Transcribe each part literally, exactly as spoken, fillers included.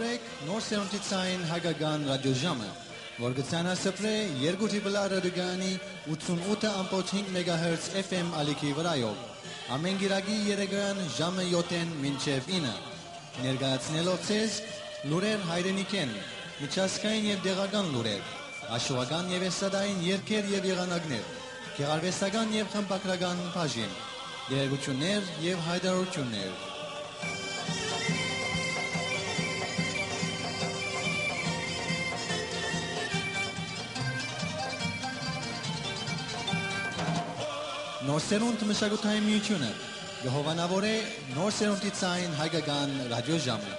Նոր սերունդի ցային հայկական ռադիոժամը, որ կը ցանասփռէ երկու Տրիպլ Ա ռադիոկայանի ութսուն ութը ամբողջ հինգ մեգահերց F M ալիքի վրայով, ամէն կիրակի երեկոյեան ժամը յոթ մինչեւ ինը, ներկայացնելով ձեզ լուրեր հայրենիքէն, միջազգային եւ տեղական լուրեր, աշուական եւ էստրադային երգեր եւ եղանակներ, գեղարուեստական եւ խմբագրական բաժին, տեղեկութիւններ եւ յայտարարութիւններ։ Նոր սերունդ մշակութային միութիւնը կը հովանաւորէ նոր սերունդի ցային հայկական ռադիոժամը։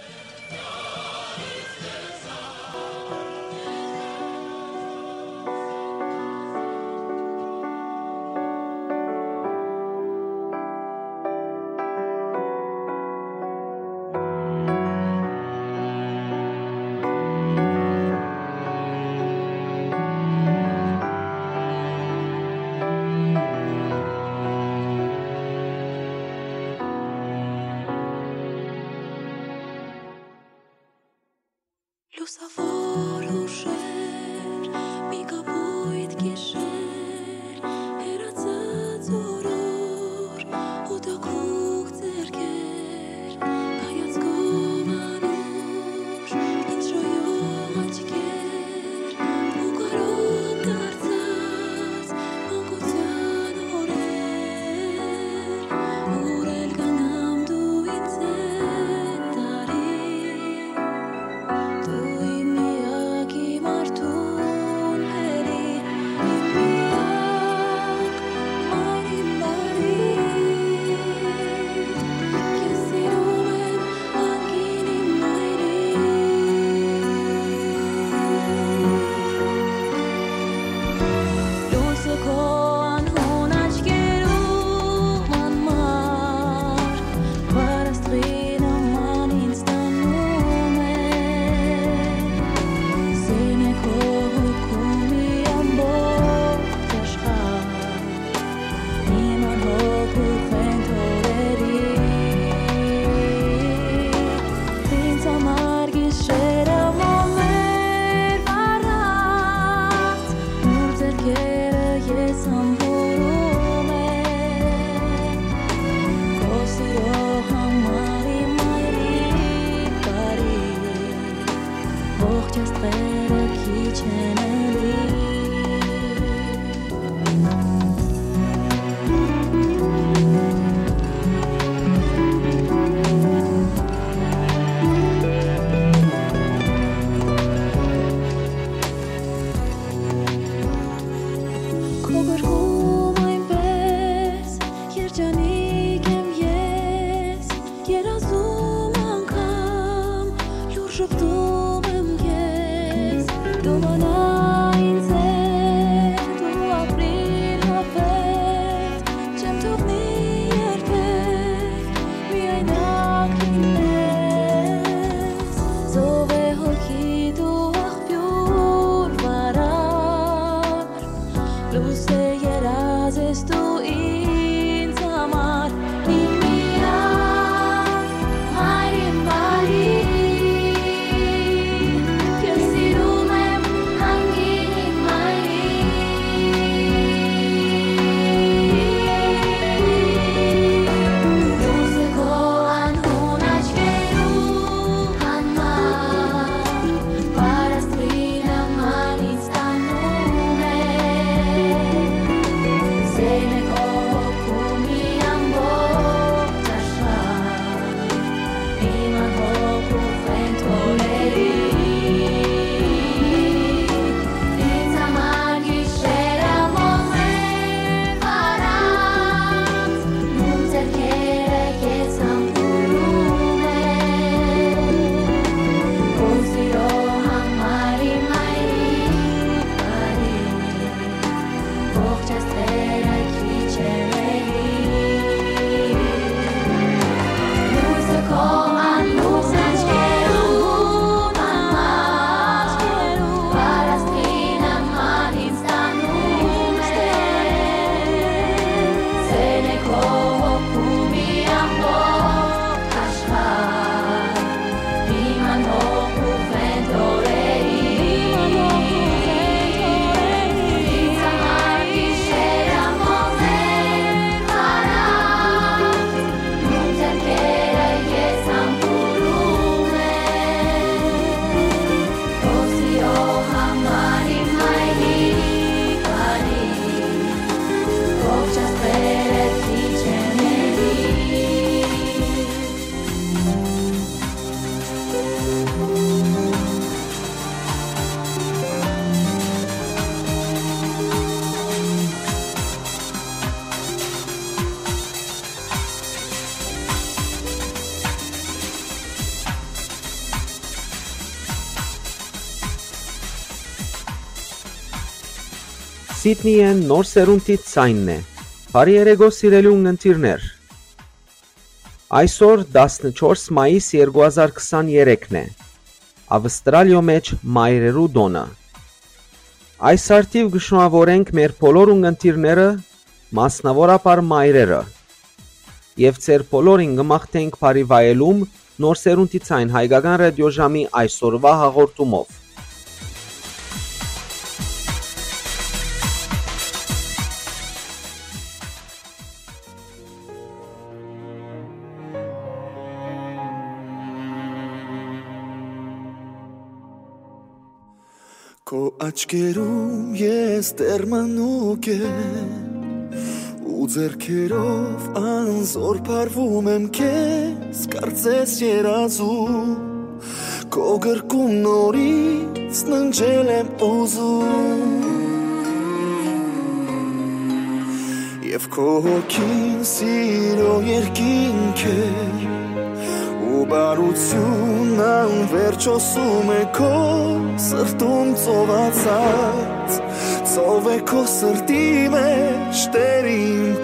Լուսաւոր ուշեր, մի կապոյտ գիշեր, հեռացած օրոր ու թոքուկ ձեռքեր, հայացքով անոր, ինձ շոյող աչքեր ու կարօտ դարձած մանկության օրեր, ուր էլ գնամ դու ինձ հետ տարի։ Դու իմ միակ, իմ արթուն հերի, իմ միակ մայր, իմ բարի, քեզ սիրում եմ անկին իմ մայրիկ։ Լոյսը քո անհուն աչքերու անմար, վար աստղի նման ինձ տանում է։ Սէնեքով հոգում ի ամբողջ աշխարհ, իմ անհոգ ու խենթ օրերի։ Ինձ համար գիշերը մոմեր վառած, նուր ձեռքերը ես համբուրում եմ, քո սիրո համար իմ մայրիկ բարի, ողջ աստղերը քիչ են ելի։ Քո գրկում այնպես երջանիկ եմ ես, երազում անգամ լուր ժպտում եմ քեզ, դու մնա ինձ հետ ու ապրիր մոտ, չեմ թողնի երբեք միայնակ ինձ, ծովե հոգիդ ու աղբիւր վարար, լուսե երազ ես դու ինձ համար, իմ միակ մայր, իմ բարի, քեզ սիրում եմ անկին Սիդնիէն նոր սերունդի ձայնն է։ Բարի երեկո, սիրելի ունգընտիրներ։ Այսօր տասնչորս մայիս երկու հազար քսաներեքն է։ Ավստրալիոյ մէջ մայրերու տօնը։ Այս արդիւ կը շնորհաւորենք մեր բոլոր ունգընտիրները, մասնաւորաբար մայրերը, եւ ձեր բոլորին կը մաղթենք բարի վայելում Նոր սերունդի ձայն հայկական ռադիոժամի այսօրուայ հաղորդումով։ Քո աչքերում ես դեռ մանուկ եմ, ու ձեռքերով անզոր փարվում եմ քեզ, կարծես երազում, քո գրկում նորից ննջել եմ ուզում։ Եւ քո հոգին սիրո երկինք է, ու բարութիւնն անվերջ հոսում է քո սրտում ծովացած, ծով է քո սրտի մէջ, Տեր իմ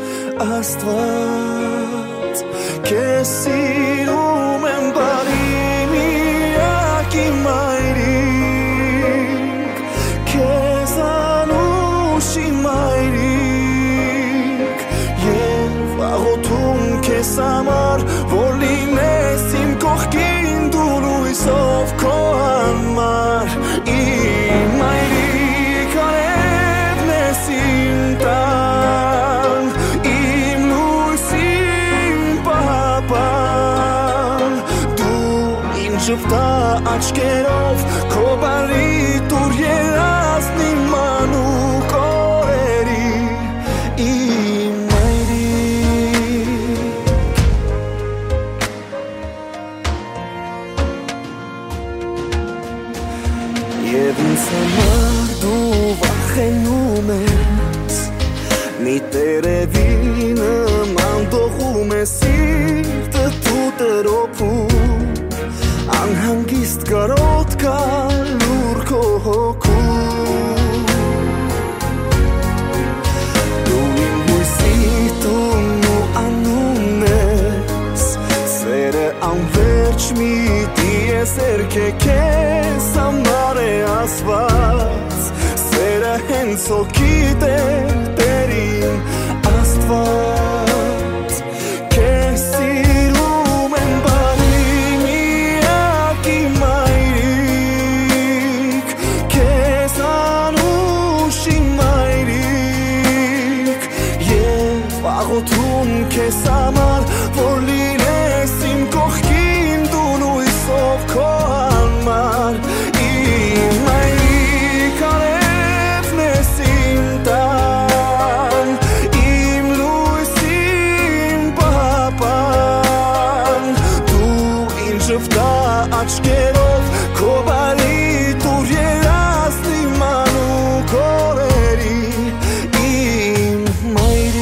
Աստուած։ Քեզ սիրում եմ, բարի միակ իմ մայրիկ, քեզ անուշ իմ մայրիկ, եւ աղոթում քեզ համար, որ լինես իմ կողքին դու լոյսով քո համար։ Իմ մայրիկ, արեւն ես իմ տան, իմ լոյս, իմ պահապան, դու իմ ժպտայ աչքերով քո բարի տուր երազնի մանուկ օրերի, իմ մայրիկ։ Եւ ինձ համար դու վախենում ես, մի տերևի նման դողում ես, սիրտը դու տրոփում, անհանգիստ կարոտք ալ լուռ քո հոգում։ Դու իմ հույսի տունն ու անունն ես, սերը անվերջ միտի է, սերք է քեզ համար է ասված, սերը հենց հոգիդ է, Տեր իմ Աստուած։ Քեզ սիրում եմ, բարի միակ իմ մայրիկ, քեզ անուշ իմ մայրիկ, եւ աղոթում քեզ համար, որ լինես իմ կողքին դու լոյսով քո համար։ Իմ մայրիկ, արեւն ես իմ տան, իմ լոյս, իմ պահապան, դու իմ ժպտայ աչքերով քո բարի տուր երազնի մանուկ օրերի, իմ մայրիկ։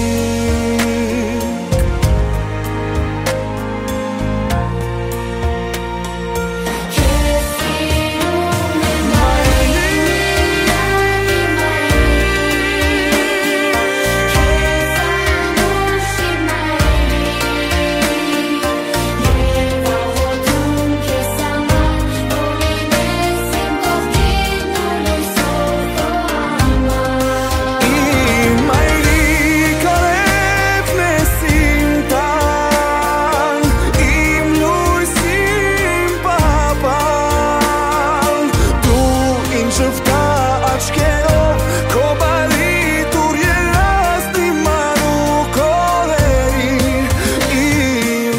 Իմ մայրիկ, արեւն ես իմ տան, իմ լոյս, իմ պահապան, դու իմ ժպտայ աչքերով քո բարի տուր երազնի մանուկ օրերի, իմ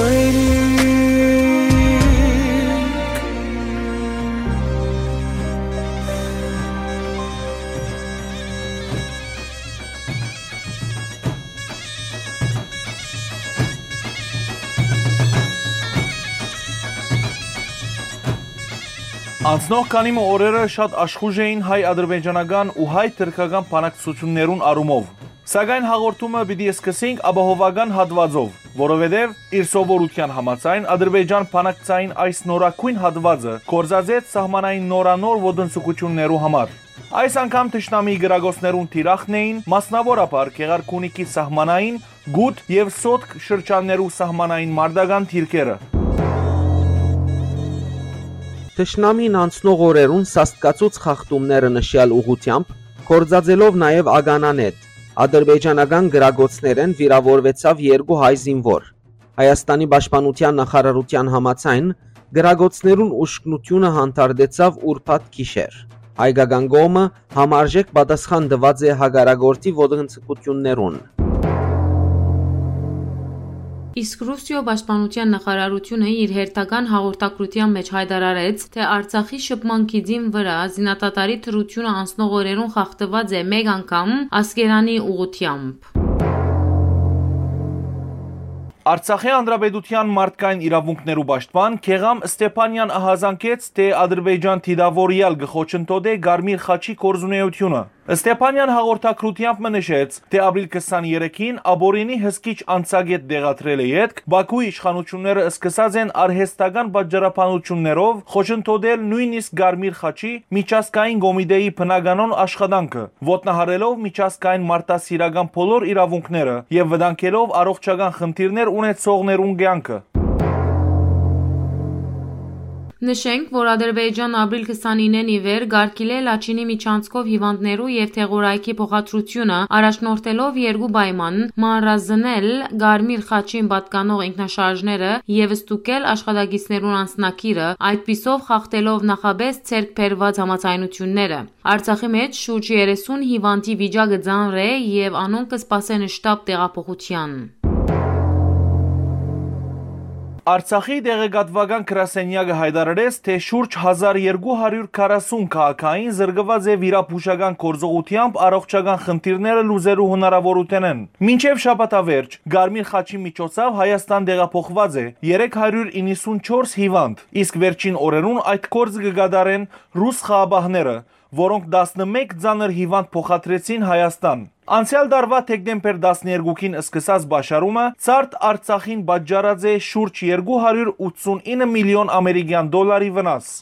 մայրիկ։ Անցնող քանի մը օրերը շատ աշխուժ էին հայ-ադրբեջանական ու հայ-թրքական բանակցություններուն առումով։ Սակայն հաղորդումը պիտի սկսենք ապահովական հատվածով, որովհետև, իր սովորության համաձայն, Ադրբեջան բանակցային այս նորագույն հատվածը գործածեց սահմանային նորանոր ոտնձգություններու համար։ Այս անգամ թշնամիի կրակոցներուն թիրախն էին, մասնաւորաբար Գեղարքունիքի սահմանային, Կուտ եւ Սոտք շրջաններու սահմանային մարտական դիրքերը։ Թշնամին անցնող օրերուն սաստկացուց խախտումները նշեալ ուղղութեամբ, գործածելով նաեւ ականանետ, ադրբեջանական կրակոցներէն վիրաւորուեցաւ երկու հայ զինուոր։ Հայաստանի պաշտպանութեան նախարարութեան համաձայն, կրակոցներուն ուշքնութիւնը հանդարտեցաւ ուրբաթ գիշեր։ Հայկական կողմը համարժեք պատասխան տուած է հակառակորդի ոտնձգութիւններուն։ Իսկ Ռուսիոյ պաշտպանութեան նախարարութիւնը իր հերթական հաղորդագրութեան մէջ յայտարարեց, թէ Արցախի շփման գիծին վրայ զինադադարի դրութիւնը անցնող օրերուն խախտուած է մէկ անգամ Ասկերանի ուղղութեամբ։ Արցախի Հանրապետութեան մարդկային իրաւունքներու պաշտպան Գեղամ Ստեփանեան ահազանգեց, թէ Ադրբեջան դիտաւորեալ կը խոչընդոտէ Կարմիր խաչի գործունէութիւնը։ Ստեփանեան հաղորդագրութեամբ մը նշեց, թէ ապրիլ քսանեթին Աբորինի հսկիչ անցակետ տեղադրելէ ետք Բաքուի իշխանութիւնները սկսած են արհեստական պատճառաբանութիւններով խոչընդոտել նոյնիսկ Կարմիր խաչի միջազգային կոմիտէի բնականոն աշխատանքը, ոտնահարելով միջազգային մարդասիրական բոլոր իրաւունքները եւ վտանգելով առողջական խնդիրներ ունեցողներուն կեանքը։ Նշենք, որ Ադրբեջանը ապրիլ քսանինէն ի վեր կ'արգիլէ Լաչինի միջանցքով հիւանդներու եւ դեղորայքի փոխադրութիւնը, առաջնորդելով երկու պայման՝ մանրազնել Կարմիր խաչին պատկանող ինքնաշարժները եւ ստուգել աշխատակիցներուն անձնագիրը, այդպիսով խախտելով նախապէս ձեռք բերուած համաձայնութիւնները։ Արցախի մէջ շուրջ երեսուն հիւանդի վիճակը ծանր է եւ անոնք կը սպասեն շտապ տեղափոխութեան։ Արցախի տեղեկատուական գրասենեակը յայտարարեց, թէ շուրջ հազար երկու հարիւր քառասուն քաղաքային զրկուած է վիրաբուժական գործողութեամբ առողջական խնդիրները լուծելու հնարաւորութենէն։ Մինչեւ շաբաթավերջ Կարմիր խաչի միջոցաւ Հայաստան տեղափոխուած է երեք հարիւր իննսուն չորս հիւանդ, իսկ վերջին օրերուն այդ գործը կը կատարեն ռուս խաղապահները, որոնք տասնմէկ ծանր հիւանդ փոխադրեցին Հայաստան։ Անցեալ տարուայ դեկտեմբեր տասներկուքին սկսած պաշարումը ցարդ Արցախին պատճառած է շուրջ երկու հարիւր ութսունինը միլիոն ամերիկեան դոլարի վնաս։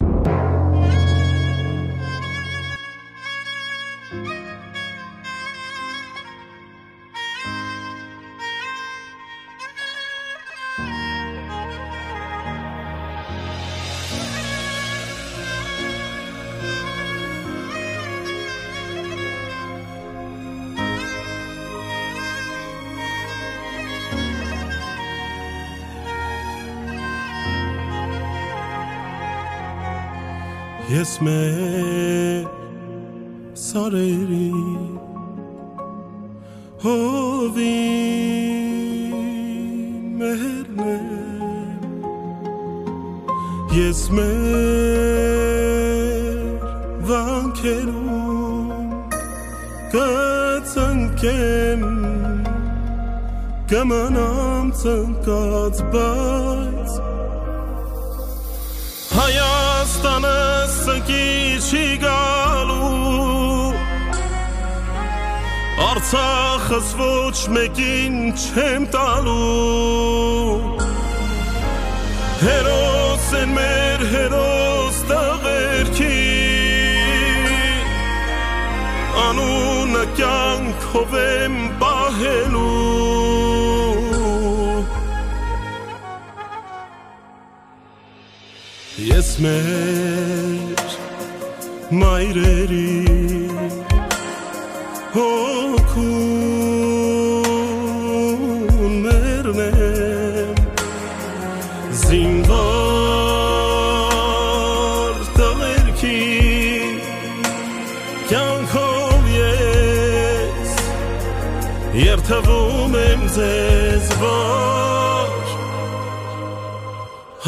Ես մեր սարերի հովին մերն եմ, ես մեր վանքերուն կը ծնկեմ, կը մնամ ծնկած, բայց Հայաստանը սնկի չի գալու, Արցախս ոչ մեկին չեմ տալու։ Հերոս են մեր հերոս տղերքի, անունը կյանքով եմ պահելու։ Ես մեր մայրերի հոգուն մերն եմ, զինվոր տղերքի կյանքով ես երդվում եմ ձեզ, որ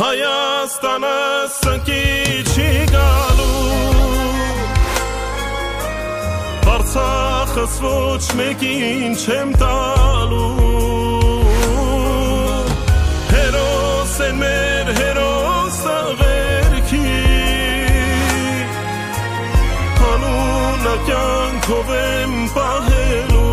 Հայաստանը սնկի չի գալու, Արցախս ոչ մեկին չեմ տալու։ Հերոս են մեր հերոս աղերքի, անունը կյանքով եմ պահելու։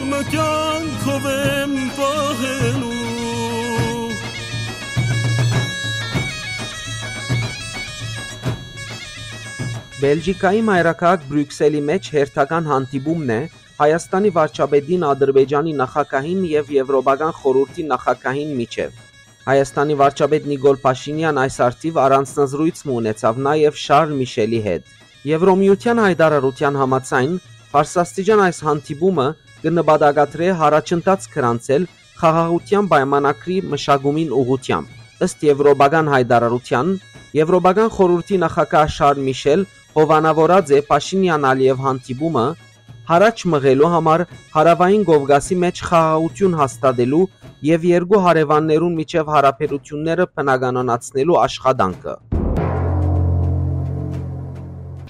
մը կեանքով եմ պահելու։ Բելգիկայի մայրաքաղաք Բրիւքսելի մէջ հերթական հանդիպումն է Հայաստանի վարչապետին, Ադրբեջանի նախագահին եւ Եվրոպական խորհուրդի նախագահին միջեւ։ Հայաստանի վարչապետ Նիկոլ Փաշինեան այս առթիւ առանձնազրոյց մը ունեցաւ նաեւ Շարլ Միշելի հետ։ Եվրոմիության յայտարարութեան համաձայն, բարձրաստիճան այս հանդիպումը կը նպատակադրէ յառաջընթաց գրանցել խաղաղութեան պայմանագրի մշակումին ուղղութեամբ։ Ըստ եվրոպական յայտարարութեան, Եվրոպական խորհուրդի նախագահ Շարլ Միշել հովանաւորած է Փաշինեան-Ալիեւ հանդիպումը յառաջ մղելու համար Հարաւային Կովկասի մէջ խաղաղութիւն հաստատելու եւ երկու հարեւաններուն միջեւ յարաբերութիւնները բնականոնացնելու աշխատանքը։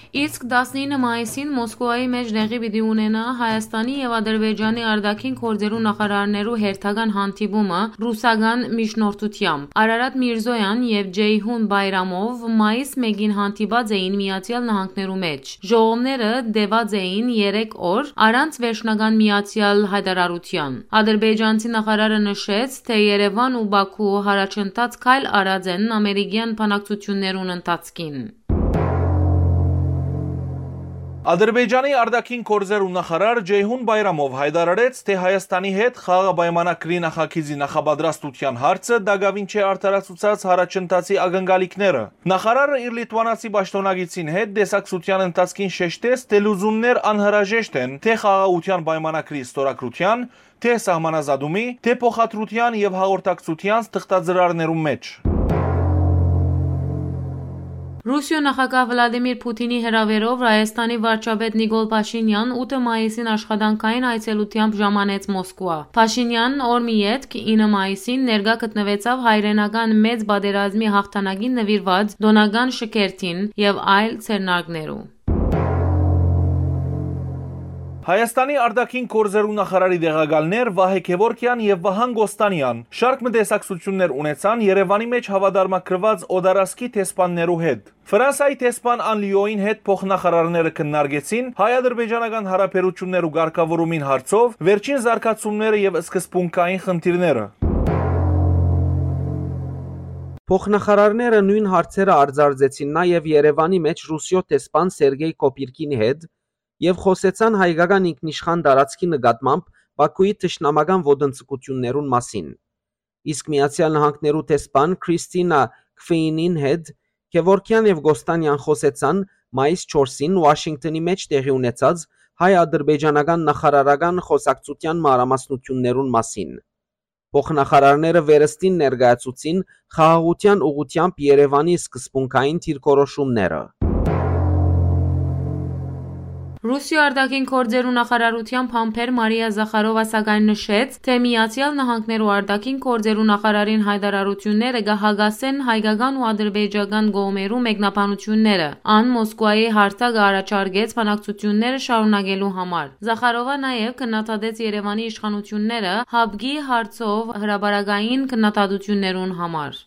Իսկ տասնինը մայիսին Մոսկուայի մէջ տեղի պիտի ունենայ Հայաստանի եւ Ադրբեջանի արտաքին գործերու նախարարներու հերթական հանդիպումը ռուսական միջնորդությամբ։ Արարատ Միրզոյան եւ Ջեյհուն Բայրամով մայիս մէկին հանդիպած էին Միացեալ Նահանգներու մէջ։ Ժողովները տեւած էին երեք օր, առանց վերջնական միացեալ յայտարարութեան։ Ադրբեջանցի նախարարը նշեց, թէ Երեւան ու Բաքու յառաջընթաց քայլ առած են ամերիկեան բանակցութիւններուն ընթացքին։ Ադրբեջանի արտաքին գործերու նախարար Ջեյհուն Բայրամով յայտարարեց, թէ Հայաստանի հետ խաղաղապայմանագրի նախագիծի նախապատրաստութեան հարցը տակաւին չէ արդարացուցած յառաջընթացի ակնկալիքները։ Նախարարը իր լիտուանացի պաշտօնակիցին հետ տեսակցութեան ընթացքին շեշտեց, թէ լուծումներ անհրաժեշտ են թէ խաղաղութեան պայմանագրի ստորագրութեան, թէ սահմանազատումի, թէ փոխադրութեան եւ հաղորդակցութեան թղթածրարներուն մէջ։ Ռուսիոյ նախագահ Վլադիմիր Փութինի հրաւերով Հայաստանի վարչապետ Նիկոլ Փաշինեան ութը մայիսին աշխատանքային այցելութեամբ ժամանեց Մոսկուա։ Փաշինեան օր մը ետք, ինը մայիսին, ներկայ գտնուեցաւ հայրենական մեծ պատերազմի յաղթանակին նուիրուած տօնական շքերթին եւ այլ ձեռնարկներու։ Հայաստանի արտաքին գործերու նախարարի տեղակալներ Վահէ Գեւորգեան եւ Վահան Կոստանեան շարք մը տեսակցութիւններ ունեցան Երեւանի մէջ հաւատարմագրուած օտարազգի դեսպաններու հետ։ Ֆրանսայի դեսպան Ան Լիոյին հետ փոխնախարարները քննարկեցին հայ-ադրբեջանական յարաբերութիւններու կարգաւորումին հարցով, վերջին զարգացումները եւ սկզբունքային խնդիրները։ Փոխնախարարները նոյն հարցերը արձանագրեցին նաեւ Երեւանի մէջ Ռուսիոյ դեսպան Սերգեյ Կոպիրկինի հետ եւ խօսեցան հայկական ինքնիշխան տարածքի նկատմամբ Բաքուի թշնամական ոտնձգութիւններուն մասին։ Իսկ Միացեալ Նահանգներու դեսպան Քրիստինա Քվինին հետ Գեորգեան եւ Կոստանեան խօսեցան մայիս չորսին Ուաշինկթոնի մէջ տեղի ունեցած հայ-ադրբեջանական նախարարական խօսակցութեան մանրամասնութիւններուն մասին։ Փոխնախարարները վերստին ներկայացուցին խաղաղութեան ուղղութեամբ Երեւանի սկզբունքային դիրքորոշումները։ Ռուսիոյ արտաքին գործերու նախարարութեան փամփեր Մարիա Զախարովա սակայն նշեց, թէ Միացեալ Նահանգներու արտաքին գործերու նախարարին յայտարարութիւնները կը հակասեն հայկական ու ադրբեջական կողմերու մեկնաբանութիւնները։ Ան Մոսկուայի հարթակը առաջարկեց բանակցութիւնները շարունակելու համար։ Զախարովա նաեւ քննադատեց Երեւանի իշխանութիւնները հապկի հարցով հրապարակային քննադատութիւններուն համար։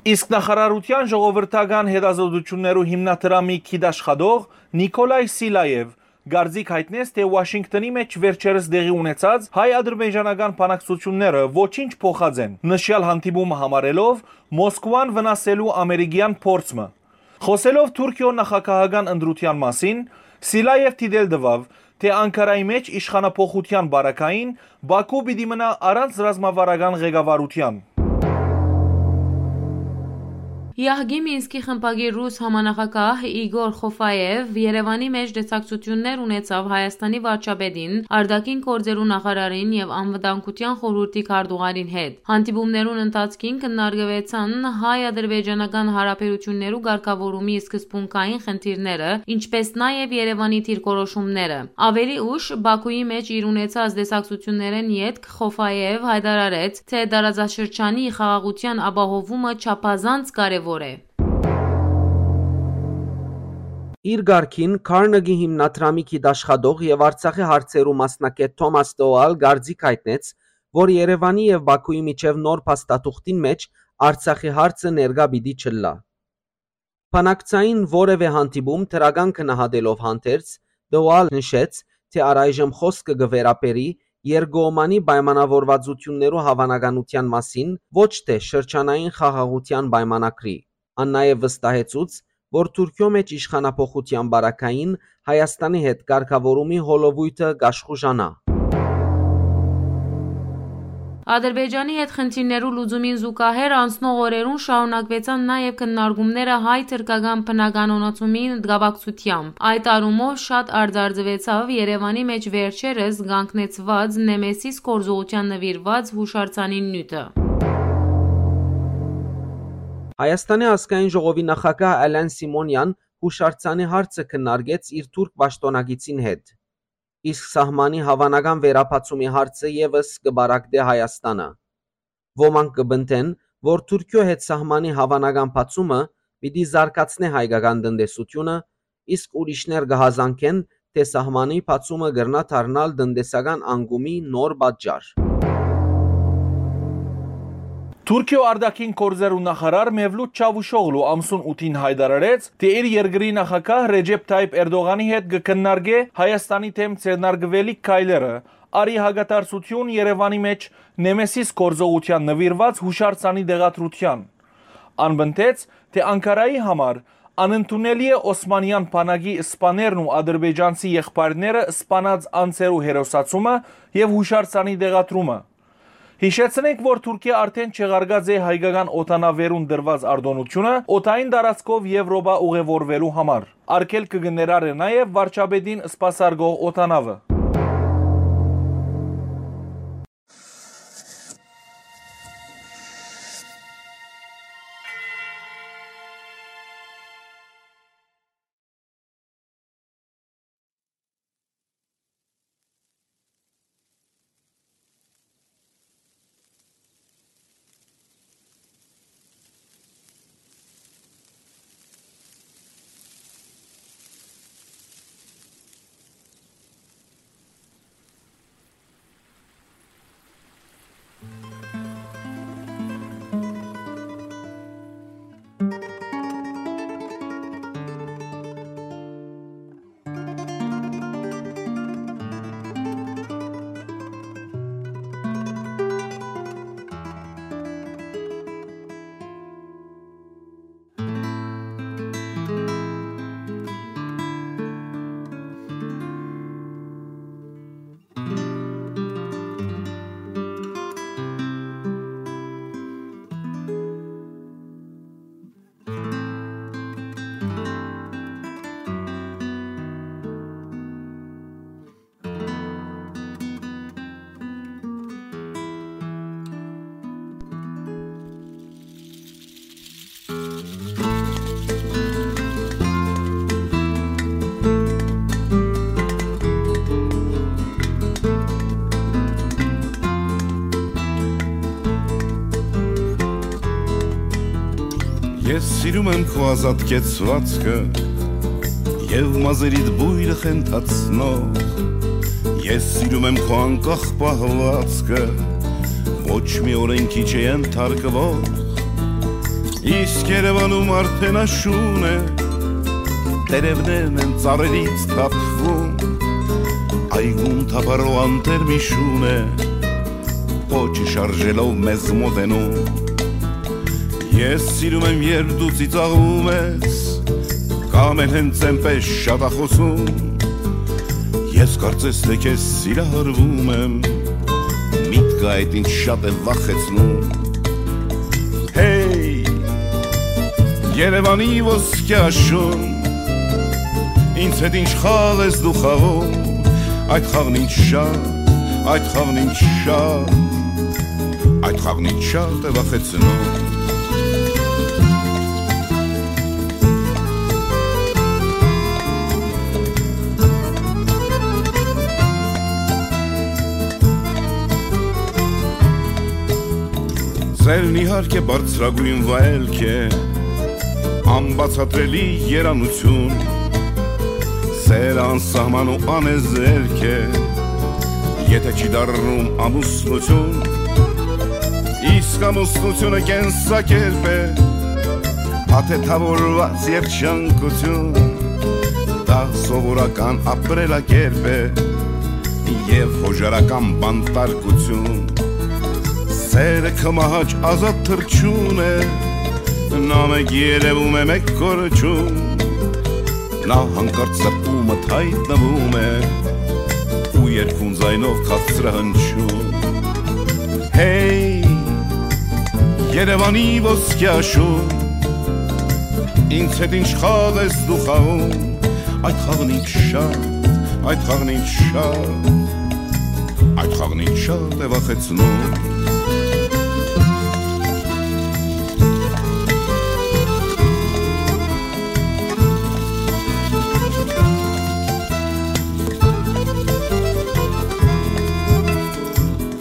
Իսկ նախարարութեան ժողովրդական հետազոտութիւններու հիմնադրամի գիտաշխատող Նիկոլայ Սիլաեւ կարծիք յայտնեց, թէ Ուաշինկթոնի մէջ վերջերս տեղի ունեցած հայ-ադրբեջանական բանակցութիւնները ոչինչ փոխած են, նշեալ հանդիպումը համարելով Մոսկուան վնասելու ամերիկեան փորձ մը։ Խօսելով Թուրքիոյ նախագահական ընտրութեան մասին, Սիլաեւ դիտել տուաւ, թէ Անկարայի մէջ իշխանափոխութեան պարագային Բաքու պիտի մնայ առանց ռազմավարական ղեկավարութեան։ Յահկի Մինսկի խմբակի ռուս համանախագահ Իգոր Խոֆաեւ Երեւանի մէջ տեսակցութիւններ ունեցաւ Հայաստանի վարչապետին, արտաքին գործերու նախարարին եւ անվտանգութեան խորհուրդի քարտուղարին հետ։ Հանդիպումներուն ընթացքին քննարկուեցան հայ-ադրբեջանական յարաբերութիւններու կարգաւորումի սկզբունքային խնդիրները, ինչպէս նաեւ Երեւանի դիրքորոշումները։ Աւելի ուշ Բաքուի մէջ իր ունեցած տեսակցութիւններէն ետք Խոֆաեւ յայտարարեց, թէ տարածաշրջանի խաղաղութեան ապահովումը չափազանց կարեւոր է։ Իր կարգին Քարնեգի հիմնադրամի գիտաշխատող եւ Արցախի հարցերու մասնագէտ Թոմաս Տոալ կարծիք յայտնեց, որ Երեւանի եւ Բաքուի միջեւ նոր փաստաթուղթին մէջ Արցախի հարցը ներկայ պիտի չըլլայ։ Բանակցային որեւէ հանդիպում դրական գնահատելով հանդերձ, Տոալ նշեց, թէ առայժմ խօսքը կը վերաբերի երկկողմանի պայմանաւորուածութիւններու հաւանականութեան մասին, ոչ թէ շրջանային խաղաղութեան պայմանագրի։ Ան նաեւ վստահեցուց, որ Թուրքիոյ մէջ իշխանափոխութեան պարագային Հայաստանի հետ կարգաւորումի հոլովոյթը կաշխուժանայ։ Ադրբեջանի հետ խնդիրներու լուծումին զուգահեռ անցնող օրերուն շարունակուեցան նաեւ քննարկումները հայ-թրքական բնականոնացումին կապակցութեամբ։ Այդ առումով շատ արծարծուեցաւ Երեւանի մէջ վերջերս կանգնեցուած Նեմեսիս գործողութեան նուիրուած յուշարձանին նիւթը։ Հայաստանի ազգային ժողովի նախագահ Ալեն Սիմոնեան յուշարձանի հարցը քննարկեց իր թուրք պաշտօնակիցին հետ, իսկ սահմանի հաւանական վերաբացումի հարցը եւս կը պարագտէ Հայաստանը։ Ոմանք կը պնդեն, որ Թուրքիոյ հետ սահմանի հաւանական բացումը պիտի զարգացնէ հայկական տնտեսութիւնը, իսկ ուրիշներ կը հազանգեն, թէ սահմանի բացումը կրնայ դառնալ տնտեսական անկումի նոր պատճառ։ Թուրքիոյ արտաքին գործերու նախարար Մևլութ Չավուշօղլու ամսուն ութին յայտարարեց, թէ իր երկրի նախագահ Ռեջեփ Թայիփ Էրտողանի հետ կը քննարկէ Հայաստանի դէմ ձեռնարկուելիք քայլերը, արի հակադարձութիւն Երեւանի մէջ Նեմեսիս գործողութեան նուիրուած յուշարձանի տեղադրութեան։ Ան պնդեց, թէ Անկարայի համար անընդունելի է օսմանեան բանակի սպաներն ու ադրբեջանցի եղբայրները սպանած անձերու հերոսացումը եւ յուշարձանի տեղադրումը։ Յիշեցնենք, որ Թուրքիա արդէն չեղարկած է հայկական օդանաւերուն տրուած արտօնութիւնը օդային տարածքով Եւրոպա ուղեւորուելու համար։ Արգելքը կը ներառէ նաեւ վարչապետին սպասարկող օդանաւը։ Ես սիրում եմ քո ազատ կեցուածքը և մազերիդ բոյրը խենթացնող։ Ես սիրում եմ քո անկախ պահվածքը, ոչ մի օրենքի չէ ենթարկվող։ Իսկ Երևանում արդեն աշուն է, տերևներն են ծառերից թափվում, այգում թափառող անտեր մի շուն է, փոչը շարժելով մեզ մոտենում։ Ես սիրում եմ, երբ դու ծիծաղում ես, կամ էլ հենց այնպես շատախոսում։ Ես կարծես թե քեզ սիրահարվում եմ, միտքը այդ ինչ շատ է վախեցնում։ Հեյ, Երևանի ոսկե աշուն, ինձ հետ ինչ խաղ ես դու խաղում, այդ խաղն ինչ շատ, այդ խաղն ինչ շատ, այդ խաղն ինչ շատ է վախեցնում։ Սերն իհարկե բարձրագույն վայելք է, անբացատրելի երանություն։ Սերը անսահման ու անեզերք է, եթե չի դառնում ամուսնություն։ Իսկ ամուսնությունը կենսակերպ է, փաթեթավորված երջանկություն։ Սովորական ապրելակերպ է եւ հոժարական բանտարկություն։ Սերը քմահաճ ազատ թռչուն է, նա մէկ երեւում է, մէկ կորչում։ Նա հանկարծ սրտումդ հայտնվում է ու երկուն ձայնով քաղցրահնչում։ Հեյ, Երեւանի ոսկեաշուն, ինձ հետ ինչ խաղ ես դու խաղում, այդ խաղն ինչ շատ, այդ խաղն ինչ շատ, այդ խաղն ինչ շատ է վախեցնում։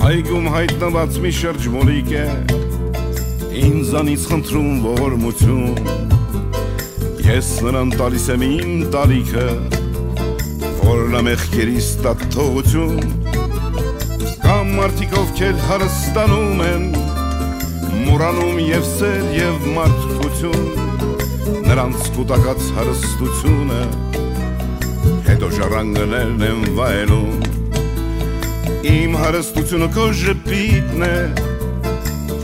Այգում հայտնուած մի շրջմոլիկ է, ինձանից խնդրում ողորմություն։ Ես նրան տալիս եմ իմ տարիքը, որ նա մեղքերիս տա թողություն։ Կան մարդիկ, ովքեր հարստանում են, մոռանում եւ սեր, եւ մարդկություն, նրանց կուտակած հարստությունը, հետո ժառանգներն են վայելում։ Իմ հարստությունը քո ժպիտն է,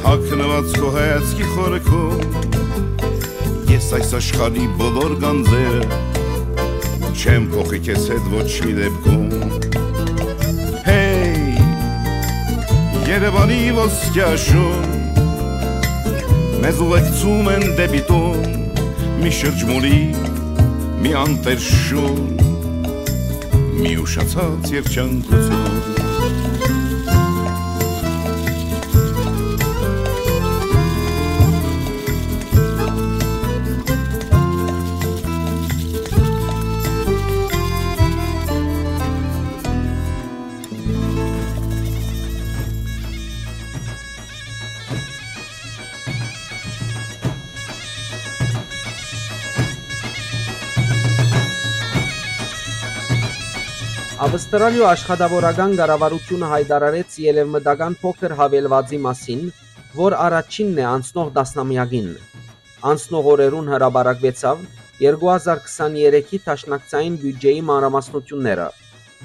թաքնված քո հայացքի խորքում։ Ես այս աշխարհի բոլոր գանձերը չեմ փոխի քեզ հետ ոչ մի դեպքում։ Հեյ, Երեւանի ոսկեաշուն, մեզ ուղեկցում են դեպի տուն, մի շրջմոլի, մի անտեր շուն, մի ուշացած երջանկություն։ Ավստրալիոյ աշխատաւորական կառավարութիւնը յայտարարեց ելեւմտական փոքր յաւելուածի մասին, որ առաջինն է անցնող տասնամեակին։ Անցնող օրերուն հրապարակուեցաւ երկու հազար քսաներեքի դաշնակցային բիւտճէի մանրամասնութիւնները,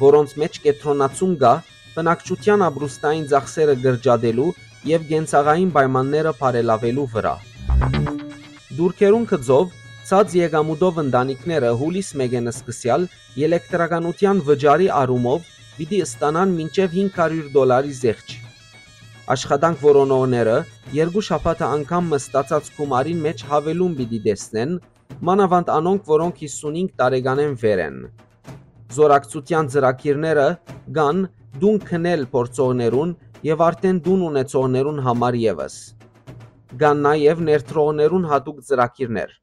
որոնց մէջ կեդրոնացում կայ բնակչութեան ապրուստային ծախսերը կրճատելու եւ կենցաղային պայմանները բարելաւելու վրայ։ Թուրքերուն գծով, ցած եկամուտով ընտանիքները յուլիս մէկէն սկսեալ ելեկտրականութեան վճարի առումով պիտի ստանան մինչեւ հինգ հարիւր դոլարի զեղչ։ Աշխատանք որոնողները երկու շաբաթը անգամ մը ստացած գումարին մէջ յաւելում պիտի տեսնեն, մանաւանդ անոնք, որոնք յիսունհինգ տարեկանէն վեր են։ Զօրակցութեան ծրագիրները կան տուն գնել փորձողներուն եւ արդէն տուն ունեցողներուն համար եւս։ Կան նաեւ ներդրողներուն յատուկ ծրագիրներ։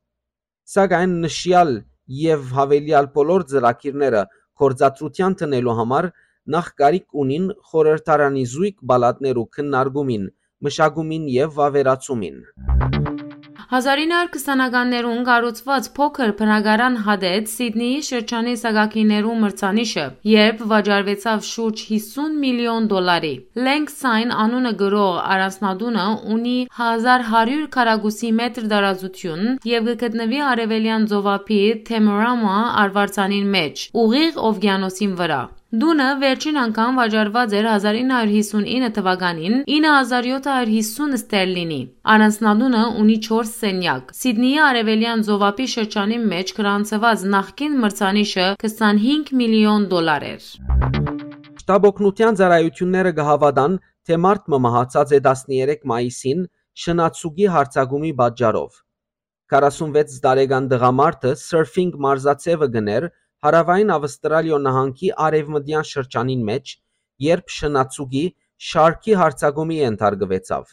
Սակայն նշեալ եւ յաւելեալ բոլոր ծրագիրները գործադրութեան դնելու համար նախ կարիք ունին խորհրդարանի զոյգ պալատներու քննարկումին, մշակումին եւ վաւերացումին։ Հազար ինը հարյուր քսանականներուն կառուցուած փոքր բնակարան հատեց Սիդնիի շրջանի սակագիններու մրցանիշը, երբ վաճառուեցաւ շուրջ յիսուն միլիոն դոլարի։ Լենքսայն անունը կրող առանձնատունը ունի հազար հարիւր քառակուսի մետր տարածութիւն եւ կը գտնուի արեւելեան ծովափի Թեմորամա արուարձանին մէջ, ուղիղ ովկիանոսին վրայ։ Տունը վերջին անգամ վաճառուած էր հազար ինը հարիւր յիսուն ինը թուականին ինը հազար յոթ հարիւր յիսուն ստերլինի։ Առանձնատունը ունի չորս սենեակ։ Սիդնիի արեւելեան ծովափի շրջանին մէջ գրանցուած նախկին մրցանիշը քսանհինգ միլիոն դոլար էր։ Շտապօգնութեան ծառայութիւնները կը հաւատան, թէ մարդ մը մահացած է տասներեք մայիսին շնացուկի յարձակումի պատճառով։ Քառասունվեց տարեկան տղամարդը սըրֆինգ մարզաձեւը կ'ընէր Հարաւային Ավստրալիոյ նահանգի արեւմտեան շրջանին մէջ, երբ շնացուկի շարքի յարձակումի ենթարկուեցաւ։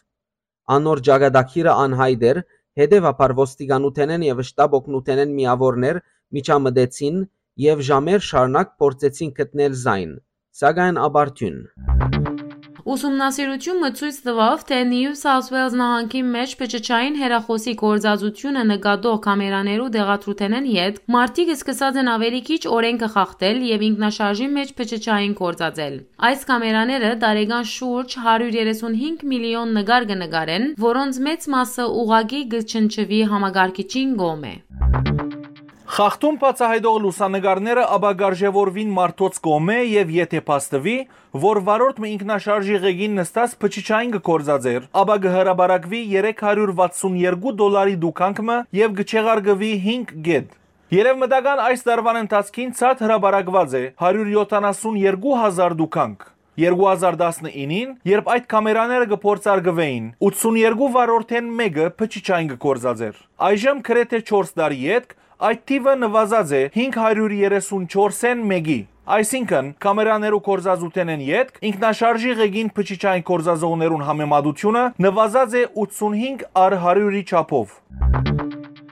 Անոր ճակատագիրը անյայտ էր, հետեւաբար ոստիկանութենէն եւ շտապօգնութենէն միաւորներ միջամտեցին եւ ժամեր շարունակ փորձեցին գտնել զայն, սակայն ապարդիւն։ Ուսումնասիրութիւն մը ցոյց տուաւ, թէ Նիու Սաութ Ուէյլզ նահանգի մէջ բջջային հեռախօսի գործածութիւնը նկատող կամերաներու տեղադրութենէն յետ մարդիկ սկսած են աւելի քիչ օրէնքը խախտել եւ ինքնաշարժի մէջ բջջային գործածել։ Այս կամերաները տարեկան շուրջ հարիւր երեսունհինգ միլիոն նկար կը նկարեն, որոնց մեծ մասը ուղղակի կը չնչուի համակարգիչին կողմէ։ Խախտում բացայայտող լուսանկարները ապա կ'արժեւորուին մարդոց կողմէ եւ եթէ փաստուի, որ վարորդ մը ինքնաշարժի ղեկին նստած փչիչային կը գործածէր, ապա կը հրապարակուի երեք հարիւր վաթսուն երկու դոլարի դուքանք մը եւ կը չեղարկուի հինգ կետ։ Երեւմտական այս տարուան ընթացքին ցած հրապարակուած է հարիւր յոթանասուն երկու հազար դուքանք։ Երկու հազար տասնինին, երբ այդ կամերաները կը փորձարկուէին, ութսուն երկու վարորդէն մէկը փչիչային կը գործածէր։ Այժմ, գրեթէ չորս տարի ետք, այդ թիւը նուազած է հինգ հարիւր երեսուն չորսէն մէկի։ Այսինքն, կամերաներու գործածութենէն ետք ինքնաշարժի ղեկին փչիչային գործածողներուն համեմատութիւնը նուազած է ութսուն հինգ առ հարիւրի չափով։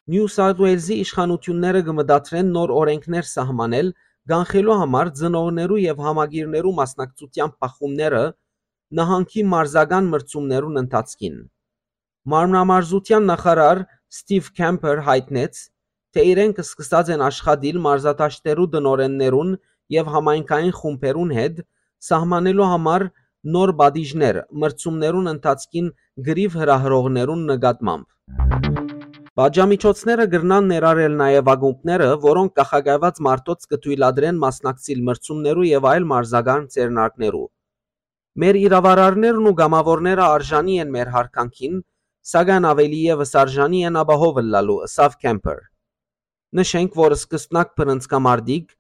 Նիու Սաութ Ուէյլզի իշխանութիւնները կը մտադրեն նոր օրէնքներ սահմանել, կանխելու համար ծնողներու եւ համակիրներու մասնակցութեան բախումները նահանգի մարզական մրցումներուն ընթացքին։ Մարմնամարզութեան նախարար Սթիվ Քեմփեր յայտնեց, թէ իրենք սկսած են աշխատիլ մարզադաշտերու տնօրէններուն եւ համայնքային խումբերուն հետ, սահմանելու համար նոր պատիժներ մրցումներուն ընթացքին կռիւ հրահրողներուն նկատմամբ։ Պատժամիջոցները կրնան ներառել նաեւ ակումբները, որոնք կախակայված մարդոց կը թոյլատրեն մասնակցիլ մրցումներու եւ այլ մարզական ձեռնարկներու։ Մեր իրաւարարներն ու կամաւորները արժանի են մեր յարգանքին, սակայն աւելի եւս արժանի են ապահով ըլլալու, ըսաւ Քեմփեր։ Նշենք, որ սկզբնակ բռնցքամարտիկ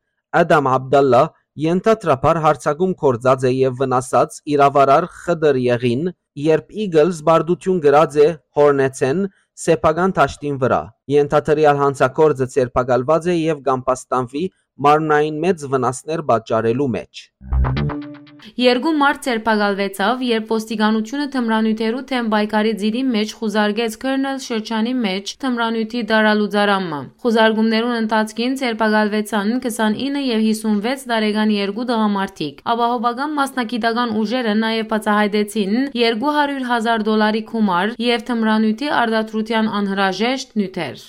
Ադամ Աբդալլա ենթադրաբար յարձակում գործած է եւ վնասած իրաւարար Խդր Եղին, երբ Eagles պարտութիւն կրած է Hornets-էն սեփական դաշտին վրայ։ Ենթադրեալ յանցագործը ձերբակալուած է եւ կ'ամբաստանուի մարմնային մեծ վնասներ պատճառելու մէջ։ Երկու մարդ ձերբակալուեցաւ, երբ ոստիկանութիւնը թմրանիւթերու դէմ պայքարի ծիրի մէջ խուզարկեց Քըրնել շրջանի մէջ թմրանիւթի տարալուծարան մը։ Խուզարկումներուն ընթացքին ձերբակալուեցան քսանինը եւ հիսունվեց տարեկան երկու տղամարդիկ։ Ապահովական մասնագիտական ուժերը նաեւ բացայայտեցին երկու հարիւր հազար դոլարի գումար եւ թմրանիւթի արտադրութեան անհրաժեշտ նիւթեր։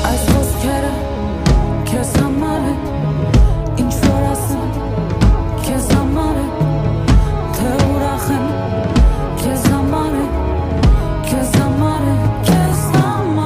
Այս խոսքերը քեզ համար են, ինչ որ ասեմ, քեզ համար են, թե ուրախ եմ, քեզ համար են, քեզ համար են, քեզ համար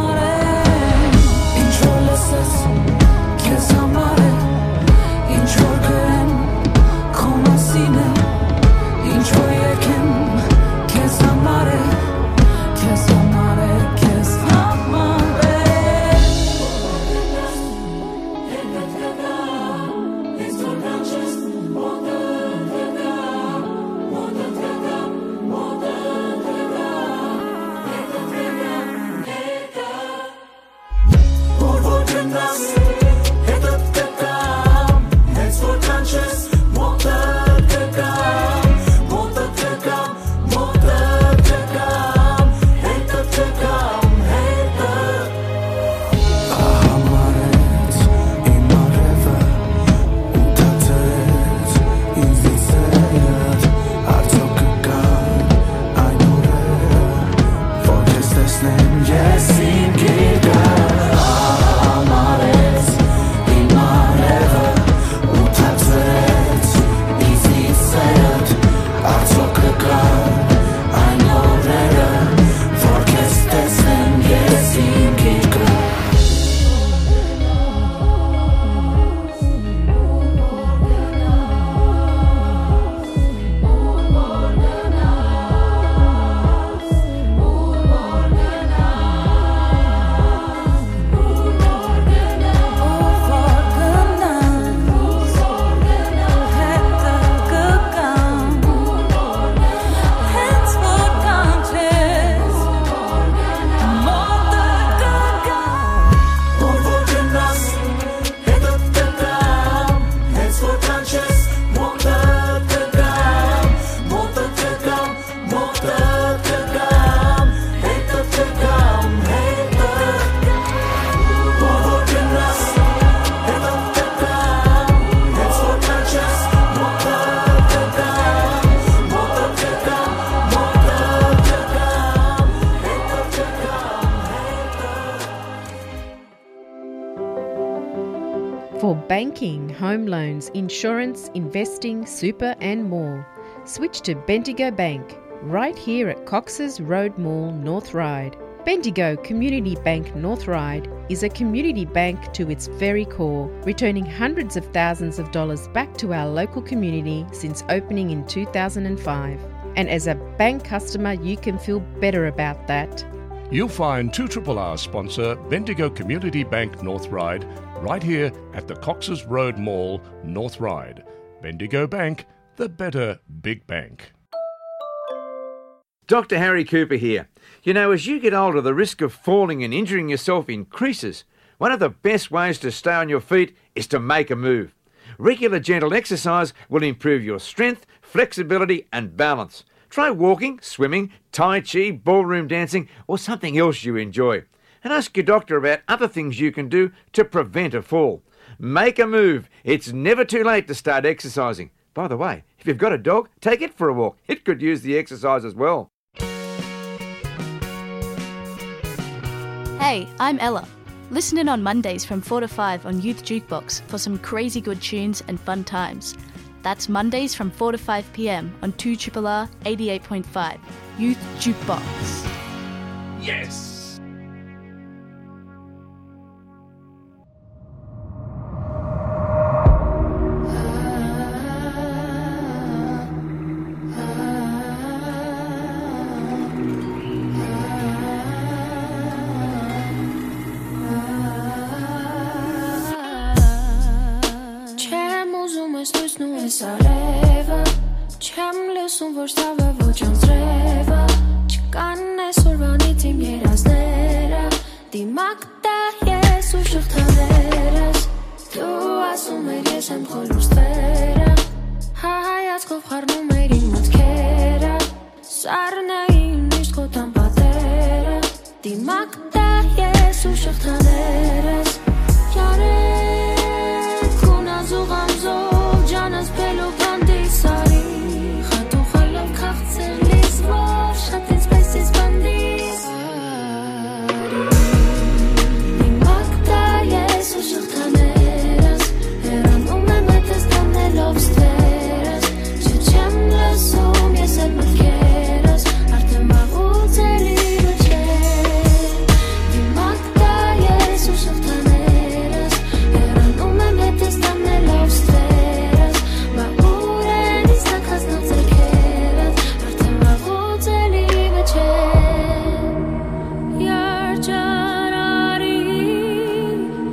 Banking, home loans, insurance, investing, super, and more. Switch to Bendigo Bank, right here at Cox's Road Mall, North Ryde. Bendigo Community Bank North Ryde is a community bank to its very core, returning hundreds of thousands of dollars back to our local community since opening in two thousand five. And as a bank customer, you can feel better about that. You'll find two triple R sponsor Bendigo Community Bank North Ryde right here at the Cox's Road Mall, North Ryde. Bendigo Bank, the better big bank. Doctor Harry Cooper here. You know, as you get older, the risk of falling and injuring yourself increases. One of the best ways to stay on your feet is to make a move. Regular gentle exercise will improve your strength, flexibility, and balance. Try walking, swimming, tai chi, ballroom dancing, or something else you enjoy. And ask your doctor about other things you can do to prevent a fall. Make a move. It's never too late to start exercising. By the way, if you've got a dog, take it for a walk. It could use the exercise as well. Hey, I'm Ella. Listen in on Mondays from four to five on Youth Jukebox for some crazy good tunes and fun times. That's Mondays from four to five p.m. on two triple R eighty-eight point five, Youth Jukebox. Yes! Չեմ ուզում ես լուսնու այս արևը, չեմ լսում ոչ ցավը, ոչ անձրևը, չկան այսօրվանից իմ երազները, դիմակ տա ես ու շղթաներս, դու ասում էր ես եմ խոր լուսները, հայացքով խառնում էր իմ մտքերը, սառնային միշտ քո տան պատերը, դիմակ տա ես ու շղթաներս, ջարեք քուն ազուղ ամզով, ջանս փելուկ հանդիսարի, խատուխալով քաղցր լիզվով, շատ ինձ պես ես բանդիս, դիմակ տա ես ու շղթաներս, հեռանում եմ հետս տանելով ստվերս, չէ, չեմ լսում ես այդ մտքերս, արդեն վաղուց էլի մը չէ, դիմակ տա ես ու շղթաներս, հեռանում եմ հետս տանելով ստվերս, բա ուր են ինձ տակածնող ձեռքերդ, արդեն վաղուց էլի մը չէ, յարջարարի,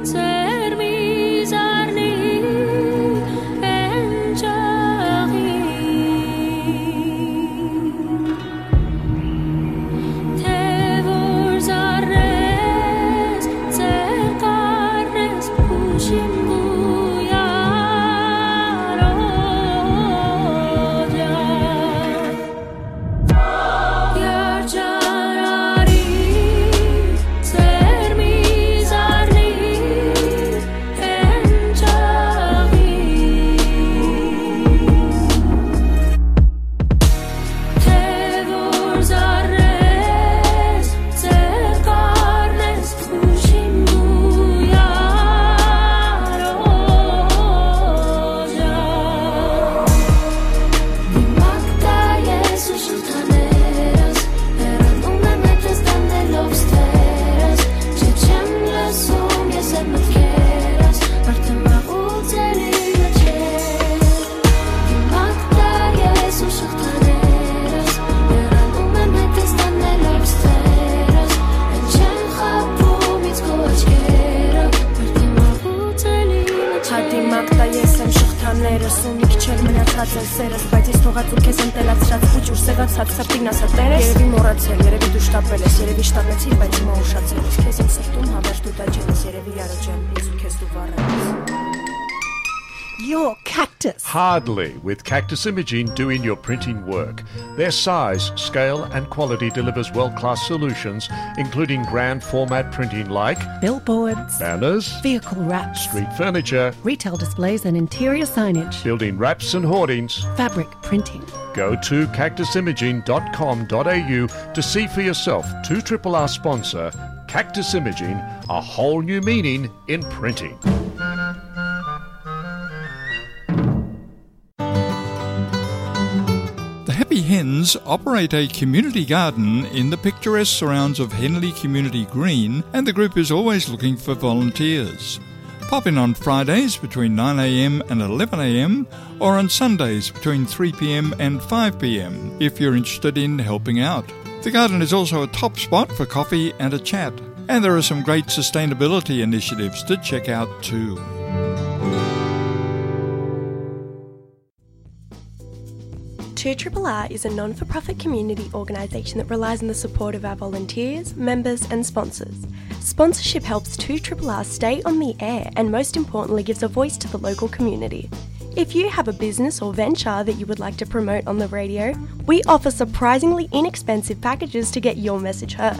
ծերմի զարնի, էնջաղի, թե որ զարնես, ձեր կառնես, ուշիմ գույարոյա։ Յարջարարի, ծերմի զարնի, էնջաղի, թե որ զարնես, ձեր կառնես, ուշիմ գույարոյա։ Դիմակ տա ես ու շղթաներս, հեռանում եմ հետս տանելով ստվերս, չէ, չեմ լսում ես այդ մտքերս, արդեն վաղուց էլի մը չէ, դիմակ տա ես ու շղթաներս, հեռանում եմ հետս տանելով ստվերս, են չեն խաբում ինձ քո աչքերը, արդեն վաղուց էլի մը չէ, հա, դիմակ տա ես եմ շղթաներս, ու մի քիչ էլ մնացած են սերս, բայց ես թողած ու քեզ ընտելացրած, ու ջուր սեղացած, սրտին ասա տերես, երևի մոռացել, երևի դու շտապել ես, երևի շտապեցիր, բայց հիմա ուշացել ես, քեզ իմ սրտում հավերժ դու տաճել ես, երևի յարջան, ինձ ու քեզ դու վառել ես։ Your cactus. Hardly, with Cactus Imaging doing your printing work. Their size, scale, and quality delivers world-class solutions, including grand format printing like billboards, banners, vehicle wraps, street furniture, retail displays and interior signage, building wraps and hoardings, fabric printing. Go to cactus imaging dot com dot a u to see for yourself two triple R sponsor Cactus Imaging, a whole new meaning in printing. Operate a community garden in the picturesque surrounds of Henley Community Green, and the group is always looking for volunteers. Pop in on Fridays between nine a.m. and eleven a.m., or on Sundays between three p.m. and five p.m. if you're interested in helping out. The garden is also a top spot for coffee and a chat, and there are some great sustainability initiatives to check out too. Two Triple R is a non-for-profit community organisation that relies on the support of our volunteers, members and sponsors. Sponsorship helps Two Triple R stay on the air and, most importantly, gives a voice to the local community. If you have a business or venture that you would like to promote on the radio, we offer surprisingly inexpensive packages to get your message heard.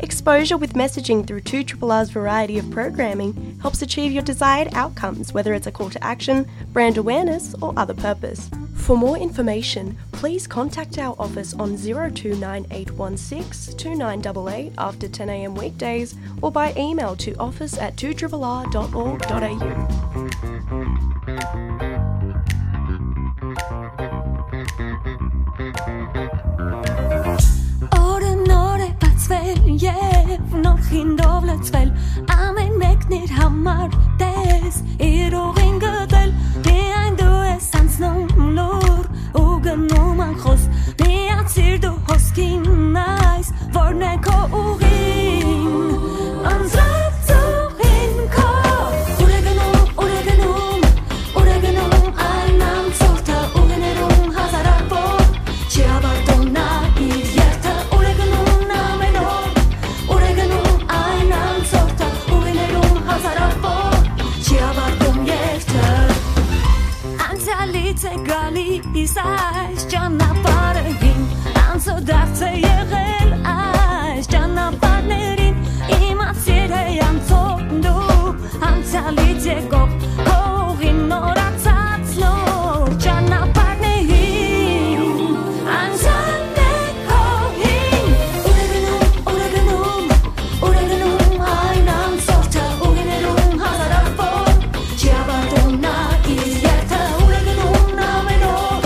Exposure with messaging through Two Triple R's variety of programming helps achieve your desired outcomes, whether it's a call to action, brand awareness, or other purpose. For more information, please contact our office on zero two nine eight one six two nine eight eight after ten a.m. weekdays or by email to office at two triple r dot org dot a u. Օրը նոր է բացվել և նոր խինդով լցվել, ամեն մեկն իր համար տես, իր ուղին գտել, միայն դու ես անցնում լուր ու գնում անխոս, միացիր դու հոսքին այս, որն է քո ուղին, անձրևցուղին քո, ուր է գնում, ուր է գնում, ուր է գնում այն անցորդը, ուղիներում հազարավոր, չի ավարտում նա իր երթը, ուր է գնում ամեն օր, ուր է գնում այն անցորդը, ուղիներում հազարավոր, չի ավարտում երթը։ Անցյալից է գալիս այս ճանապարհին, անցորդարձ է եղել այս ճանապարհներին, իմացիր է անցորդ դու, անցյալից եկող քո ուղին նորացած նոր ճանապարհներին, անցյալն է քո հին, ուր է գնում, ուր է գնում, ուր է գնում այն անցորդը, ուղիներում հազարավոր, չի ավարտում նա իր երթը, ուր է գնում ամեն օր,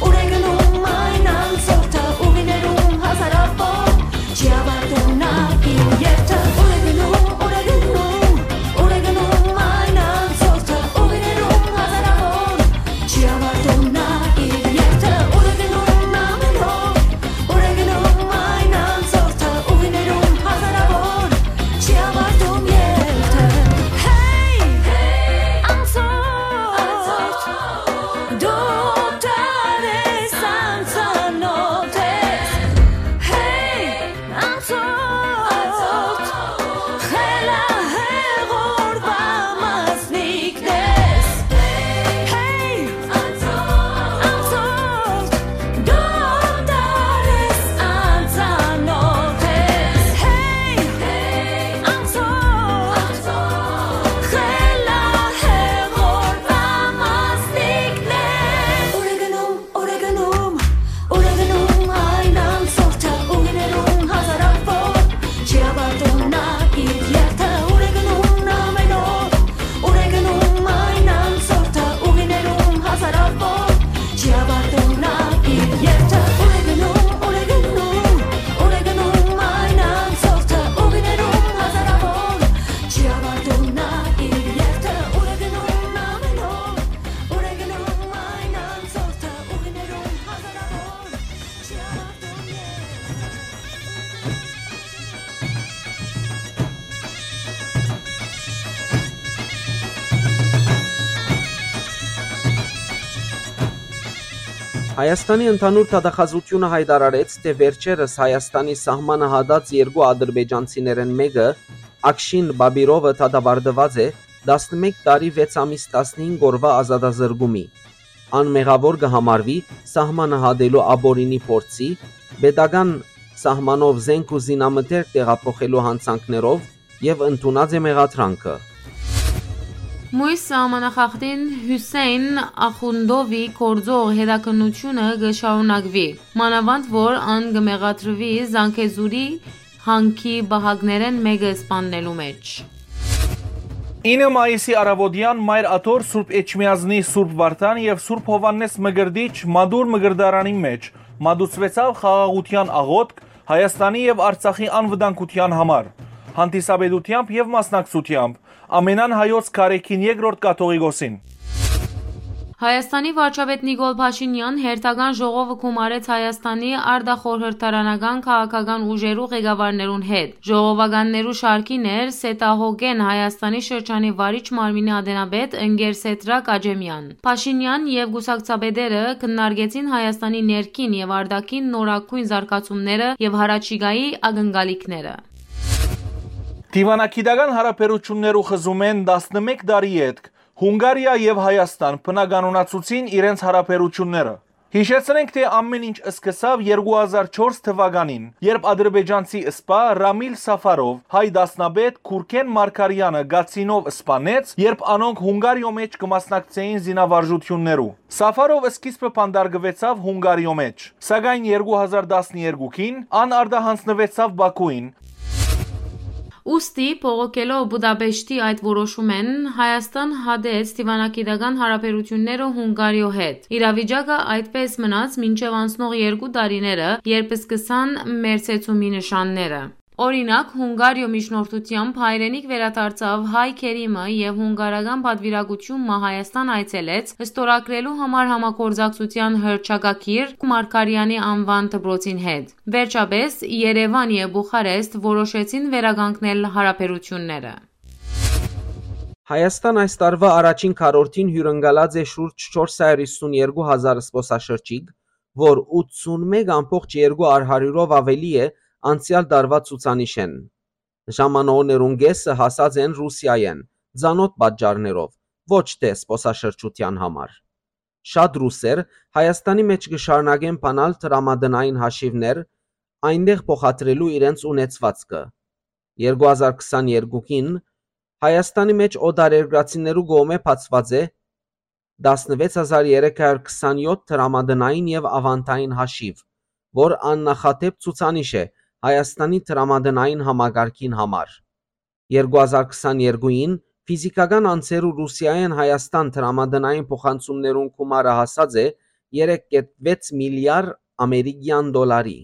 ուր է գնում այն անցորդը, ուղիներում հազարավոր, չի ավարտում նա իր երթը, ուր է գնում, ուր է գնում, ուր է գնում այն անցորդը, ուղիներում հազարավոր, չի ավարտում նա իր երթը, ուր է գնում ամեն օր, ուր է գնում այն անցորդը, ուղիներում հազարավոր, չի ավարտում երթը։ Հեյ, անցորդ, դու դառ ես անծանոթ ես, հեյ, անցորդ, խելահեղ օրուայ մասնիկն ես, հեյ, անցորդ, դու դառ ես անծանոթ ես, հեյ, անցորդ, խելահեղ օրուայ մասնիկն ես։ Ուր է գնում, ուր է գնում, ուր է գնում այն անցորդը, ուղիներում հազարավոր, չի ավարտում նա իր երթը, ուր է գնում ամեն օր, ուր է գնում այն անցորդը, ուղիներում հազարավոր, չի ավարտում նա իր երթը, ուր է գնում, ուր է գնում, ուր է գնում այն անցորդը, ուղիներում հազարավոր, չի ավարտում նա իր երթը, ուր է գնում ամեն օր, ուր է գնում այն անցորդը, ուղիներում հազարավոր, չի ավարտում երթը։ Հայաստանի ընդհանուր դատախազութիւնը յայտարարեց, թէ վերջերս Հայաստանի սահմանը հատած երկու ադրբեջանցիներէն մէկը, Ակշին Բաբիրովը, դատավարտուած է տասնմէկ տարի վեց ամիս տասնհինգ օրուայ ազատազրկումի։ Ան մեղաւոր կը համարուի սահմանը հատելու ապօրինի փորձի, պետական սահմանով զենք ու զինամթերք տեղափոխելու յանցանքներով եւ ընդունած է մեղադրանքը։ Մոյս սահմանախախտին Հիւսէյն Ախունդովի գործող հետաքննութիւնը կը շարունակուի, մանաւանդ որ ան կը մեղադրուի Զանգեզուրի հանքի պահակներէն մէկը սպաննելու մէջ։ Ինը մայիսի առաւօտեան Մայր Աթոռ, Սուրբ Էջմիածնի Սուրբ Վարդան եւ Սուրբ Հովհաննէս Մկրտիչ մատուռ մկրտարանին մէջ մատուցուեցաւ խաղաղութեան աղօթք Հայաստանի եւ Արցախի անվտանգութեան համար, հանդիսապետութեամբ եւ մասնակցութեամբ Ամենան Հայոց Կարեքին Երկրորդ Կաթողիկոսին։ Հայաստանի վարչապետ Նիկոլ Փաշինեան հերթական ժողովը գումարեց Հայաստանի արտախորհրդարանական քաղաքական ուժերու ղեկավարներուն հետ։ Ժողովականներու շարքին էր Սետահոգեն Հայաստանի շրջանի վարիչ մարմինի ատենապետ ընկեր Սեդրակ Աճեմեան։ Փաշինեան եւ կուսակցապետերը քննարկեցին Հայաստանի ներքին եւ արտաքին նորագոյն զարգացումները եւ յառաջիկայի ակնկալիքները։ Դիվանագիտական յարաբերութիւններու խզումէն տասնմէկ տարի ետք Հունգարիա եւ Հայաստան բնականոնացուցին իրենց յարաբերութիւնները։ Յիշեցնենք, թէ ամէն ինչ սկսաւ երկու հազար չորս թուականին, երբ ադրբեջանցի սպա Ռամիլ Սաֆարով հայ դասնապետ Քուրքեն Մարգարեանը կացինով սպանեց, երբ անոնք Հունգարիոյ մէջ կը մասնակցէին զինավարժութիւններու։ Սաֆարով սկիզբը բանտարկուեցաւ Հունգարիոյ մէջ, սակայն երկու հազար տասներկուին ան արտահանձնուեցաւ Բաքուին։ Ուստի, բողոքելով Բուդապեշտի այդ որոշումէն, Հայաստան հատեց դիվանագիտական յարաբերութիւնները Հունգարիոյ հետ։ Իրավիճակը այդպես մնաց մինչեւ անցնող երկու տարիները, երբ սկսան մերձեցումի նշանները։ Օրինակ, Հունգարիոյ միջնորդութեամբ հայրենիք վերադարձաւ հայ գերիմը եւ հունգարական պատուիրակութիւն մը Հայաստան այցելեց, ստորագրելու համար համագործակցութեան հռչակագիր Մարգարեանի անուան դպրոցին հետ։ Վերջապէս, Երեւան եւ Բուխարեստ որոշեցին վերականգնել յարաբերութիւնները։ Հայաստան այս տարուայ առաջին քառորդին հիւրընկալած է շուրջ չորս հարիւր հիսուն երկու հազար զբօսաշրջիկ, որ ութսունմէկ ամբողջ երկու հարիւրով աւելի է անցեալ տարուայ ցուցանիշէն։ Ժամանողներուն կէսը հասած են Ռուսիայէն, ծանօթ պատճառներով, ոչ թէ զբօսաշրջութեան համար։ Շատ ռուսեր Հայաստանի մէջ կը շարունակեն բանալ դրամատնային հաշիւներ, այնտեղ փոխադրելու իրենց ունեցուածքը։ Երկու հազար քսաներկուին Հայաստանի մէջ օտարերկրացիներու կողմէ բացուած է տասնվեց հազար երեք հարիւր քսանյոթ դրամատնային եւ աւանդային հաշիւ, որ աննախադէպ ցուցանիշ է Հայաստանի դրամատնային համակարգին համար։ Երկու հազար քսաներկուին ֆիզիկական անձերու Ռուսիայէն Հայաստան դրամատնային փոխանցումներուն գումարը հասած է երեք կետ վեց միլիարդ ամերիկեան դոլարի։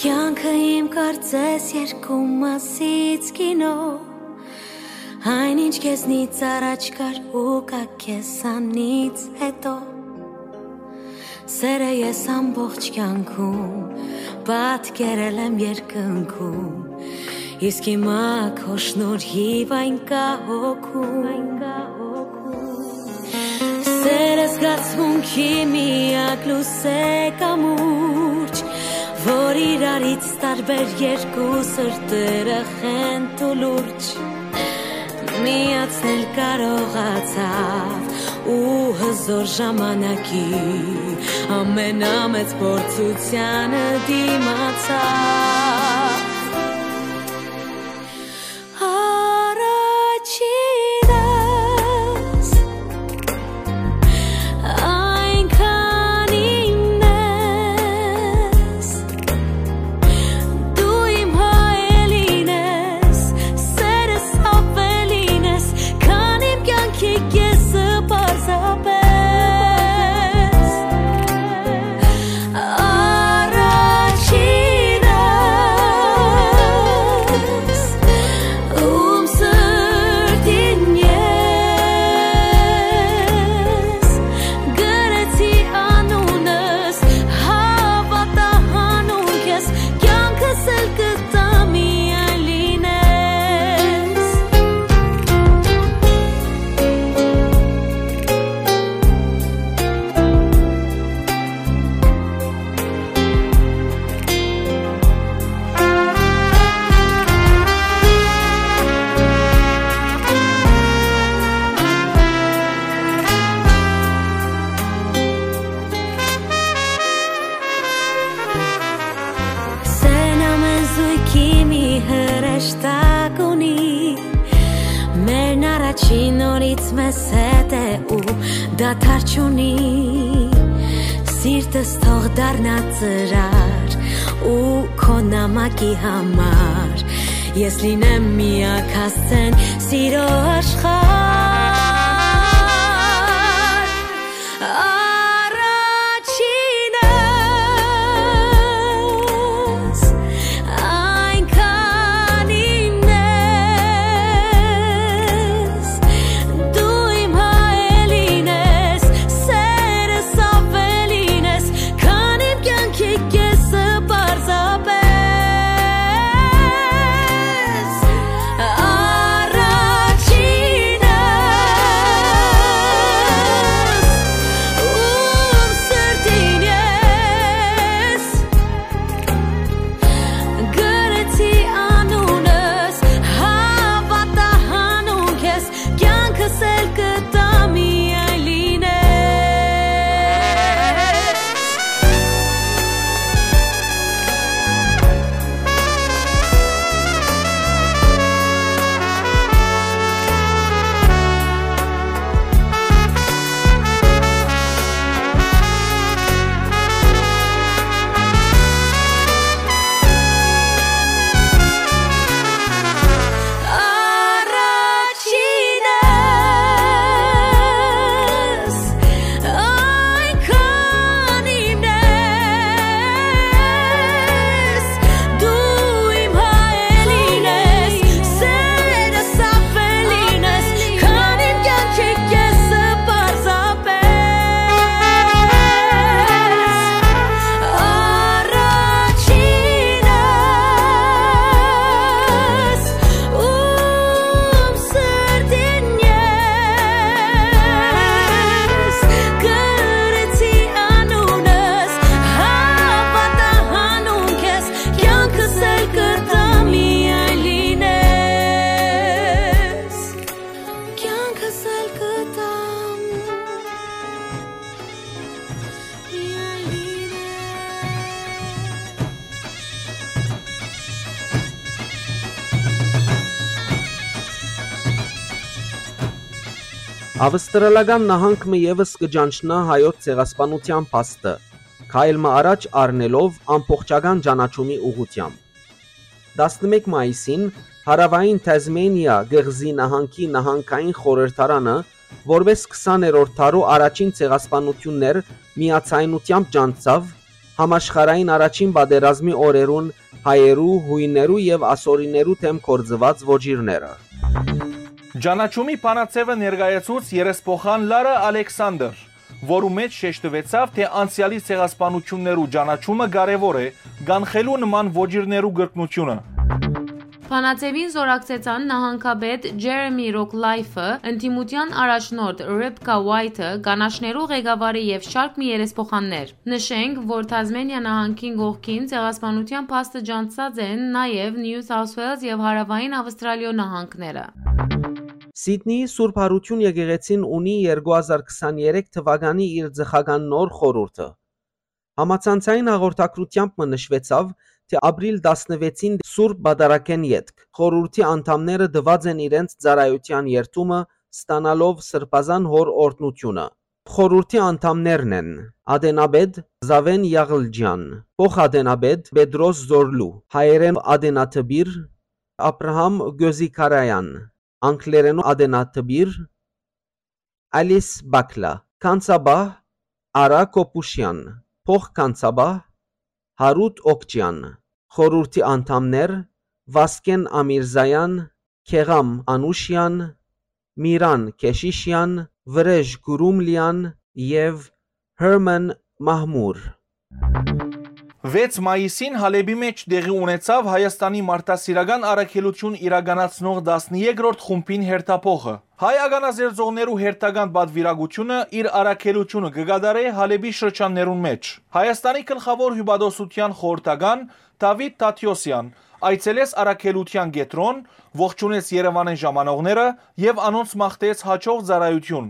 Կեանքը իմ կարծես երկու մասից կինո, այն ինչ քեզնից առաջ կար ու կա քեզանից հետո։ Սերը ես ամբողջ կեանքում պատկերել եմ երկնքում, իսկ հիմա քո շնորհիվ այն կա հոգում։ Սերը զգացմունքի միակ լուսե կամուրջ, որ իրարից տարբեր երկու սրտերը խենթ ու լուրջ միացնել կարողացաւ ու հզոր ժամանակի ամենամեծ փորձությանը դիմացաւ։ Առաջինս այնքան ինն ես, դու իմ հայելին ես, սերս ավելին ես, քան իմ կյանքի կեսը պարզապես։ Առաջինս Մեզ հետ է ու դադար չունի, սիրտս թող դառնա ծրար ու քո նամակի համար ես լինեմ միակ հասցեն սիրո աշխարհ։ Առաջինս այնքան իննես, դու իմ հայելին ես, սերս ավելին ես, քան իմ կյանքի կեսը պարզապէս։ Առաջինս, ում սրտին ես գրեցի անունս, հավատա հանուն քեզ, կյանքս էլ կտամ միայն լինես։ Առաջինս, այնքան իննես, դու իմ հայելին ես, սերս ավելին ես, քան իմ կյանքի կեսը պարզապէս։ Առաջինս, ում սրտին ես գրեցի անունս, հավատա հանուն քեզ, կյանքս էլ կտամ միայն լինես, կյանքս էլ կտամ միայն լինես։ Ավստրալական նահանգ մը եւս կը ճանչնայ հայոց ցեղասպանութեան փաստը, քայլ մը առաջ առնելով ամբողջական ճանաչումի ուղղութեամբ։ Տասնմէկ մայիսին Հարաւային Թազմենիա կղզի նահանգի նահանգային խորհրդարանը, որպէս քսաներորդ դարու առաջին ցեղասպանութիւններ միացայնութեամբ ճանչցաւ, համաշխարհային առաջին պատերազմի օրերուն հայերու, յոյներու եւ ասորիներու դէմ գործուած ոճիրները։ Ճանաչումի բանաձեւը ներկայացուց երեսփոխան Լարա Ալեքսանդր, որու մէջ շեշտուեցաւ, թէ անցեալի ցեղասպանութիւններու ճանաչումը կարեւոր է՝ կանխելու նման ոճիրներու կրկնութիւնը։ Բանաձեւին զօրակցեցան նահանգապետ Ջերեմի Ռոկլայֆը, ընդդիմութեան առաջնորդ Ռեբկա Ուայթը, կանաչներու ղեկավարը եւ շարք մը երեսփոխաններ։ Նշենք, որ Թազմենիա նահանգին կողքին ցեղասպանութեան փաստը ճանչցած են նաեւ Նիու Սաութ Ուէյլզ եւ Հարաւային Ավստրալիոյ նահանգները։ Սիդնիի Սուրբ Յարութիւն եկեղեցին ունի երկու հազար քսաներեք թուականի իր ծխական նոր խորհուրդը։ Համացանցային հաղորդակցութեամբ մը նշուեցաւ, թէ ապրիլ տասնվեցին Սուրբ Պատարագէն ետք խորհուրդի անդամները տուած են իրենց ծառայութեան երդումը, ստանալով Սրբազան Հօր օրհնութիւնը։ Խորհուրդի անդամներն են ատենապետ Զաւէն Յաղլճեան, փոխատենապետ Պետրոս Զորլու, հայերէն ատենատպիր Աբրահամ Գոզիքարաեան, անգլերէնու ատենատպիր Ալիս Բակլա, կանցապահ Արա Կոպուշեան, փոխ կանցապահ Հարութ Օկճեան, խորհուրդի անդամներ Վասկեն Ամիրզայան, Քեղամ Անուշեան, Միրան Քեշիշեան, Վրեժ Կուրումլեան եւ Հերմեն Մահմուր։ Վեց մայիսին Հալէպի մէջ տեղի ունեցաւ Հայաստանի մարդասիրական առաքելութիւն իրականացնող տասներկրորդ խումբին հերթափոխը։ Հայ ականազերծողներու հերթական պատվիրակութիւնը իր առաքելութիւնը կը կատարէ Հալէպի շրջաններուն մէջ։ Հայաստանի գլխաւոր հիւպատոսութեան խորհրդական Դաւիթ Թադիոսեան այցելեց առաքելութեան կեդրոն, ողջունեց Երեւանէն ժամանողները եւ անոնց մաղթեց յաջող ծառայութիւն։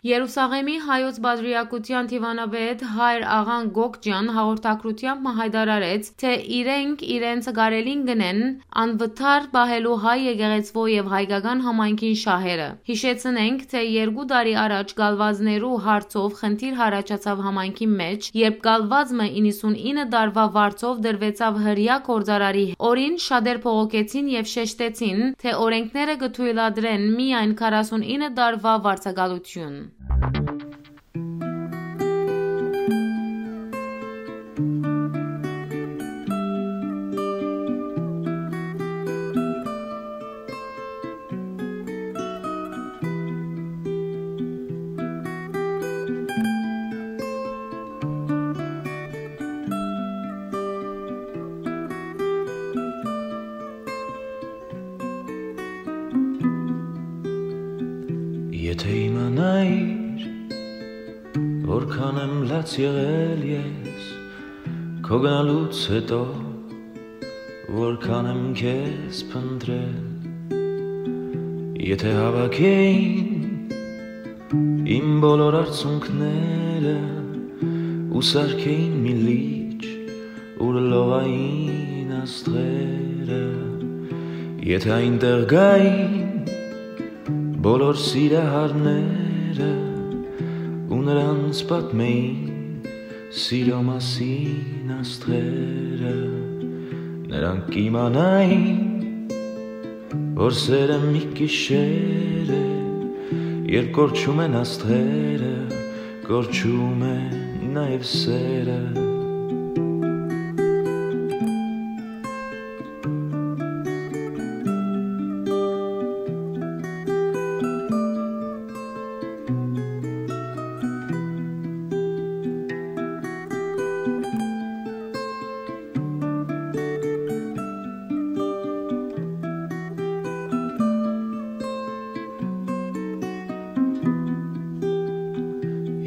Երուսաղէմի հայոց պատրիարքութեան դիւանապետ հայր Աղան Կոկճեան հաղորդագրութեամբ մը յայտարարեց, թէ իրենք իրենց կարելին կ'ընեն անվթար պահելու հայ եկեղեցւոյ եւ հայկական համայնքին շահերը։ Յիշեցնենք, թէ երկու տարի առաջ կալուածներու հարցով խնդիր յառաջացաւ համայնքին մէջ, երբ կալուած մը իննսունինը տարուայ վարձով տրուեցաւ հրեայ գործարարի օրին, շատեր բողոքեցին եւ շեշտեցին, թէ օրէնքները կը թոյլատրեն միայն քառասունինը տարուայ վարձակալութիւն։ Եթէ իմանայիր, որքան եմ լաց եղել ես քո գնալուց յետոյ, որքան եմ քեզ փնտռել, եթէ հաւաքէին իմ բոլոր արցունքները ու սարքէին մի լիճ, ուր լողային աստղերը, եթէ այնտեղ գային բոլոր սիրահարները ու նրանց պատմեին սիրո մասին աստղերը, նրանք կ'iմանային, որ սերը մի գիշեր է, երբ կորչում են աստղերը, կորչում է նաև սերը։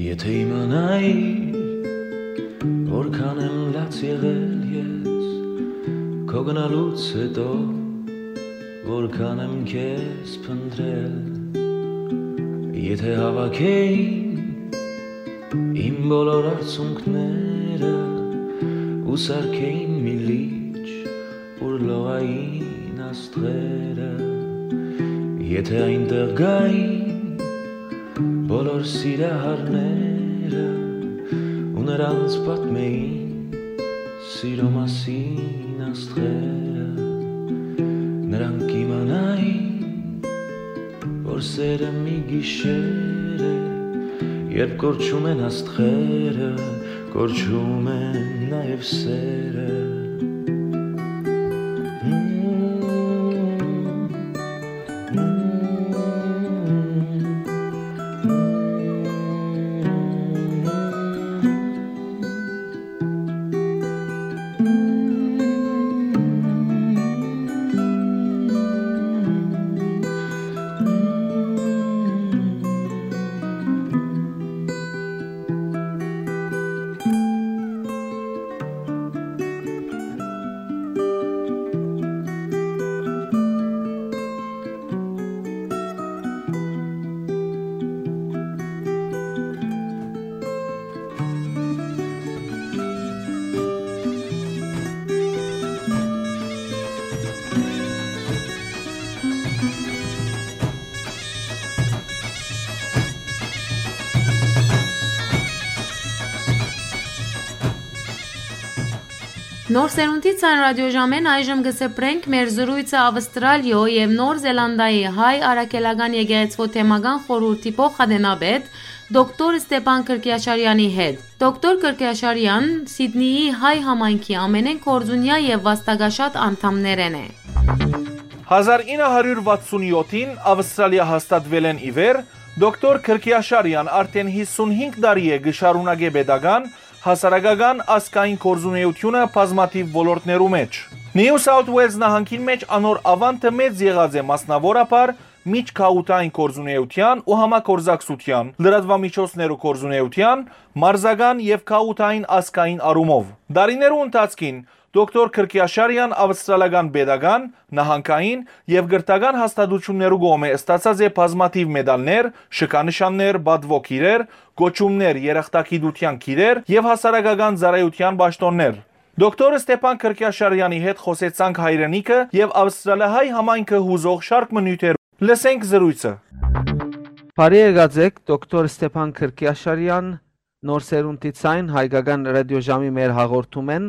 Եթէ իմանայիր, որքան եմ լաց եղել ես քո գնալուց յետոյ, որքան եմ քեզ փնտռել, եթէ հաւաքէին իմ բոլոր արցունքները ու սարքէին մի լիճ, ուր լողային աստղերը, եթէ այնտեղ գային բոլոր սիրահարները ու նրանց պատմեին սիրո մասին աստղերը, նրանք կ'iմանային, որ սերը մի գիշեր է, երբ կորչում են աստղերը, կորչում են նաև սերը։ Նոր սերունդի ցան ռադիոժամէն այժմ կը սփռենք մեր զրոյցը Ավստրալիոյ եւ Նոր Զելանդիայի հայ առաքելական եկեղեցւոյ թեմական խորհուրդի փոխադենապետ դոկտոր Ստեփան Քրկիաշարեանի հետ։ Դոկտոր Քրկիաշարեան Սիդնիի հայ համայնքի ամենէն գործունեայ եւ վաստակաշատ անդամներէն է։ Հազար ինը հարիւր վաթսուն յոթին Ավստրալիա հաստատուելէն ի վեր դոկտոր Քրկիաշարեան արդէն հիսունհինգ տարի է կը շարունակէ պետական, հասարակական, ազգային գործունեութիւնը բազմաթիւ ոլորտներու մէջ։ Նիու Սաութ Ուէյլզ նահանգին մէջ անոր աւանդը մեծ եղած է մասնաւորաբար միջգաղութային գործունէութեան ու համագործակցութեան, լրատուամիջոցներու գործունէութեան, մարզական եւ գաղութային ազգային առումով։ Դարիներու ընթացքին դոկտոր Քրքիաշարեան Աւստրալական պետական, նահանգային եւ կրթական հաստատութիւններու կողմէ ստացած է բազմաթիւ մեդալներ, շքանշաններ, պատուոյ գիրեր, կոչումներ, երախտագիտութեան գիրեր եւ հասարակական ծառայութեան պաշտօններ։ Դոկտոր Ստեփան Քրքիաշարեանի հետ խօսեցանք հայրենիքը եւ Աւստրալիահայ համայնքը յուզող շարք մը նիւթերու։ Լսենք զրոյցը։ Բարի եկած եք, դոկտոր Ստեփան Քրքիաշարեան, Նոր սերունդի ցայն հայկական ռադիոժամի մեր հաղորդումէն։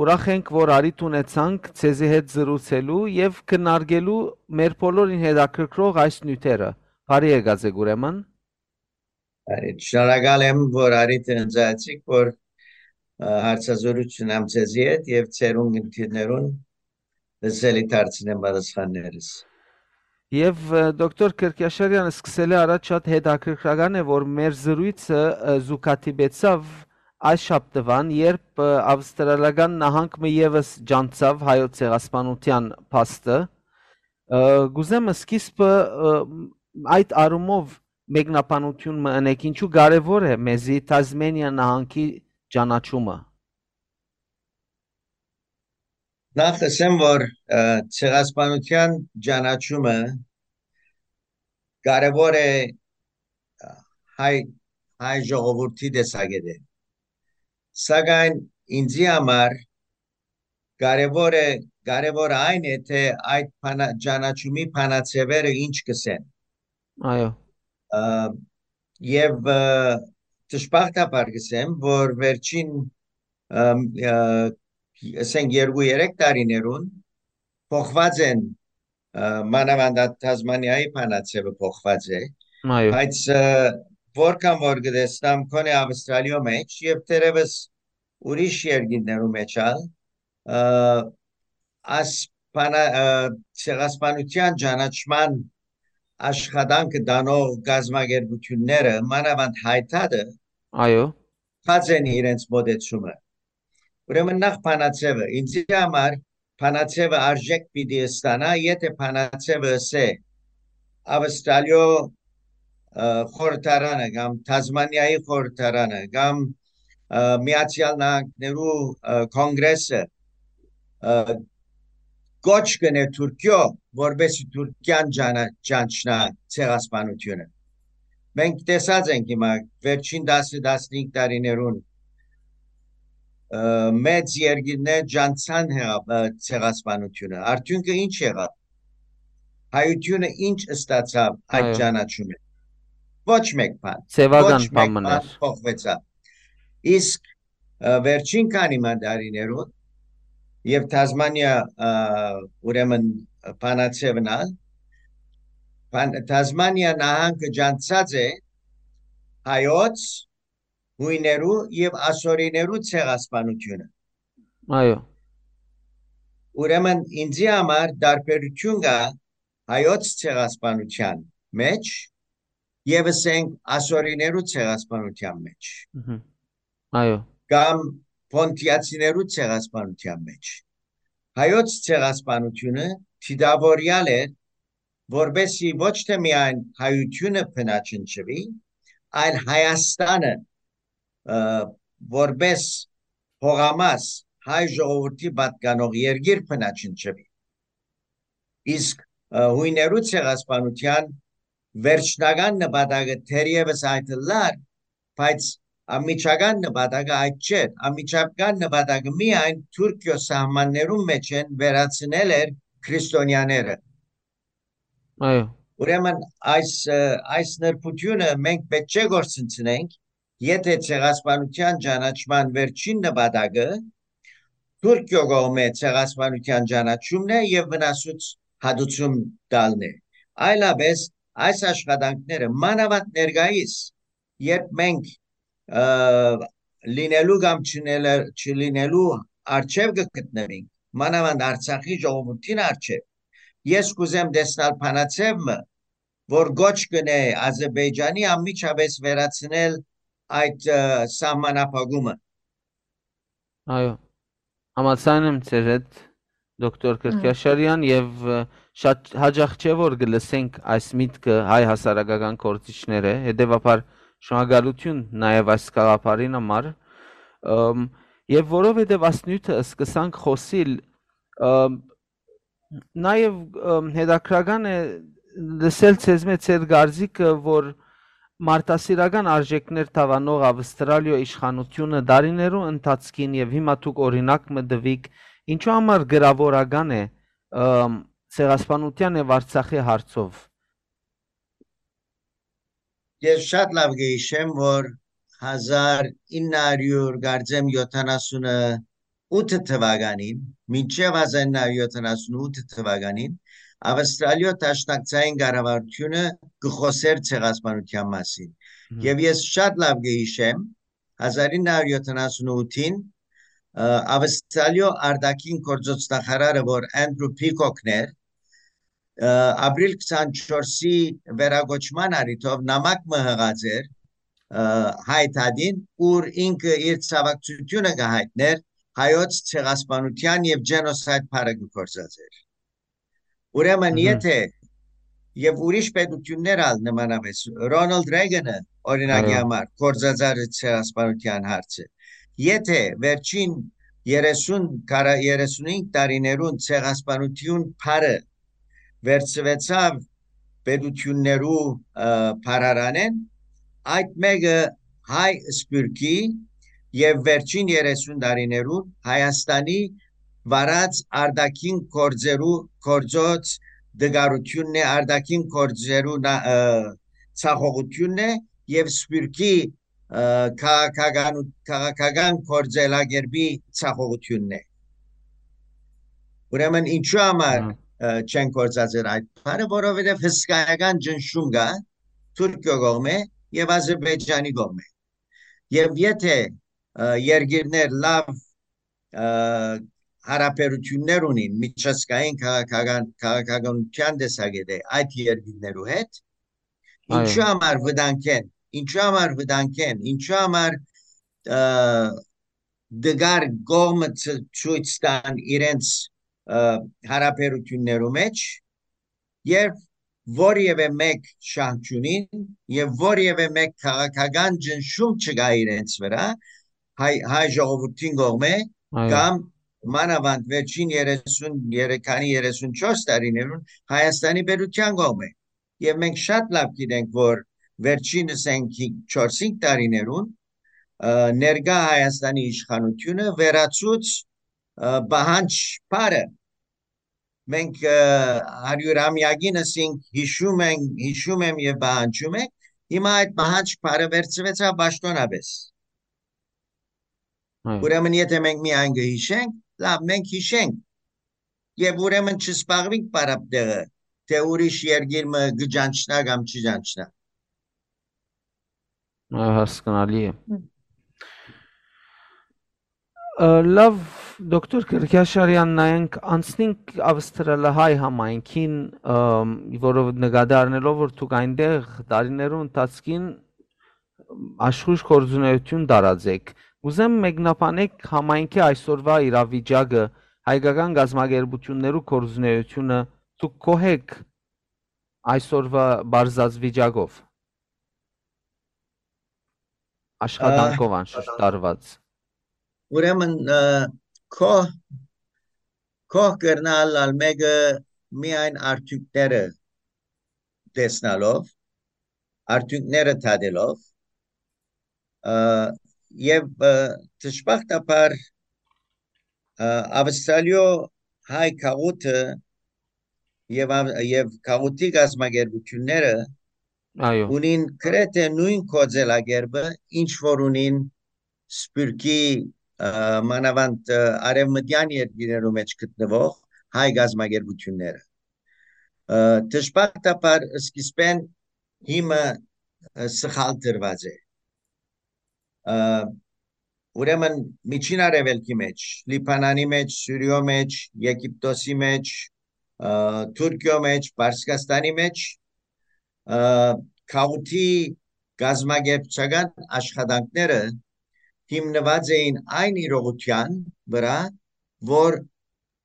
Ուրախ ենք, որ առիթ ունեցանք ձեզի հետ զրուցելու եւ քննարկելու մեր բոլորին հետաքրքրող այս նիւթերը։ Բարի եկած եք ուրեմն։ Բարի, շնորհակալ եմ, որ առիթը ընծայեցիք, որ, ը, հարցազրույց ունեմ ձեզի հետ եւ ձեր ունգընտիրներուն լսելի դարձնեմ պատասխաններս։ Եւ, ը, դոկտոր Քրքիաշարեան, սկսելէ առաջ շատ հետաքրքրական է, որ մեր զրոյցը, ը, զուգադիպեցաւ այս շաբթուան, երբ, ը, աւստրալական նահանգ մը եւս ջանցաւ հայոց ցեղասպանութեան փաստը։ Ը, կ'ուզեմ սկիզբը, ը, այդ առումով մեկնաբանութիւն մը ընեք, ինչու կարեւոր է մեզի Թազմենիա նահանգի ճանաչումը։ Նախ ըսեմ, որ, ը, ցեղասպանութեան ճանաչումը կարեւոր է, ը, հայ, հայ ժողովուրդի տեսակէտէ։ Սակայն ինձի համար կարեւոր է, կարեւոր այն է, թէ այդ բանա-, ճանաչումի բանաձեւերը ինչ կ'ըսեն։ Այո։ Ը, եւ, ը, դժբախտաբար կ'ըսեմ, որ վերջին, ը, ը, ասենք երկու-երեք տարիներուն փոխուած են, ը, մանաւանդ այդ Թազմանիայի բանաձեւը փոխուած է, Այո։ բայց, ը, որքան որ կտեսնամ, քոնէ Աւստրալիոյ մէջ եւ թերեւս ուրիշ երկիրներու մէջ ալ, ը, աս բանա-, ը, ցեղասպանութեան ճանաչման աշխատանքը տանող կազմակերպութիւնները, մանաւանդ Հայդատը, Այո։ բաց են իրենց մոտեցումը։ Ուրեմն նախ բանաձեւը, ինձի համար բանաձեւը արժեք պիտի ստանայ, եթէ բանաձեւը ըսէ Աւստրալիոյ, ը, խորհրդարանը կամ Թազմանիայի խորհրդարանը կամ, ը, Միացեալ Նահանգներու, ը, կոնգրեսը, ը, կոչ կ'ընէ Թուրքիոյ, որպէսզի Թուրքիան ճանա-, ճանչնայ ցեղասպանութիւնը։ Մենք տեսած ենք հիմա վերջին տասը, տասնհինգ տարիներուն, ը, մեծ երկիրներ ճանչցան հեղա-, ը, ցեղասպանութիւնը։ Արդիւնքը ինչ եղաւ։ Հայութիւնը ինչ ստացաւ այդ Այո։ ճանաչումը։ Ոչ մէկ բան։ Ցեղական Ոչ մէկ բան մը բան էր։ փոխուեցաւ։ Իսկ, ը, վերջին քանի մը տարիներուն եւ Թազմանիա, ը, ուրեմն բանաձեւն ալ, բան-, Թազմանիա նահանգը ճանչցած է հայոց, յոյներու եւ ասորիներու ցեղասպանութիւնը։ Այո։ Ուրեմն ինձի համար տարբերութիւն կայ հայոց ցեղասպանութեան մէջ եւ, ըսենք, ասորիներու ցեղասպանութեան մէջ, Մհմ։ Այո։ կամ պոնթիացիներու ցեղասպանութեան մէջ։ Հայոց ցեղասպանութիւնը դիտաւորեալ էր, որպէսզի ոչ թէ միայն հայութիւնը բնաջնջուի, այլ Հայաստանը, ը, որպէս հողամաս հայ ժողովուրդի պատկանող երկիր բնաջնջուի։ Իսկ, ը, յոյներու ցեղասպանութեան վերջնական նպատակը թերեւս այդ ըլլար, բայց անմիջական նպատակը այդ չէր։ Անմիջական նպատակը միայն Թուրքիոյ սահմաններուն մէջ են վերացնել էր քրիստոնեաները։ Այո։ Ուրեմն այս, ը, այս նրբութիւնը մենք պէտք չէ գործընծնենք, եթէ ցեղասպանութեան ճանաչման վերջին նպատակը Թուրքիոյ կողմէ ցեղասպանութեան ճանաչումն է եւ վնասուց հատուցում տալն է։ Այլապես այս աշխատանքները, մանաւանդ ներկայիս, երբ մենք, ը, լինելու կամ չնելը-, չլինելու առջեւ կը գտնվենք, մանաւանդ Արցախի ժողովուրդին առջեւ, ես կ'ուզեմ տեսնալ բանաձեւ մը, որ կոչ կ'ընէ Ադրբեջանի անմիջապէս վերացնել այդ, ը, սահմանափակումը։ Այո, համաձայն եմ ձեր հետ, դոկտոր Այո։ Քրքիաշարեան, եւ, ը, շատ հաճախ չէ որ կը լսենք այս միտքը հայ հասարակական գործիչները, հետեւաբար շնորհակալություն նաեւ այս գաղափարին համար։ Ըմ, եւ որովհետեւ այս նիւթը սկսանք խօսիլ, ըմ, նաեւ, ըմ, հետաքրական է լսել ձեզմէ ձեր կարծիքը, որ մարդասիրական արժեքներ դաւանող Ավստրալիոյ իշխանութիւնը դարիներու ընթացքին, եւ հիմա դուք օրինակ մը տուիք, ինչու համար գրաւորական է, ըմ, Ցեղասպանութեան եւ Արցախի հարցով։ Ես շատ լաւ կը յիշեմ, որ հազար ինը հարիւր կարծեմ յոթանասունութ թվականին, մինչեւ հազար ինը հարիւր յոթանասունութ թվականին, Ավստրալիոյ Դաշնակցային կառավարութիւնը կը խօսէր ցեղասպանութեան մասին։ Մհմ։ Եւ ես շատ լաւ կը յիշեմ, հազար ինը հարիւր յոթանասունութին, ը, Ավստրալիոյ արտաքին գործոց նախարարը, որ Անդրու Փիքոքն էր, ը, ապրիլ քսանչորսի վերակոչման առիթով նամակ մը յղած էր, ը, Հայ Դատին, ուր ինքը իր ցաւակցութիւնը կը յայտնէր հայոց ցեղասպանութեան եւ genocide բառը կը գործածէր։ Ուրեմն, Մհմ։ Եթէ եւ ուրիշ պետութիւններ ալ նմանապէս, Ռոնալդ Ռեյգանը, օրինակի Այո։ համար, գործածար ցեղասպանութեան հարցը, եթէ վերջին երեսուն կարա-, երեսունհինգ տարիներուն ցեղասպանութիւն բառը վերցուեցաւ պետութիւններու, ը, բառարանէն, այդ մէկը հայ սփիւռքի եւ վերջին երեսուն տարիներուն Հայաստանի վարած արտաքին գործերու գործոց տկարութիւնն է, արտաքին գործերու նա-, ը, ցախողութիւնն է եւ սփիւռքի, ը, քաղաքական, քաղաքական գործելակերպի ցախողութիւնն է։ Ուրեմն ինչու համար, Հա։ ը, չեն գործածեր այդ բառը, որովհետեւ հսկայական ճնշում կա Թուրքիոյ կողմէ եւ Ադրբեջանի կողմէ։ Եւ եթէ, ը, երկիրներ լաւ, ը, հարաբերութիւններ ունին միջազգային քաղաքական, քաղաքականութեան տեսակետէ այդ երկիրներու հետ, ինչու Այո։ համար վտանգ են, ինչու համար վտանգ են, ինչու համար, ը, դգար կողմը ցը-, ցոյց տան իրենց, ը, հարաբերութիւններու մեջ, երբ որեւէ մէկ շահ չունին եւ որեւէ մէկ քաղաքական ճնշում չկա իրենց վրա, հայ, հայ ժողովրդին կողմէ, Այո։ կամ մանաւանդ վերջին երեսուն, երեք քանի երեսունչորս տարիներուն Հայաստանի պետութեան կողմէ։ Եւ մենք շատ լաւ գիտենք, որ վերջին, ասենք, չորս-հինգ տարիներուն, ը, ներկայ Հայաստանի իշխանութիւնը վերացուց, ը, պահանջ բառը։ Մենք, ը, հարիւրամեակին, ասենք, յիշում ենք, յիշում եմ եւ պահանջում ենք, հիմա այդ պահանջ բառը վերցուեցաւ պաշտօնապէս։ Այո։ Ուրեմն, եթէ մենք միայն կը յիշենք, լաւ, մենք յիշենք, եւ ուրեմն չսպաղվենք պարապ տեղը, թէ ուրիշ երկիր մը կը ճանչնայ կամ չի ճանչնայ։ Այո, հասկանալի է։ Հմ։ Ը, լաւ, դոկտոր Կրկաշարեան, նայենք, անցնենք Ավստրալահայ համայնքին, ըմ, որով նկատի առնելով, որ դուք այնտեղ տարիներու ընթացքին աշխուժ գործունեութիւն տարածեք։ Ուզեմ մեկնաբանեք համայնքի այսօրվա իրավիճակը, հայկական կազմակերպութիւններու գործունեութիւնը, դուք գոհ եք այսօրվա բարձած վիճակով, աշխատանքով անշուշտ տարուած։ Ուրեմն, ը, գոհ, գոհ կրնայ ըլլալ մէկը միայն արդիւնքները տեսնալով, արդիւնքները դատելով, ը, եւ, ը, դժբախտաբար, ը, Ավստրալիոյ հայ գաղութը եւ ավ-, եւ գաղութի կազմակերպութիւնները Այո։ ունին գրեթէ նոյն գոյատեւակերպը, ինչ որ ունին սփիւռքի, ը, մանաւանդ, ը, արեւմտեան երկիրներու մէջ գտնուող հայ կազմակերպութիւնները։ Ը, դժբախտաբար, սկիզբէն հիմը, ը, սխալ դրուած է։ Ը, ուրեմն, Միջին Արեւելքի մէջ, Լիբանանի մէջ, Սուրիոյ մէջ, Եգիպտոսի մէջ, ը, Թուրքիոյ մէջ, Պարսկաստանի մէջ, ը, գաղութի կազմակերպչական աշխատանքները հիմնուած էին այն իրողութեան վրայ, որ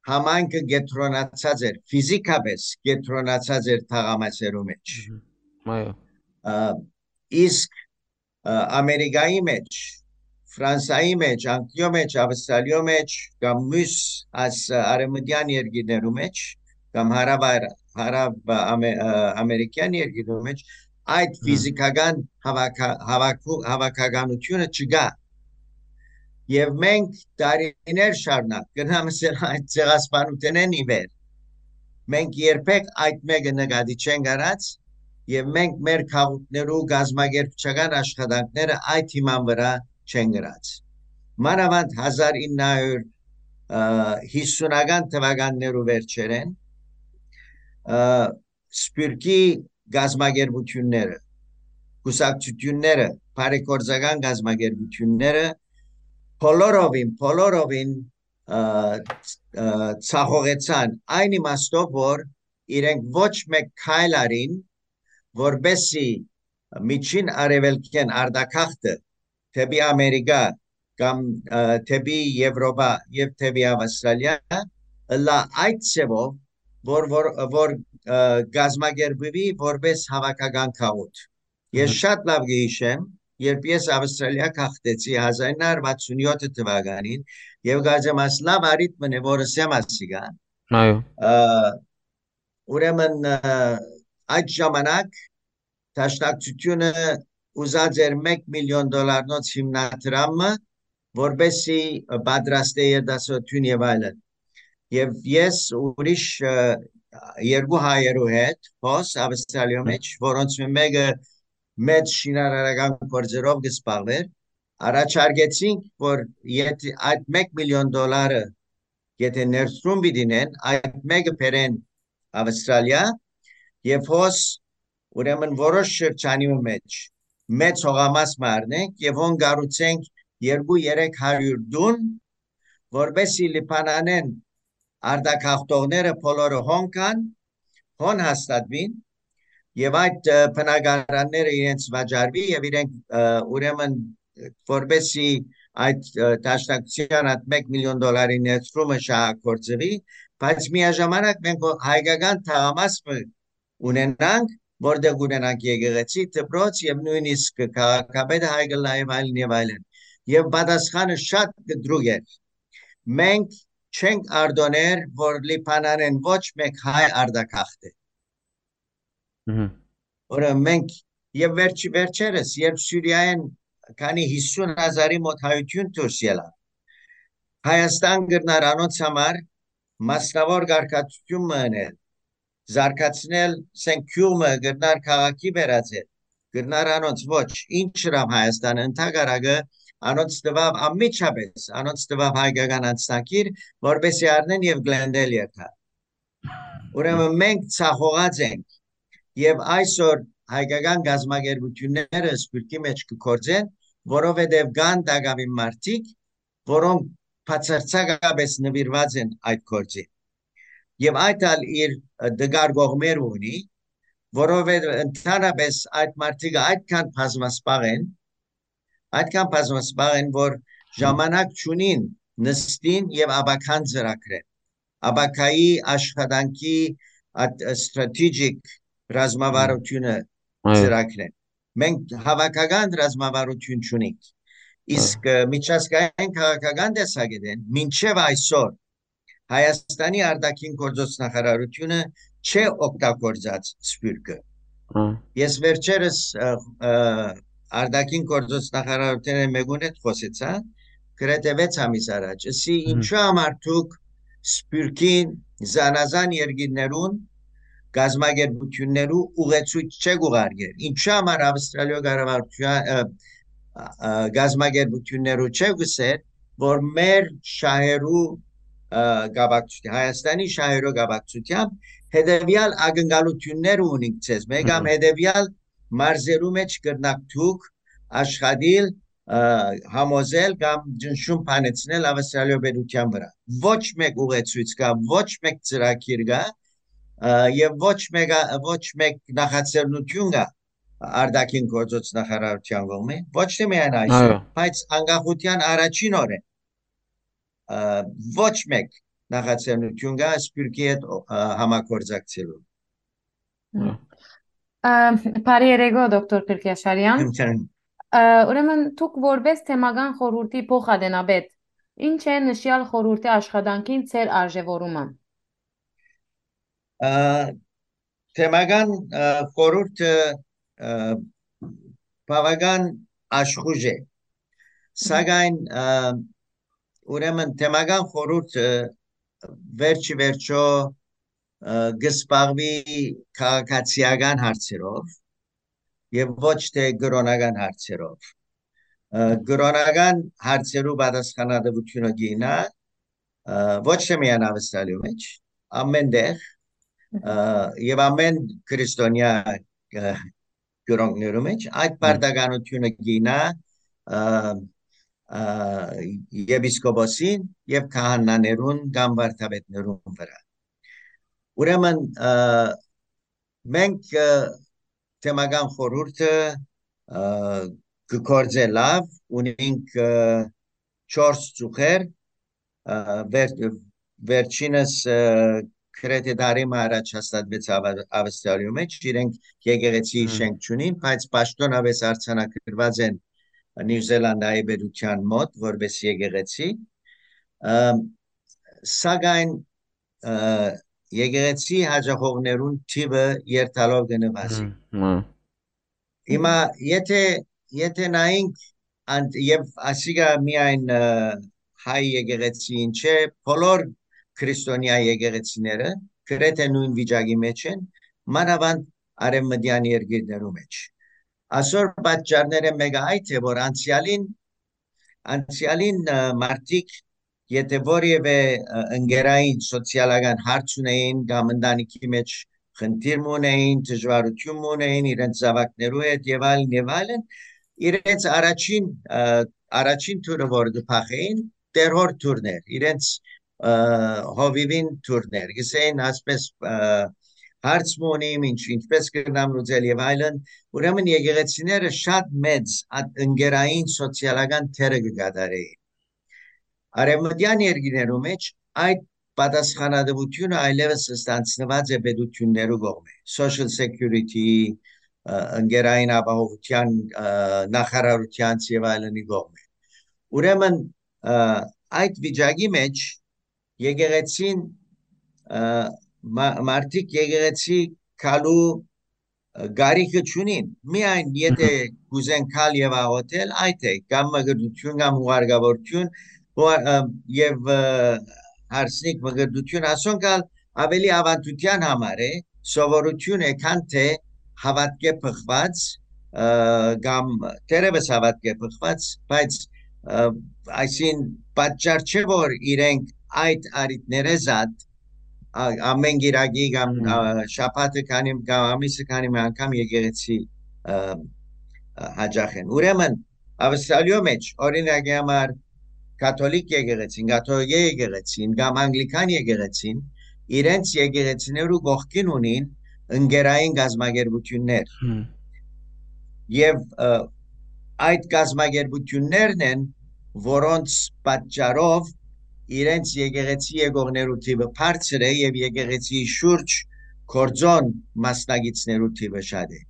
համայնքը կեդրոնացած էր, ֆիզիկապէս կեդրոնացած էր թաղամասերու մեջ։ Մհմ, այո։ Ա, իսկ, ա, Ամերիկայի մեջ, Ֆրանսայի մեջ, Անգլիոյ մեջ, Ավստրալիոյ մեջ, կամ մյուս այս, ա, արևմտեան երկիրներու մեջ, կամ հարավայր-, հարավ, ա, ամե-, ա, ամերիկեան երկիրներու մեջ, այդ Մհմ։ ֆիզիկական հավաքը-, հավաքը-, հավաքականութիւնը չկայ։ Եւ մենք տարիներ շարունակ, կրնամ ըսել, այդ ցեղասպանութենէն ի վեր, մենք երբեք այդ մէկը նկատի չենք առած, եւ մենք մեր քաղաքներու կազմակերպչական աշխատանքները այդ հիման վրայ չեն գրած։ Մանաւանդ հազար իննյա յոթ, ա, յիսունական թուականներու վերջերէն, ա, Սփիւռքի կազմակերպութիւնները, կուսակցութիւնները, բարեգործական կազմակերպութիւնները բոլորովին, բոլորովին, ա, ա, ցախողեցան այն իմաստով, որ իրենք ոչ մէկ քայլ արին, որպեսզի Միջին Արեւելքէն արտագաղթը դէպի Ամերիկա կամ, ը, դէպի Եւրոպա եւ դէպի Ավստրալիա, ըլլայ այդ ձեւով, որ, որ, որ, ը, կազմակերպուի որպես հաւաքական գաղութ։ Ես Մհմ։ շատ լաւ կը յիշեմ, երբ ես Ավստրալիա գաղթեցի հազար իննյա յոթ սուն յոթ թուականին, եւ կարծեմ, աս լաւ առիթ մըն է, որ ըսեմ ասիկա։ Այո։ Ը, ուրեմն, ը, այդ ժամանակ Դաշնակցութիւնը ուզած էր մէկ միլիոն դոլարնոց հիմնադրամը, որպեսզի պատրաստէ երիտասարդութիւն եւ այլն։ Եւ ես ուրիշ, ը, երկու հայերու հետ, հոս Ավստրալիոյ Հը։ մեջ, որոնց մէ-, մէկը մեծ շինարարական գործերով կը զբաղուէր, առաջարկեցինք, որ եթ-, այդ մէկ միլիոն դոլարը, եթէ ներդրում պիտի դինեն, այդ մէկը բերեն Ավստրալիա, եւ հոս, ուրեմն, որոշ շրջանի մը մեջ մեծ հողամաս մը առնենք եւ հոն կառուցենք երկու երեք հարիւր տուն, որպեսզի Լիբանանէն արտագաղթողները բոլորը հոն գան, հոն հաստատուին, եւ այդ, ը, բնակարանները իրենց վաճառուի, եւ իրենք, ը, ուրեմն, որպեսզի այդ, ը, դաշնակցութեան այդ մէկ միլիոն դոլարի ներդրումը շահագործուի, բայց միաժամանակ մենք հո-, հայկական թաղամաս մը ունենանք, որտեղ ունենանք եկեղեցի, դպրոց եւ նոյնիսկ քաղաքապետը հայ կ'ըլլայ եւ այլն եւ այլն։ Եւ պատասխանը շատ կտրուկ էր։ Մենք չենք արտօներ, որ Լիբանանէն ոչ մէկ հայ արտագաղթ է։ Մհմ։ Ուրեմն մենք, եւ վերջի-, վերջերս, երբ Սուրիայէն քանի յիսուն հազարի մօտ հայութիւն դուրս ելան, Հայաստան կրնար անոնց համար մասնաւոր կարգացութիւն մը ընել, զարգացնել, ասենք, գիւղ մը կրնար քաղաքի վերածել, կրնար անոնց, ոչ, ինչ ըրաւ Հայաստանը, ընդհակառակը, անոնց տուաւ անմիջապէս, անոնց տուաւ հայկական անձնագիր, որպեսզի առնեն եւ գլենդել երթան։ Ուրեմն մենք ցախողած ենք, եւ այսօր հայկական կազմակերպութիւնները սփիւռքի մեջ կը գործեն, որովհետեւ կան տակաւին մարդիկ, որոնք բացարձակապէս նուիրուած են այդ գործին։ Եւ այդ ալ իր, ը, դգար կողմեր ունի, որովհետեւ ընդհանրապէս այդ մարդիկը այդքան բազմասպաղ են, այդքան բազմասպաղ են, որ ժամանակ չունին նստին եւ ապագան ծրագրեն, ապագայի աշխատանքի այդ strategic ռազմավարությունը Այո։ ծրագրեն։ Մենք հաւաքական ռազմավարութիւն չունենք։ Իսկ, ը, միջազգային քաղաքական տեսակետէն մինչեւ այսօր Հայաստանի արտաքին գործոց նախարարութիւնը չէ օգտագործած սփիւռքը։ Հա։ Ես վերջերս, ը, ը, արտաքին գործոց նախարարութենէն մէկուն հետ խօսեցայ, գրեթէ վեց ամիս առաջ, ըսի, Հմ։ ինչու համար դուք սփիւռքին զանազան երկիրներուն կազմակերպութիւններու ուղեցույց չեք ուղարկեր։ Ինչու համար Ավստրալիոյ կառավարութեան, ը, ը, կազմակերպութիւններու չեք ըսեր, որ մեր շահերու, ը, կապակցութիա-, Հայաստանի շահերու կապակցութեամբ հետեւեալ ակնկալութիւններ ունինք ձեզ, մէկ ամ Մհմ։ հետեւեալ մարզերու մեջ կրնաք դուք աշխատիլ, ը, համոզել կամ ճնշում բանեցնել Ավստրալիոյ պետութեան վրայ։ Ոչ մէկ ուղեցույց կայ, ոչ մէկ ծրագիր կայ, ը, եւ ոչ մեկը, ոչ մէկ նախաձեռնութիւն կայ արտաքին գործոց նախարարութեան կողմէ, ոչ թե միայն այսօր, Այո։ բայց անկախութեան առաջին օրը, ը, ոչ մէկ նախաձեռնութիւն կայ Սփիւռքի հետ, ը, համագործակցելու։ Ա, բարի երեկո, դոկտոր Քրկեաշարյան։ Ա, ուրեմն դուք որպես թեմական խորհուրդի փոխատենապետ, ի՞նչ է նշեալ խորհուրդի աշխատանքին ձեր արժեվորումը։ Ա, թեմական, ա, խորհուրդը, ա, բաւական աշխուժ է, սակայն, ա, ուրեմն թեմական խորհուրդը վերջի վերջո, ը, կը զբաղուի քաղաքացիական հարցերով եւ ոչ թե կրօնական հարցերով։ Ը, կրօնական հարցերու պատասխանատվութիւնը կ'իյնայ, ը, ոչ թե միայն Ավստրալիոյ մէջ, ամէն տեղ, ը, եւ ամէն քրիստոնեայ, ը, կրօնքներու մէջ, այդ պարտականութիւնը կ'իյնայ, ը, ը, եպիսկոպոսին եւ քահանաներուն կամ վարդապետներուն վրայ։ Ուրեմն, ը, մենք, ը, թեմական խորհուրդը, ը, կը գործէ լաւ, ունինք, ը, չորս ծուխեր, ը, վեր-, վերջինս, ը, գրեթէ տարի մը առաջ հաստատուեց Ավ-, Ավստրալիոյ մէջ, իրենք եկեղեցի Հմ։ շենք չունին, բայց պաշտօնապէս արձանագրուած են Նիւ Զելանդիայի պետութեան մօտ, որպես եկեղեցի։ Ը, սակայն, ը, եկեղեցի հաճախողներուն թիւը երթալով կը նվազի։ Հմ, հա։ Հիմա, եթե, եթե նայենք, անդ-, եւ ասիկա միայն, ը, հայ եկեղեցին չէ, բոլոր քրիստոնեայ եկեղեցիները գրեթէ նոյն վիճակի մէջ են, մանաւանդ արեւմտեան երկիրներու մէջ։ Ասոր պատճառները մէկը այդ է, որ անցեալին, անցեալին, ը, մարդիկ, եթե որեւէ, ը, ընկերային, սոցիալական հարց ունեին կամ ընտանիքի մէջ խնդիր մը ունեին, դժուարութիւն մը ունեին իրենց զաւակներու հետ եւ այլն եւ այլն, իրենց առաջին, ը, առաջին թուրը որ կը փախեին, տերհոր թուրն էր, իրենց, ը, հովիւին թուրն էր, կ'ըսէին, ասպէս, ը, հարց մը ունիմ, ինչ, ինչպես կրնամ լուծել եւ այլն, ուրեմն եկեղեցիները շատ մեծ այդ ընկերային սոցիալական թերը կը կատարեին։ Արեւմտեան երկիրներու մէջ այդ պատասխանատվութիւնը այլեւս ստանձնուած է պետութիւններու կողմէ, Social Security, ը, ընկերային ապահովութեան, ը, նախարարութեանց եւ այլնի կողմէ։ Ուրեմն, ը, այդ վիճակի մէջ եկեղեցին, ը, մա-, մարդիկ եկեղեցի գալու, ը, կարիքը չունին, միայն եթե Մհմ։ կ'ուզեն գալ եւ աղօթել, այդ է, կամ մկրտութիւն, կամ հուղարկաւորութիւն, հուա-, ը, եւ, ը, հարսնիք մկրտութիւն, ասոնք ալ ավելի աւանդութեան համար է, սովորութիւն է, քան թէ հաւատքէ բխուած, ը, կամ թերեւս հաւատքէ բխուած, բայց, ը, այսին պատճառ չէ, որ իրենք այդ առիթները զատ, ա-, ամէն գիրակի կամ, Հմ։ ա, շաբաթը քանի, կամ ամիսը քանի մի անգամ եկեղեցի, ը, ը, հաճախ են։ Ուրեմն, Ավստրալիոյ մէջ, օրինակի համար, կաթոլիկ եկեղեցին, կաթողիկէ եկեղեցին կամ անգլիկան եկեղեցին, իրենց եկեղեցիներու կողքին ունին ընկերային կազմակերպութիւններ։ Հմ։ Եւ, ը, այդ կազմակերպութիւններն են, որոնց պատճառով իրենց եկեղեցի եկողներու թիւը բարձր է եւ եկեղեցիի շուրջ գործօն մասնակիցներու թիւը շատ է։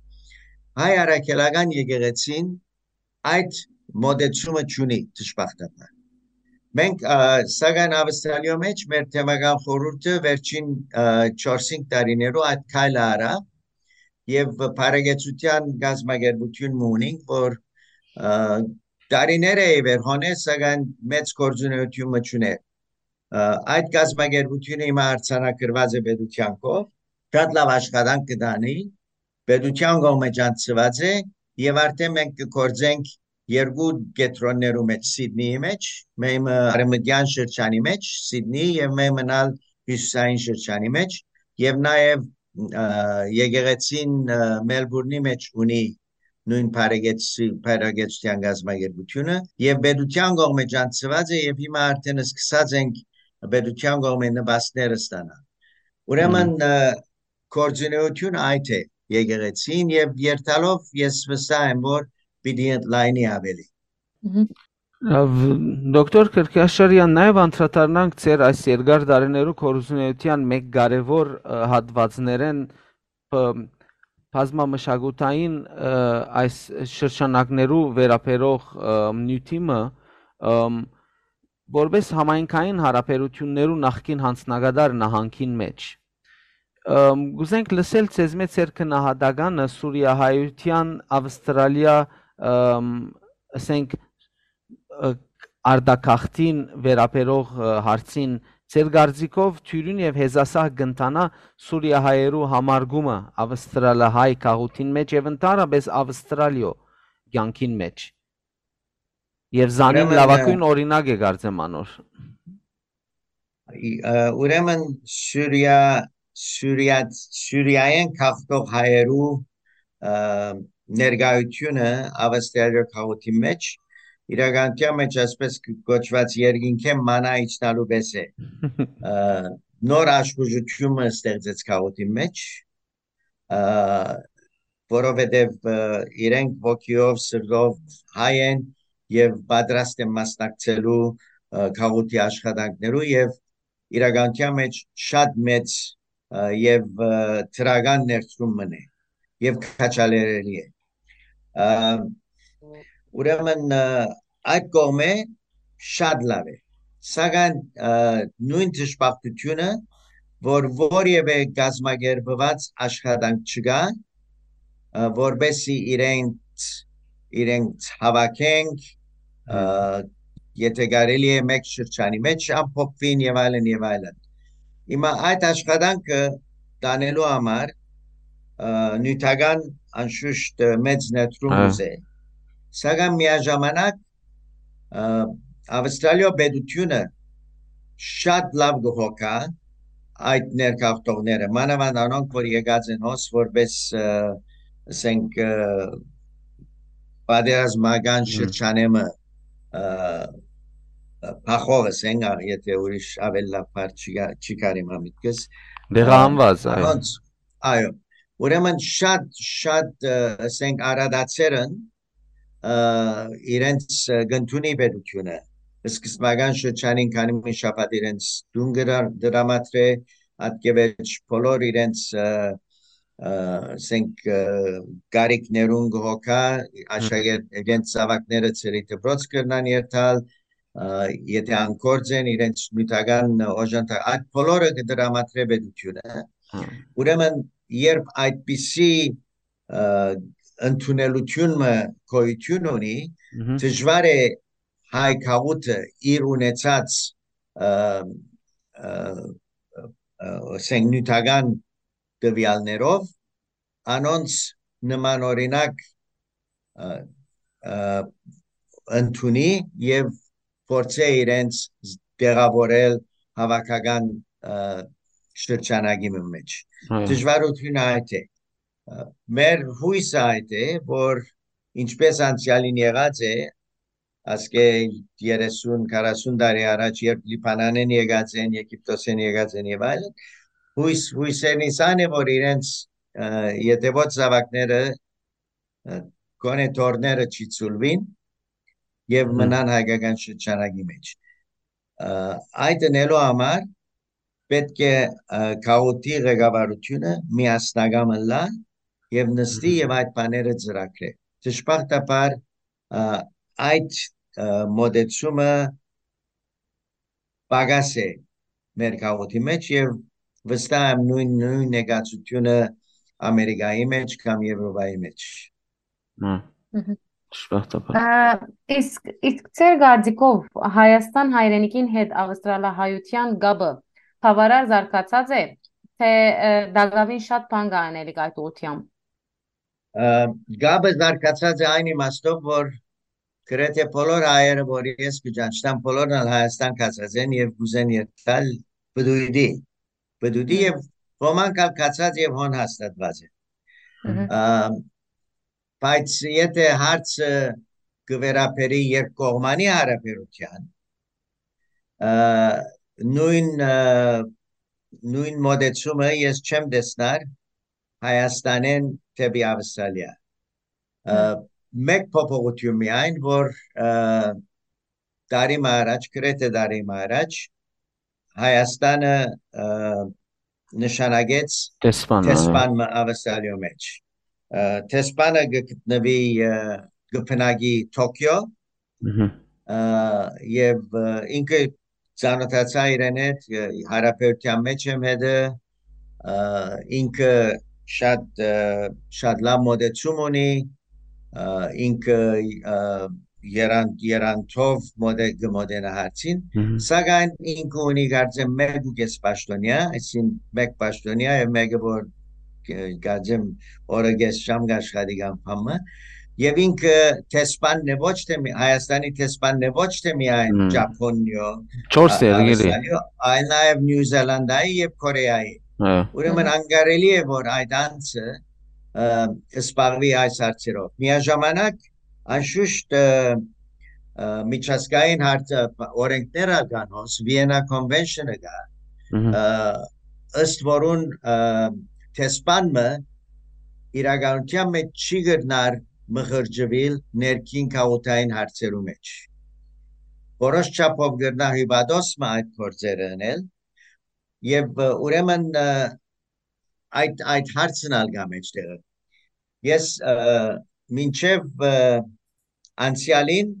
Հայ առաքելական եկեղեցին այդ մոտեցումը չունի, դժբախտաբար։ Մենք, ա, սակայն Ավստրալիոյ մէջ մեր թեմական խորհուրդը վերջին, ա, չորսինգ տարիներու այդ քայլը առա եւ բարեկեցութեան կազմակերպութիւն մը ունինք, որ, ա, տարիներ է ի վեր հոն է, սակայն մեծ գործունեութիւն մը չունէր։ Ա, այդ կազմակերպութիւնը հիմա արձանագրուած է պետութեան կողմ, շատ լաւ աշխատանք կը տանի, պետութեան կողմէ ջանցուած է եւ արդեն մենք կը գործենք երկու կեդրոններու մէջ, Սիդնիի մէջ, մէ մը արեւմտեան շրջանի մէջ, Սիդնի եւ մէ մնալ հիւսիսային շրջանի մէջ եւ նաեւ, ա, եկեղեցին, ա, Մելբուրնի մէջ ունի նոյն բարեկեցի-, բարեկեցութեան կազմակերպութիւնը եւ պետութեան կողմէ ջանցուած է եւ հիմա արդեն սկսած ենք պետութեան կողմէ նպաստներ ստանալ։ Ուրեմն, Մհմ։ ը, գործունեությունը այդ է եկեղեցին եւ երթալով ես վստահ եմ, որ պիտի ընդլայնի ավելի։ Մհմ։ Լավ, դոկտոր Քրքաշարյան, նաեւ անդրադառնանք ձեր այս երկար տարիներու կորզունեության մէկ կարեւոր, ը, հատուածներէն, ը, բազմամշակութային, ը, այս շրջանակներու վերաբերող, ը, նիւթի մը, ըմ, որպես համայնքային յարաբերութիւններու նախկին յանձնակատար նահանգին մէջ։ Ըմ, կ'ուզենք լսել ձեզմէ ձեր գնահատականը սուրիահայութեան Ավստրալիա, ըմ, ասենք, ը, արտագաղթին վերաբերող, ը, հարցին, ձեր կարծիքով թիւրին եւ հեզասահ կ'ընթանայ սուրիահայերու համարկումը ավստրալահայ գաղութին մէջ եւ ընդհանրապէս Ավստրալիոյ կեանքին մէջ։ Եւ Զանին Ուրեմն, ը, լաւագոյն օրինակ է, կարծեմ, անոր։ Ի-, ը, ուրեմն Սուրիա, Սուրիա, Սուրիայէն գաղթող հայերու, ը, ներկայութիւնը Ավստրալիոյ գաղութի մէջ, իրականության մէջ, այսպես կը կոչուած երկինքէն մանա իջնալու պէս է։ Ը, նոր աշխուժութիւն մը ստեղծեց գաղութի մէջ, ը, որովհետեւ, ը, իրենք ոգիով, սրտով հայ են եւ պատրաստ են մասնակցելու, ը, գաղութի աշխատանքներու եւ իրականության մէջ շատ մեծ, ը, եւ, ը, դրական ներդրում մըն է եւ քաջալերելի է։ Ը, ուրեմն, ը, այդ կողմէ շատ լաւ է, սակայն, ը, նոյն դժբախտութիւնը, որ որեւէ կազմակերպուած աշխատանք չկայ, ը, որպեսզի իրենց, իրենց հաւաքենք, ը, Հմ։ եթե կարելի է, մէկ շրջանի մէջ ամփոփուին եւ այլն եւ այլն։ Հիմա այդ աշխատանքը տանելու համար, ը, նիւթական անշուշտ, ը, մեծ ներդրում Հա։ ուզէ, սակայն միաժամանակ, ը, Ավստրալիոյ պետութիւնը շատ լաւ կը հոգայ այդ ներգաղթողները, մանաւանդ անոնք, որ եկած են հոս որպես, ը, ասենք, ը, պատերազմական Հմ։ շրջանէ մը, ը, փախող, ասենք, ա, եթե ուրիշ ավել լաւ բառ չի գա-, չի գար իմ միտքս, ը, Դեղահանուած, այո։ անոնց, այո, ուրեմն շատ, շատ, ը, ասենք, արադացեր են, ը, իրենց, ը, կ'ընդունի պետութիւնը։ Սկզբնական շրջանին քանի մի շաբաթ իրենց տուն կը դրա-, դրամատրէ, ատկեվեջ բոլոր իրենց, ը, ը, ասենք, ը, կարիքներուն կը հոգայ, Հմ։ աշակերտ իրենց զաւակները ծերի դպրոց կրնան երթալ, ը, եթե անկորձ են, իրենց նիւթական օժանդակ, այդ բոլորը կը դրամատրէ պետութիւնը։ Հմ։ Ուրեմն, երբ այդպիսի, ը, ընդունելութիւն մը գոյութիւն ունի, Մհմ։ դժուար է հայ գաղութը իր ունեցած, ը, ը, ը, ասենք, նիւթական տուեալներով անոնց նմանօրինակ, ը, ը, ընդունի եւ փորձէ իրենց տեղաւորել հաւաքական, ը, շրջանակի մը մէջ։ Հա։ Դժվարութիւնը այդ է։ Ը, մեր յոյսը այդ է, որ ինչպես անցեալին եղած է, ասկէ երեսուն, քառասուն տարի առաջ, երբ Լիբանանէն եկած են, Եգիպտոսէն եկած են եւ այլն, յոյս-, յոյսերնիս ան է, որ իրենց, ը, ետեւոց զաւակները, ը, գոնե թոռները չի ցուլուին եւ Մհմ։ մնան հայկական շրջանակի մէջ։ Ը, այդ ընելու համար պէտք է, ը, գաղութի ղեկավարութիւնը միասնական ըլլայ եւ նստի Մհմ։ եւ այդ բաները ծրագրէ։ Դժբախտաբար, ը, այդ, ը, մոտեցումը պակաս է մեր գաղութի մէջ եւ վստահ եմ նոյն, նոյն եկածութիւնը Ամերիկայի մէջ կամ Եվրոպայի մէջ։ Հա, Մհմ։ դժբախտաբար։ Ա, իսկ, իսկ ձեր կարծիքով Հայաստան հայրենիքին հետ ավստրալահայութեան կապը բավարար զարգացած է, թե, ը, տակաւին շատ բան կա անելիք այդ ուղղութեամբ։ Ա, կապը զարգացած է այն իմաստով, որ գրեթե բոլոր հայերը, որ ես կը ճանչնամ, բոլորն ալ Հայաստան գացած են եւ կ'ուզեն երթալ պտույտի, պտույտի Մհմ։ եւ ոմանք ալ գացած եւ հոն հաստատուած են։ Մհմ։ Ա, բայց եթե հարցը կը վերաբերի երկկողմանի հարաբերութեան, ը, նոյն, ը, նոյն մոտեցումը ես չեմ տեսնար Հայաստանէն դէպի Ավստրալիա։ Ը, Հմ։ մէկ փոփոխութիւն միայն, որ, ը, տարի մը առաջ, գրեթէ տարի մը առաջ, Հայաստանը, ը, նշանակեց Դեսպան, ը, դեսպան մը Ավստրալիոյ մէջ։ Ը, դեսպանը կը գտնուի, ը, կը բնակի Թոքիո, Մհմ։ ը, եւ, ը, ինքը ծանոթացայ իրեն հետ, ը, յարաբերութեան մէջ եմ հետը, ը, ինքը շատ, ը, շատ լաւ մոտեցում ունի, ը, ինքը, ը, երան-, երանդով մոտե-, կը մոտենայ հարցին, Մհմ։ սակայն ինքը ունի, կարծեմ, մէկ ու կէս պաշտօնեայ, այսինքն մէկ պաշտօնեայ եւ մէկը որ, ը, կարծեմ, օրը կէս ժամ կ'աշխատի կամ բան մը, եւ ինքը դեսպանն է, ոչ թե մի-, Հայաստանի դեսպանն է, ոչ թե միայն Մհմ։ Ճապոնիոյ, Չորս ա-, երկրի։ Ավստրալիոյ, այլ նաեւ Նիու Զելանդայի եւ Կորեայի։ Հա։ Ուրեմն Մհմ։ անկարելի է, որ այդ անձը, ը, զբաղվի այս հարցերով։ Միաժամանակ, անշուշտ, ը, ը, միջազգային հարց-, ը, օրենքներ ալ կան հոս, Vienna Convention-ը կայ, Մհմ։ ը, ըստ որուն, ը, դեսպան մը իրականութեան մէջ չի կրնար մղրճուիլ ներքին գաղութային հարցերու մէջ։ Որոշ չափով կրնայ հիւպատոս մը այդ գործերը ընել, եւ, ը, ուրեմն, ը, այդ, այդ հարցն ալ կայ մէջտեղը։ Ես, ը, մինչեւ, ը, անցեալին,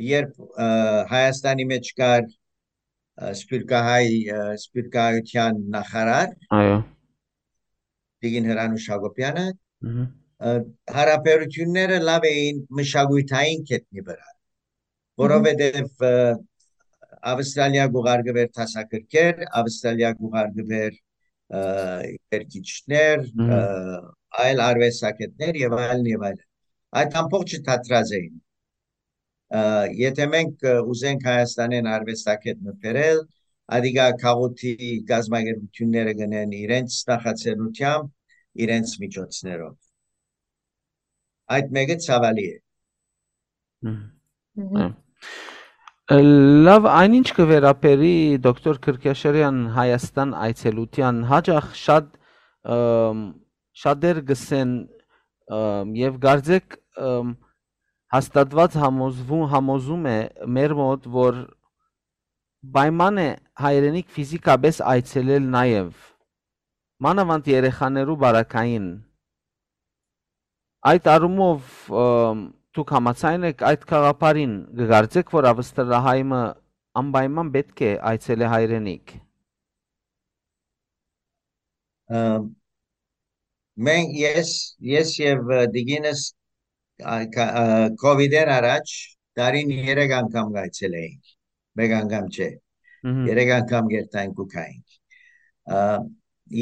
երբ, ը, Հայաստանի մէջ կար, ը, սփիւռքահայ, ը, սփիւռքահայութեան նախարար, Այո։ տիկին Հրանուշ Հակոբեանը, Մհմ։ ը, յարաբերութիւնները լաւ էին մշակութային կետնի վրայ, Մհմ։ որովհետեւ, ը, Ավստրալիա կ'ուղարկուէր դասագրքեր, Ավստրալիա կ'ուղարկուէր, ը, երգիչներ, Մհմ։ ը, այլ արուեստագէտներ եւ այլն եւ այլն։ Այդ ամբողջը դադրած էին։ Ը, եթէ մենք, ը, ուզենք Հայաստանէն արուեստագէտ մը բերել, ադիկա գաղութի կազմակերպութիւնները կ'ընեն իրենց նախաձեռնութեամբ, իրենց միջոցներով։ Այդ մէկը ցաւալի է։ Մհմ։ Մհմ։ Այո։ Ը, լաւ, այն ինչ կը վերաբերի դոկտոր Քրքեշարեան Հայաստան այցելութեան, հաճախ շատ, ըմ, շատեր կ'ըսեն, ըմ, եւ կարծեք, ըմ, հաստատուած համոզվու-, համոզում է մեր մոտ, որ պայման է հայրենիք ֆիզիկապէս այցելել նաեւ, մանաւանդ երեխաներու պարագային։ Այդ առումով, ը, դուք համաձայն եք այդ գաղափարին, կը կարծեք, որ ավստրահայ մը անպայման պէտք է այցելէ հայրենիք։ Ը, մեն-, ես, ես եւ, ը, տիկինս, ա, կա-, ը, COVID-ին առաջ տարին երեք անգամ կայցելեինք, մէկ անգամ չէ, Մհմ։ երեք անգամ կերտայինք ու գայինք։ Ա,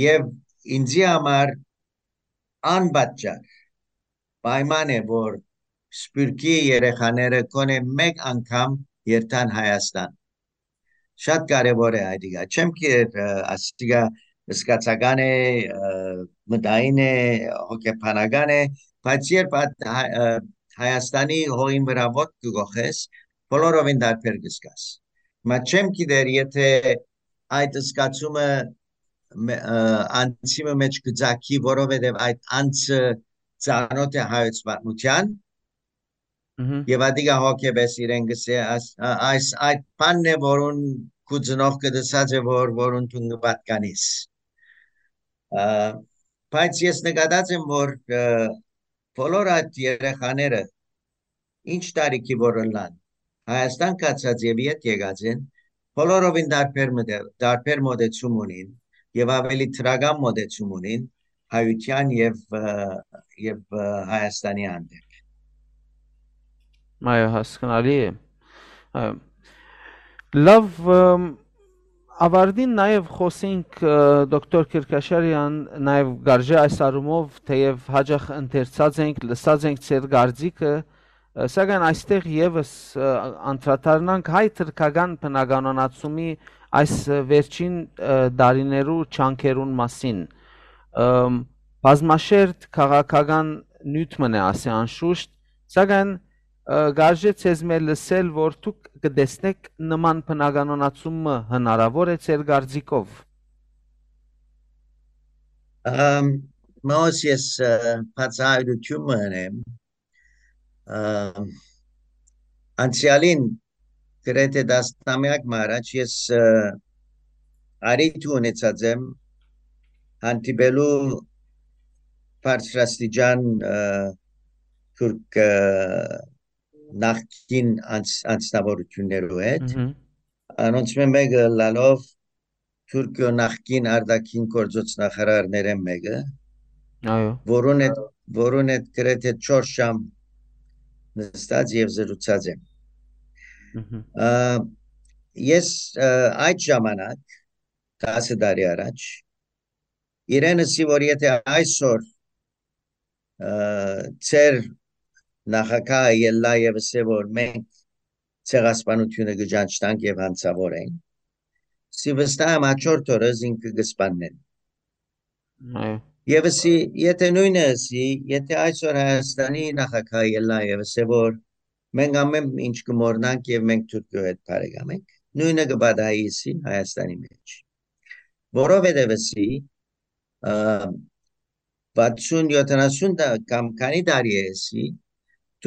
եւ ինձի համար անպատճառ պայման է, որ սփիւռքի երեխաները գոնե մէկ անգամ երթան Հայաստան։ Շատ կարեւոր է այդ իգա։ Չեմ կեր, ը, ասիկա զգացական է, ը, մտային է, հոգեբանական է, բայց երբ այդ Հայ-, ը, Հայաստանի հողին վրայ ոտք կը կոխես, բոլորովին տարբեր կզգաս։ Մա չեմ գիտեր, եթե այդ զգացումը մե-, ը, անձի մը մէջ կծագի, որովհետեւ այդ անձը ծանոթ է հայոց պատմութեան, Մհմ։ եւ ադիկա հոգեպես իրեն կսե, աս-, ա-, այս այդ բանն է, որուն քու ծնողքը դսած է, որ, որուն դուն կը պատկանիս։ Ա, բայց ես նկատած եմ, որ, ը, բոլոր այդ երեխաները, ինչ տարիքի որ ըլլան, Հայաստան գացած եւ ետ եկած են, բոլորովին տարբեր մտե-, տարբեր մոտեցում ունին եւ ավելի դրական մոտեցում ունին հայութեան եւ, ը, եւ, ը, Հայաստանի հանդեպ։ Այո, հասկանալի է։ Այո։ Լավ, ըմ, ավարտին նաեւ խօսենք, ը, դոկտոր Քիրքաշարեան, նաեւ գարժէ այս առումով, թէեւ հաճախ ընթերցած ենք, լսած ենք ձեր կարծիքը, ը, սակայն այստեղ եւս, ը, անդրադառնանք հայ-թրքական բնականոնացումի այս, ը, վերջին, ը, տարիներու ջանքերուն մասին։ Ըմ, բազմաշերտ քաղաքական նիւթ մըն է, ասէ անշուշտ, սակայն, ը, գարժէ ձեզ մէ լսել, որ դուք կը տեսնէք նման բնականոնացում մը հնարավոր է ձեր կարծիքով։ Ըմ, մոս ես, ը, բացահայտութիւն մը ընեմ, ը, անցեալին գրեթէ տասնամեակ մը առաջ ես, ը, առիթ ունեցած եմ հանդիպելու բարձրաստիճան, ը, թուրք, ը, նախկին անձ-, անձնավորություններու հետ։ Մհմ։ Անոնցմէ մէկը ըլլալով Թուրքիոյ նախկին արտաքին գործոց նախարարներէն մէկը, այո, որուն հետ, որուն հետ գրեթէ չորս ժամ նստած եւ զրուցած եմ։ Մհմ։ Ա, ես, ա, այդ ժամանակ, տասը տարի առաջ, իրեն ըսի, որ եթե այսօր, ա, ձեր նախագահը ելլայ եւ ըսէ, որ մենք ցեղասպանութիւնը կը ճանչնանք եւ յանցաւոր ենք, սի վստահ եմ, հաջորդ օրը զինքը կը սպաննեն։ Այո։ Եւս ի-, եթե նոյնը ըսի, եթե այսօր Հայաստանի նախագահը ելլայ եւ ըսէ, որ մենք ամէն ինչ կը մոռնանք եւ մենք Թուրքիոյ հետ բարեկամ ենք, նոյնը կը պատահի ըսի Հայաստանի մէջ։ Որովհետեւ ըսի, ը, վաթսուն, յոթանասուն տա-, կամ քանի տարի է ըսի,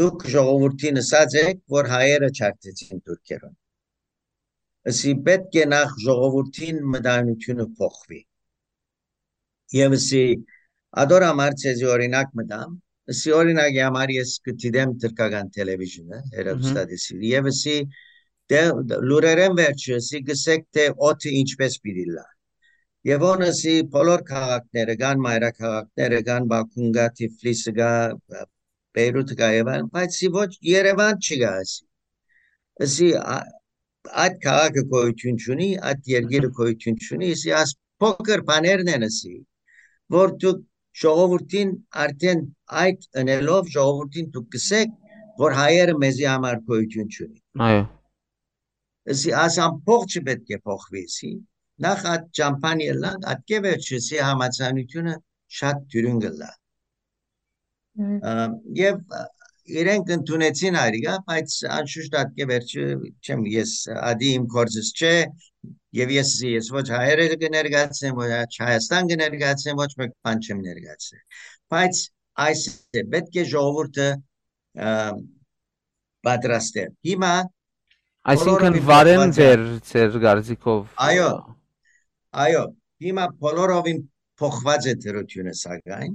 դուք ժողովուրդին ըսած էք, որ հայերը չարթեցին թուրքերուն։ Ըսի, պէտք է նախ ժողովուրդին մտայնութիւնը փոխուի։ Եւս ի-, ադոր համար ձեզի օրինակ մը տամ, ըսի, օրինակի համար ես կը դիտեմ թրքական թելեվիզիոնը, մհմ, հեռուստադեսիլը, եւս ի-, դե, լուրերեն վերջը, ըսի, գսեք թէ օդը ինչպէս պիտի լա։ Եվ ոնը, ըսի, բոլոր քաղաքները կան, մայրաքաղաքները կան, Բաքուն կայ, Թիֆլիսը կայ, Պեյրութը կայ եւ այլն, բայց ըսի, ոչ, Երևան չկայ, ըսի։ Ըսի, ա-, այդ քաղաքը գոյութիւն չունի, այդ երկիրը, մհմ, գոյութիւն չունի, ըսի, աս փոքր բաներն են, ըսի, որ դուք ժողովուրդին արդեն այդ ընելով, ժողովուրդին դուք կսեք, որ հայերը մեզի համար գոյութիւն չունի։ Այո։ Ըսի, աս ամբողջը պէտք է փոխուի, ըսի։ Նախ այդ ճամբան ելանք, ատկե վերջը, ըսի, համաձայնութիւնը շատ դիւրին կ'ըլլայ։ Մհմ։ Ա, եւ, ա, իրենք ընդունեցին այրիկա, բայց անշուշտ ատկե վերջը, չեմ, ես, ադի իմ գործս չէ, եւ ես, ես ոչ հայերը կը ներկայացնեմ, ոչ Հայաստան կը ներկայացնեմ, ոչ մէկ բան չեմ ներկայացնել։ Բայց այս է, պէտք է ժողովուրդը, ա, պատրաստել։ Հիմա այսինքն բոլորովին վարեն փոխված է։ Ձեր, ձեր կարծիքով։ Այո, այո, հիմա բոլորովին փոխված է դրությունը, սակայն,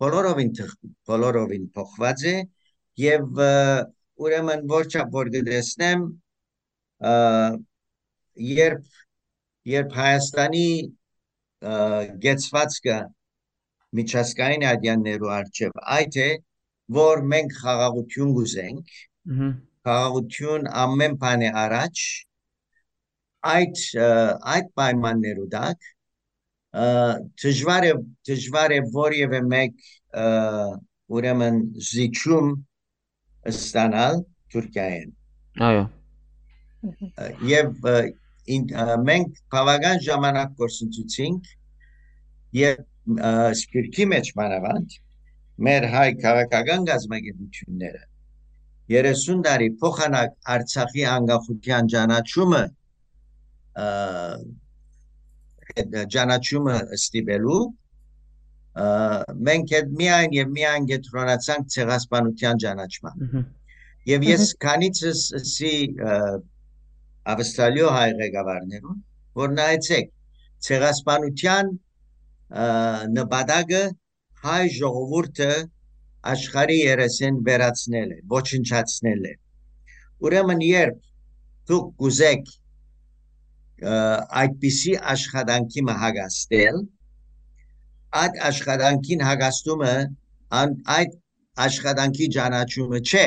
բոլորովին թխ-, բոլորովին փոխված է, եւ, ը, ուրեմն, որչափ որ կը տեսնեմ, ը, երբ, երբ Հայաստանի, ը, կեցվածքը միջազգային ատյաններու առջեւ, այդ է, որ մենք խաղաղութիւն կ'ուզենք, մհմ, խաղաղութիւն ամէն բան է առաջ, այդ, ը, այդ պայմաններու տակ, ը, դժուար է, դժուար է որեւէ մէկ, ը, ուրեմն զիջում ստանալ Թուրքիայէն։ Այո։ Մհմ։ Ը, եւ, ը, ին-, ը, մենք բաւական ժամանակ գործընծուցինք եւ, ը, Սփիւռքի մէջ մանաւանդ մեր հայ քաղաքական կազմակերպութիւնները երեսուն տարի փոխանակ Արցախի անկախութեան ճանաչումը, ը, հետ ճանաչումը ստիպելու, ը, մենք այդ միայն եւ միայն կեդրոնացանք ցեղասպանութեան ճանաչման։ Մհմ։ Եվ ես, մհմ, քանիցս սի, ը, Ավստրալիոյ հայ ղեկավարներուն, որ նայեցեք, ցեղասպանութեան, ը, նպատակը հայ ժողովուրդը աշխարհի երեսին վերացնել է, ոչնչացնել է։ Ուրեմն, երբ դուք կուզեք, ը, այդպիսի աշխատանքի մը հագաստել, այդ աշխատանքին հագաստումը, ան-, այդ աշխատանքի ճանաչումը չէ,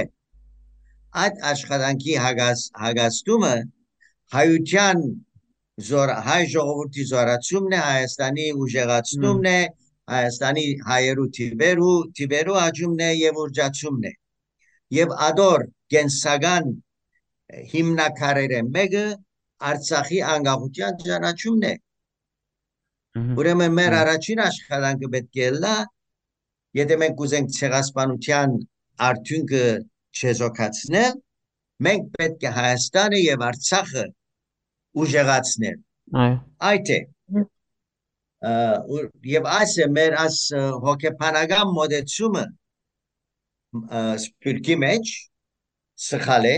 այդ աշխատանքի հագաս-, հագաստումը հայութեան զոր-, հայ ժողովուրդի զորացումն է, Հայաստանի ուժեղացումն է, Հայաստանի հայերու թիվերու, թիվերու աճումն է եւ ուժացումն է։ Եվ ադոր կենսական հիմնակարերէն մէկը Արցախի անկախութեան ճանաչումն է։ Մհմ։ Ուրեմն մեր, մհմ, առաջին աշխատանքը պէտք է ըլլայ, եթե մենք կուզենք ցեղասպանութեան արդիւնքը չեզոքացնել, մենք պէտք է Հայաստանը եւ Արցախը ուժեղացնել։ Այո։ Այդ է։ Ա, ու, եւ այս է մեր աս, ը, հոգեբանական մոտեցումը, ը, Սփիւռքի մէջ սխալ է,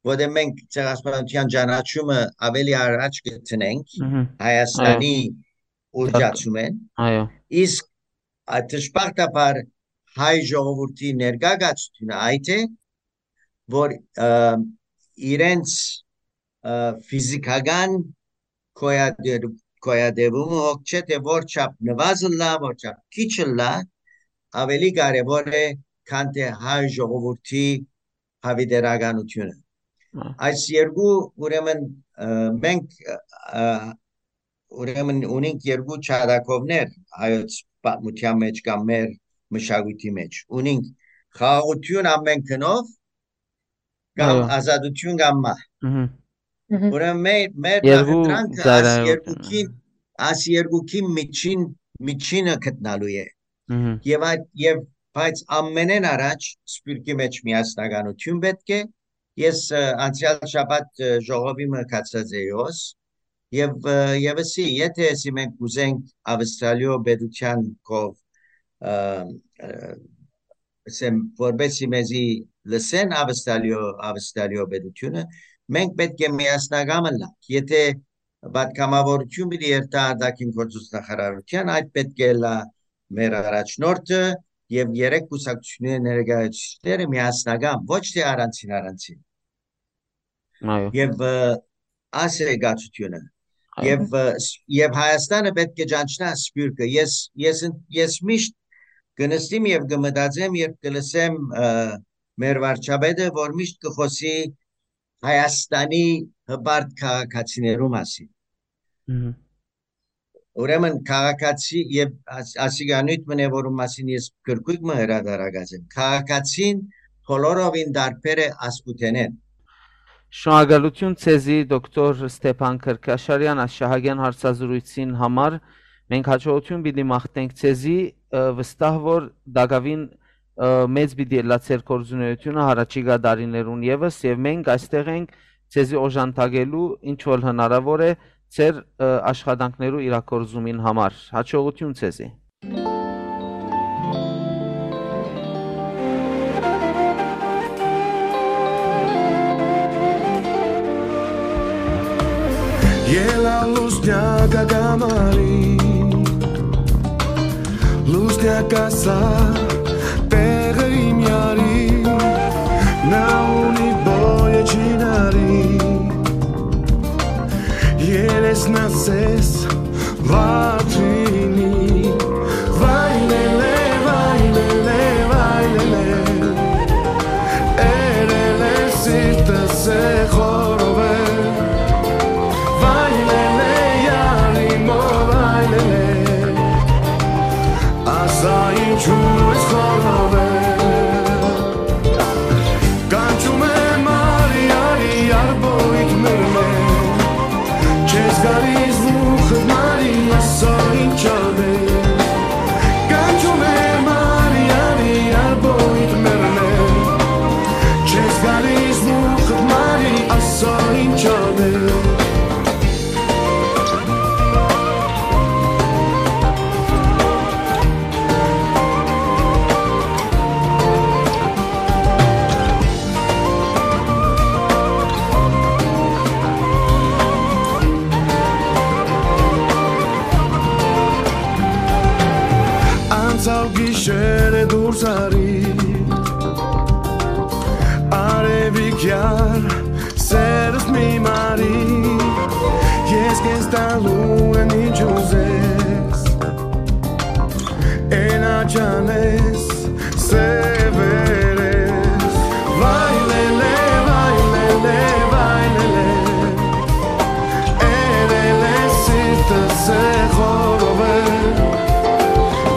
որտեղ մենք ցեղասպանութեան ճանաչումը աւելի առաջ կը դնենք Մհմ։ Հայաստանի Այո։ ուռճացումէն, Այո։ իսկ, ա, դժբախտաբար հայ ժողովուրդի ներկայացությունը այդ է, որ, ը, իրենց, ը, ֆիզիքական գոյատեր-, գոյատևումը հոգ չէ, թէ որ չափ նուազ ըլլայ, որ չափ քիչ ըլլայ, աւելի կարեւոր է, քան թէ հայ ժողովուրդի հավիտենականությունը։ Հա։ Այս երկու, ուրեմն, ը, մենք, ը, ուրեմն ունենք երկու չարակովներ հայոց պատմութեան մէջ կամ մեր մշակոյթի մէջ։ Ունենք խաղաղութիւն ամէն գնով կամ Այո։ ազատութիւն կամ մահ։ Մհմ։ Մհմ։ Ուրեմն մեր, մեր Երկու նախընտրանքը աս ծայրայրություն, երկուքին, ահա։ Աս երկուքին միջին, միջինը գտնալու է։ Մհմ։ Եւ այդ, եւ, բայց ամենէն առաջ սփիւռքի մէջ միասնականութիւն պէտք է։ Ես, ը, անցեալ շաբաթ, ը, ժողովի մը գացած էի հոս, եւ, ը, եւս ի, եթէ էսի մենք կ'ուզենք Ավստրալիոյ պետութեան կով, ը, ը, ասեմ, որպեսզի մեզի լսեն Ավստրալիոյ, Ավստրալիոյ պետութիւնը, մենք պէտք է միասնական ըլլանք։ Եթէ պատգամավորութիւն պիտի երթայ արտաքին գործոց նախարարութեան, այդ պէտք է ըլլայ մեր առաջնորդը եւ երեք կուսակցութիւնների ներկայացուցիչները միասնական, ոչ թէ առանձին, առանձին։ Այո։ Եւ, ը, աս է կացութիւնը։ Այո։ Եւ, ը, ս-, եւ Հայաստանը պէտք է ճանչնայ սփիւռքը։ Ես, ես, ես միշտ կը նստիմ եւ կը մտածեմ, երբ կը լսեմ, ը, մեր վարչապետը, որ միշտ կը խօսի Հայաստանի հպարտ քաղաքացիներու մասին։ Մհմ։ Ուրեմն քաղաքացի եւ աս-, ասիկա նոյթ մըն է, որուն մասին ես գրքույկ մը հրադարակած եմ։ Քաղաքացին բոլորովին տարբեր է ազգութենէն։ Շնորհակալութիւն ձեզի, դոկտոր Ստեփան Քրքաշարեան, այս շահագէն հարցազրույցին համար։ Մենք յաջողութիւն պիտի մաղթենք ձեզի, ը, վստահ որ տակաւին, ը, մեծ պիտի ըլլայ ձեր գործունեութիւնը յառաջիկայ տարիներուն եւս, եւ մենք այստեղ ենք ձեզի օժանդակելու ինչ որ հնարաւոր է ձեր, ը, աշխատանքներու իրագործումին համար։ Յաջողութիւն ձեզի։ Ելա լուսնյակ ակամարի, լուսնյակ ասա տեղը իմ յարի, նա ունի բոյը չինարի, երեսն ասես վատրինի, վայ լե լե, վայ լե լե, վայ լե լե, էրել է սիրտս է խորովեր, վայ լե լե, յարի մո, վայ լե լե, ասա ինչու ես խորովեր, կանչում եմ արի, արի, արբոյթ մերմե, չես գալիս մուխդ մարի, ասոր ինչ ալ է։ Կանչում եմ արի, արի, արբոյթ մերնե, չես գալիս մուխդ մարի, ասոր ինչ ալ է։ Անցաւ գիշերը դուրս արի, արեւիկ յար, սերս մի մարի, ես քեզ տալու եմ ինչ ուզես, էնա ջանես, սեւեր ես, վայ լե լե, վայ լե լե, վայ լե լե, էրել է սիրտս է խորովեր,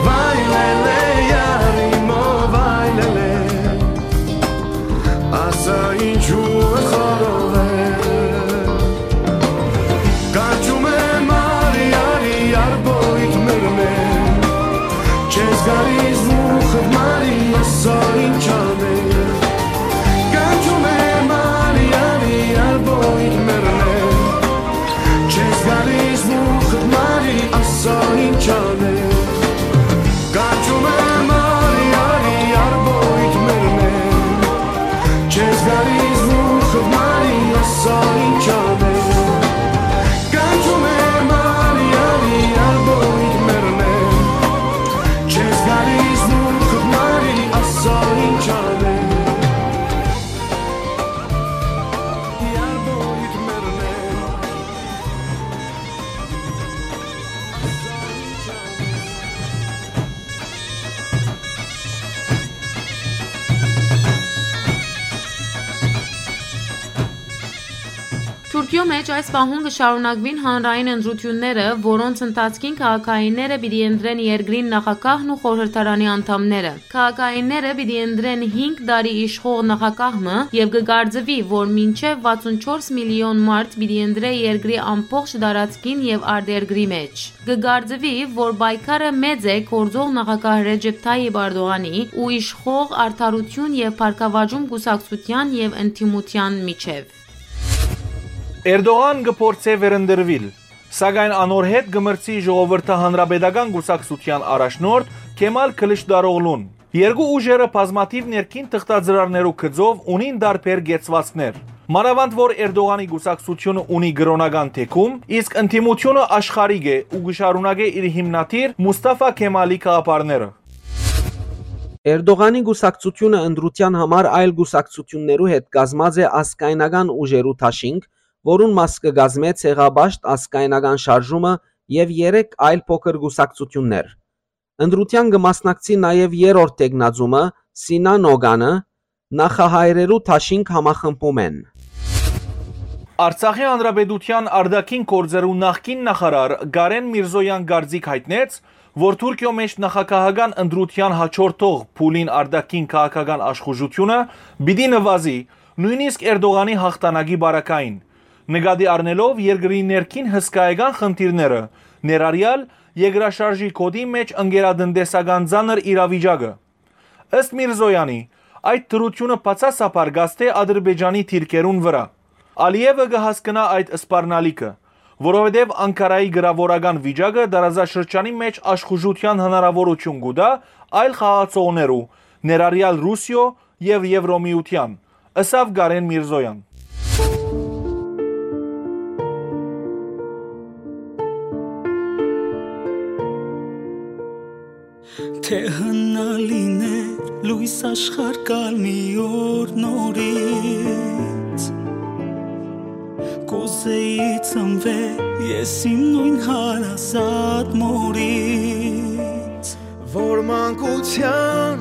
վայ լե լե, յարի մո, վայ լե լե, ասա ինչու ես խորովեր, կանչում եմ Թուրքիոյ մէջ այս պահուն կը շարունակուին հանրային ընտրութիւնները, որոնց ընթացքին քաղաքայինները պիտի ընտրեն երկրին նախագահն ու խորհրդարանի անդամները։ Քաղաքայինները պիտի ընտրեն հինգ տարի իշխող նախագահ մը եւ կը կարծուի, որ մինչեւ վաթսուն չորս միլիոն մարդ պիտի ընտրէ երկրի ամբողջ տարածքին եւ արտերկրի մէջ։ Կը կարծուի, որ պայքարը մեծ է գործող նախագահ Ռեջեփ Թայիփ Էրդողանի ու իշխող Արդարութիւն եւ Բարգաւաճում կուսակցութեան եւ ընդդիմութեան միջեւ։ Էրդողան կը փորձէ վերընտրուիլ, սակայն անոր հետ կը մրցի Ժողովրդահանրապետական կուսակցութեան առաջնորդ Քեմալ Քլիչդարօղլուն։ Երկու ուժերը բազմաթիւ ներքին թղթածրարներու գծով ունին տարբեր կեցուածքներ։ Մանաւանդ որ Էրդողանի կուսակցութիւնը ունի կրօնական թեքում, իսկ ընդդիմութիւնը աշխարհիկ է ու կը շարունակէ իր հիմնադիր Մուսթաֆա Քեմալի գաղափարները։ Էրդողանի կուսակցութիւնը ընտրութեան համար այլ կուսակցութիւններու հետ կազմած է ազգայնական ուժերու դաշինք, որուն մաս կը կազմէ Ցեղապաշտ ազգայնական շարժումը եւ երեք այլ փոքր կուսակցութիւններ։ Ընտրութեան կը մասնակցի նաեւ երրորդ թեկնածումը՝ Սինան Օկանը, նախահայրերու դաշինք համախմբումէն։ Արցախի Հանրապետութեան արտաքին գործերու նախկին նախարար Կարեն Միրզոյան կարծիք յայտնեց, որ Թուրքիոյ մէջ նախագահական ընտրութեան յաջորդող փուլին արտաքին քաղաքական աշխուժութիւնը պիտի նուազի նոյնիսկ Էրդողանի յաղթանակի պարագային, նկատի առնելով երկրի ներքին հսկայական խնդիրները, ներառյալ երկրաշարժի գօտի մէջ ընկերատնտեսական ծանր իրավիճակը։ Ըստ Միրզոյանի, այդ դրութիւնը բացասաբար կազդէ Ադրբեջանի դիրքերուն վրայ։ Ալիեւը կը հասկնայ այդ սպառնալիքը, որովհետեւ Անկարայի կրաւորական վիճակը տարածաշրջանի մէջ աշխուժութեան հնարաւորութիւն կու տայ այլ խաղացողներու, ներառյալ Ռուսիոյ եւ Եվրոմիութեան, ըսաւ Կարեն Միրզոյան։ Թէ հնա լիներ լոյս աշխարհ գալ մի օր նորից, կուզեի ծնվել ես իմ նոյն հարազատ մորից, որ մանկութեան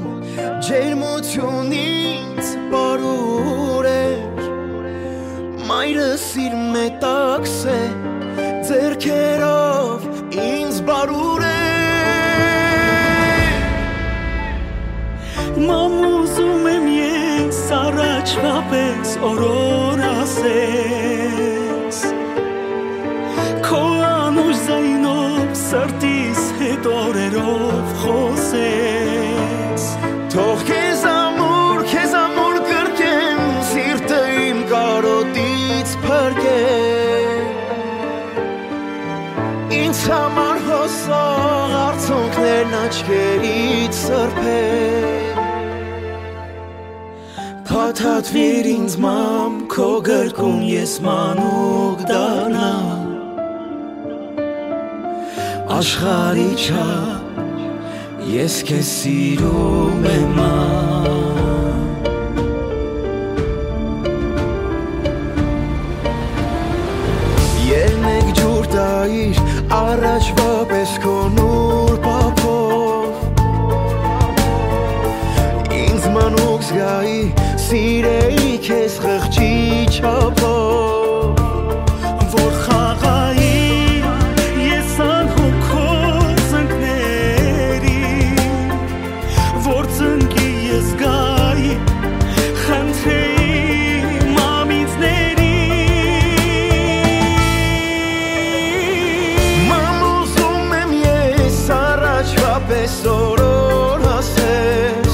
ջերմութիւնից պարուր էր, մայրս իր մետաքսէ ձեռքերով ինձ բարուրեր։ Մամ, ուզում եմ ես առաջվա պես օրոր ասես, քո անուշ զայնով սրտիս հետ օրերով խոսես։ Թող քեզ ամուր, քեզ ամուր կրկեմ, սիրտը իմ կարոտից փրկեմ։ Ինձ համար հոսող արցունքներն աչքերիդ սրբեն։ Փաթաթուիր ինձ, մամ, քո գրկուն ես մանուկ դառնամ։ Աշխարհի չափ ես քեզ սիրում եմ, մամ։ Ելմեկ ջուր տայիր առաջվա պես քո նուրբ ափով, ինձ մանուկ զգայի, սիրեի քեզ խղճի չափով, որ խաղայի ես անհոգ քո ծնկների, որ ծնկի ես գայի, խնդրեի մամինձների։ Մամ, ուզում եմ ես առաջվա պես օրոր ասես,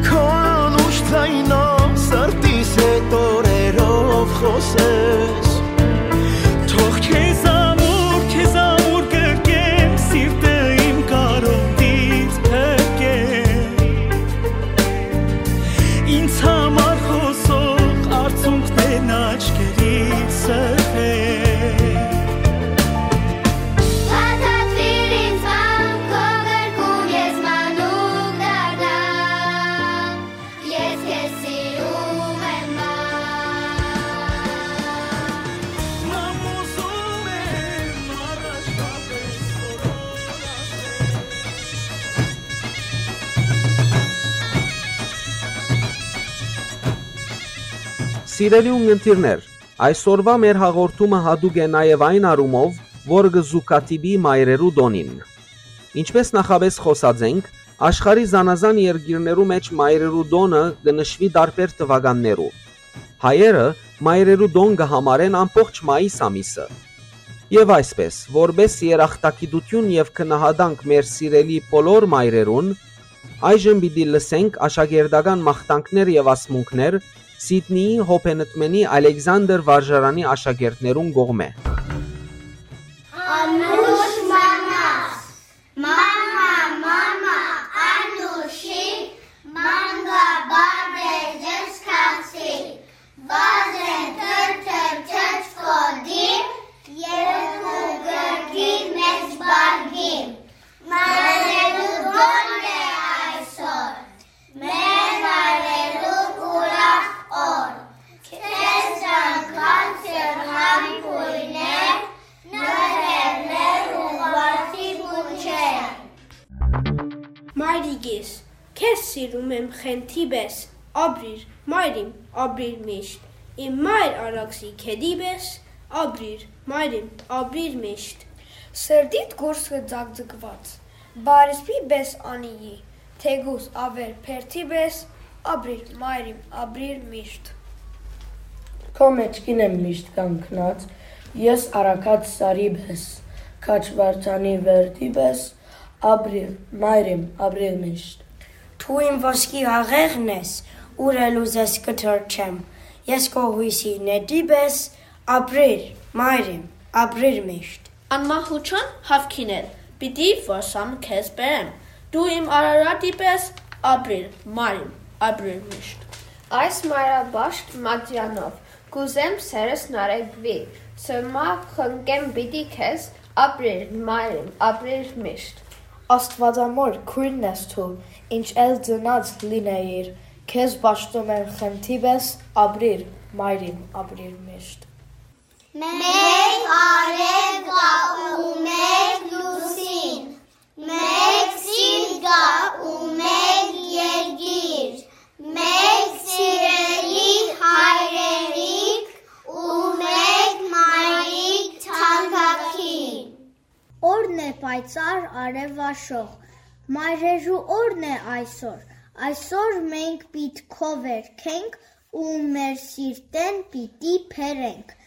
քո անուշ ձայնով սրտիս հետ օրերով խոսես։ Թող քեզ ամուր, քեզ ամուր կրկեմ, սիրտը իմ կարոտից փրկեմ։ Ինձ համար հոսող արցունքներն աչքերիդ սրբե։ Փաթաթվիր ինձ, մամ, քո գրկում ես մանուկ դառնամ։ Ես քեզ սիրում եմ, մամ։ Մամ, ուզում եմ առաջվա պես օրոր ասել։ Սիրելի ունգընտիրներ, այսօրուայ մեր հաղորդումը յատուկ է նաեւ այն առումով, որ կը զուգադիպի մայրերու տօնին։ Ինչպէս նախապէս խօսած ենք, աշխարհի զանազան երկիրներու մէջ մայրերու տօնը կը նշուի տարբեր թուականներու։ Հայերը մայրերու տօն կը համարեն ամբողջ մայիս ամիսը։ Եւ այսպէս, որպէս երախտագիտութիւն եւ գնահատանք մեր սիրելի բոլոր մայրերուն, այժմ պիտի լսենք աշակերտական մաղթանքներ եւ ասմունքներ Սիդնիի Հոփենտմենի Ալեքսանդր վարժարանի աշակերտներուն կողմէ։ Անուշ մամաս, մամա, մամա, անուշի, մանգա բարդե ջսքացի, վազեն թրթր չչքոտի, երկու գրկի մեծ բարգի, մայրերու տօնն է այսօր, մեր մայրերու ուրախ օր, քեզ զանգած եղան քոյներ, նորերներ ու վարդի կունչեր։ Մայրիկիս, քեզ սիրում եմ խենթի պէս, ապրիր, մայր իմ, ապրիր միշտ։ Իմ մայր արաքսի քեդի պէս, ապրիր, մայր իմ, ապրիր միշտ։ Սրտիդ կուրսքը ձակձկուած, բարսպի պէս անիի, թեկուզ աւեր բերդի պէս, ապրիր, մայր իմ, ապրիր միշտ։ Քո մէջքին եմ միշտ կանգնած, ես արագած սարի պէս, քաջ Վարդանի վերդի պէս, ապրիր, մայր իմ, ապրիր միշտ։ Դու իմ ոսկի աղեղն ես, ուր էլ ուզես կը թռչեմ, ես քո յոյսի նետի պէս, ապրիր, մայր իմ, ապրիր միշտ։ Անմահութեան հաւքին էլ պիտի որսամ քեզ բերեմ, դու իմ Արարատի պէս, ապրիր, մայր իմ, ապրիր միշտ։ Այս մայրապաշտ մատեանով կ'ուզեմ սերս նարեկուի, սրմայ խնկեմ պիտի քեզ, ապրիր, մայր իմ, ապրիր միշտ։ Աստուածամօր քոյրն ես դու, ինչ էլ ծնած լինեիր, քեզ պաշտում եմ խենթի պէս, ապրիր, մայր իմ, ապրիր միշտ։ Մէկ արեւ կայ ու մէկ լուսին, մէկ սիրտ կայ ու մէկ երկիր, մէկ սիրելի հայրերիք ու մէկ մայրիկ թանկագին։ Օրն է պայծառ արեւաշող, մայրերու օրն է այսօր, այսօր մենք պիտ քովերգենք ու մեր սիրտէն պիտի բերենք։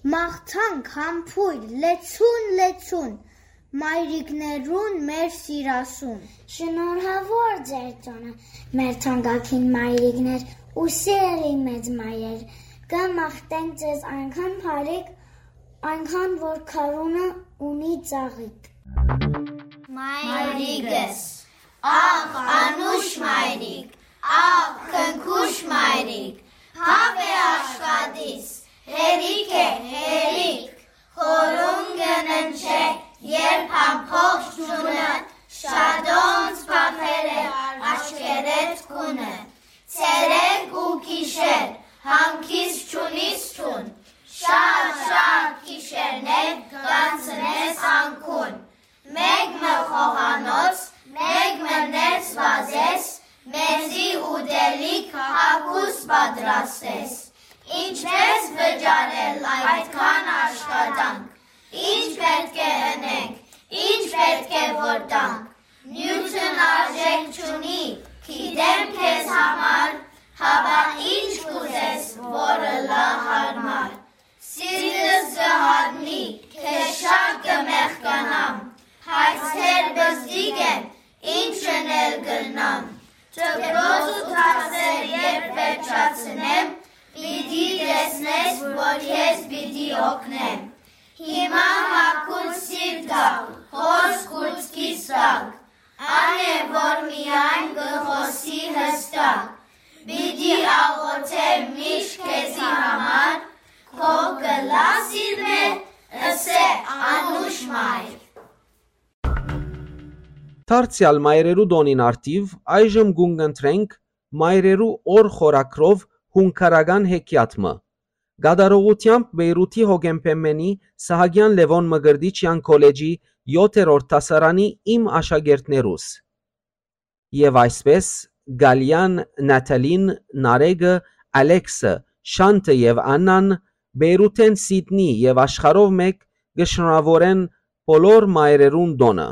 Մաղթանք համբոյր, լեցուն, լեցուն, մայրիկներուն մեր սիրասուն։ Շնորհաւոր ձեր տօնը, մեր թանկագին մայրիկներ ու սիրելի մեծ մայրեր, կը մաղթենք ձեզ այնքան բարիք, այնքան որ գարունը ունի ծաղիկ։ Մայրիկս, ախ, անուշ մայրիկ, ախ, քնքուշ մայրիկ, բաւ է աշխատիս, հերիք է, հերիք, խորուն կը ննջէ, երբ ամբողջ ջունը շատոնց բաւեր է աչքերէդ քունը, ցերեկ ու գիշեր հանգիստ չունիս դուն, շատ, շատ գիշերներ կ'անցնես անկուն, մէկ մը խոհանոց, մէկ մը ներս վազես, մեզի ուտելիք հագուստ պատրաստես։ Ինչպէս վճարել այդքան աշխատանք, ինչ պէտք է ընենք, ինչ պէտք է որ տանք, նիւթն արժէք չունի, գիտեմ քեզ համար, հապա ինչ կ'ուզես որ ըլլայ յարմար։ Սիրտս կը յատնի, քեզ շատ կը մեղկանամ, բայց դեռ պզտիկ եմ, ինչ ընել կրնամ։ Դպրոց ու դասեր երբ վերջացնեմ, պիտի տեսնես որ քեզ պիտի օգնեմ։ Հիմա մաքուր սիրտը հոս կուրծքիս տակ, ան է որ միայն կը խօսի հստակ։ Պիտի աղօթեմ միշտ քեզի համար, քո կլա սիրմէ, ըսէ անուշ մայր։ Դարձեալ մայրերու տօնին առթիւ այժմ կունկնդրենք մայրերու օր խորագրով հունգարական հեքիաթ մը։ Կատարողութեամբ Պէյրութի Հոգենբեմմենի Սահակեան Լեւոն Մկրտիչեան քոլեջի յոթերորդ դասարանի Իմ աշակերտներուս։ Եւ այսպէս, Գալեան Նաթալին, Նարեկը, Ալեքսը, Շանթը եւ Աննան Պէյրութէն Սիդնի եւ աշխարհով մէկ կը շնորհաւորեն բոլոր մայրերուն տօնը։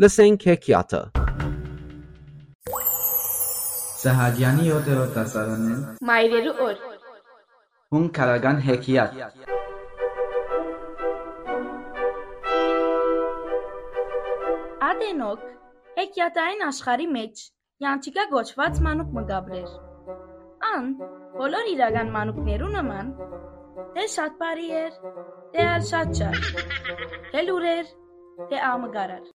Լսենք հեքիաթը։ Սահակեանի յոթերորդ դասարանէն։ Մայրերու օր։ Հունգարական հեքիաթ։ Ատենոք, հեքիաթային աշխարհի մէջ Յանչիկա կոչուած մանուկ մը կ'ապրէր։ Ան բոլոր իրական մանուկներու նման, թէ շատ բարի էր, թէ ալ շատ չար, թէ լուռ էր, թէ աղ մը կ'առար։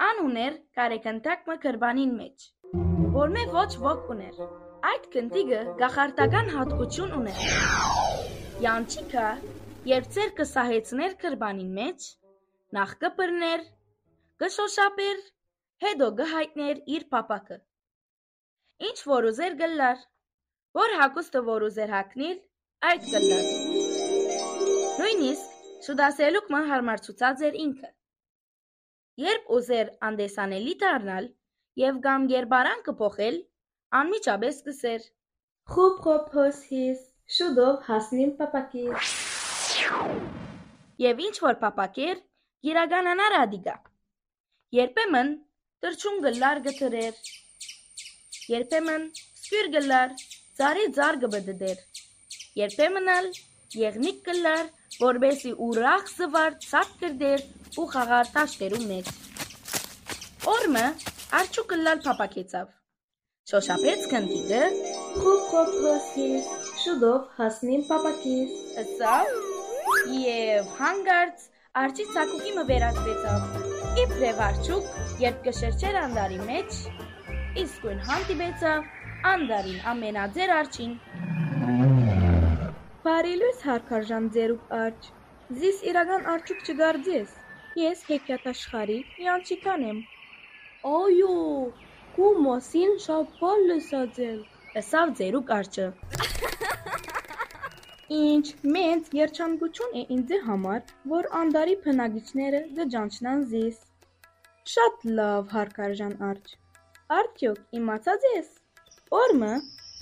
Ան ունէր կարեգնդակ մը գրպանին մէջ, որմէ ոչ ոք ունէր։ Այդ գնդիկը կախարդական յատկութիւն ունէր։ Յանչիկա, երբ ձեռքը սահեցնէր գրպանին մէջ, նախ կը բռնէր, կը շօշափէր, հետո կը յայտնէր իր փափաքը։ Ինչ որ ուզեր կ'ըլլար, որ հագուստը որ ուզեր հագնիլ, այդ կ'ըլլար։ Նոյնիսկ շուտ ասելուկ մը յարմարցուցած էր ինքը։ Երբ ուզեր անտեսանելի դառնալ եւ կամ կերպարանքը փոխել, անմիջապէս կ'ըսէր. «Խուփ խոփ հոս հիս, շուտով հասնիմ փափաքիս»։ Եւ ինչ որ փափաք էր, կ'իրականանար ատիկա։ Երբեմն թռչուն կ'ըլլար կը թռէր, երբեմն սկիւր կ'ըլլար, ծառի ծառ կը պտտէր, երբեմն ալ եղնիկ կ'ըլլար, որպէսզի ուրախ զուարթ ցաք կրտէր ու խաղար դաշտերու մէջ։ Օր մը արջուկ ըլլալ փափաքեցաւ։ Շօշափեց գնդիկը, խուփ խոփ հոս հիս, շուտով հասնիմ փափաքիս, ըսաւ եւ հանկարծ արջի ցակուկի մը վերածուեցաւ, իբրեւ արջուկ, երբ կը շրջէր անտառի մէջ, իսկոյն հանդիպեցաւ անտառին ամենաձեր արջին։ Բարի լոյս, հարգարժան ծերուկ արջ, զիս իրական արջուկ չկարծես, ես հեքիաթաշխարհի Յանչիկան եմ։ Այո, քու մասին շատ բան լսած եմ, ըսաւ ծերուկ արջը։ Ինչ մեծ երջանկութիւն է ինձի համար, որ անտառի բնակիչները կը ճանչնան զիս։ Շատ լաւ, հարգարժան արջ։ Արդեօք իմացած ես։ Օր մը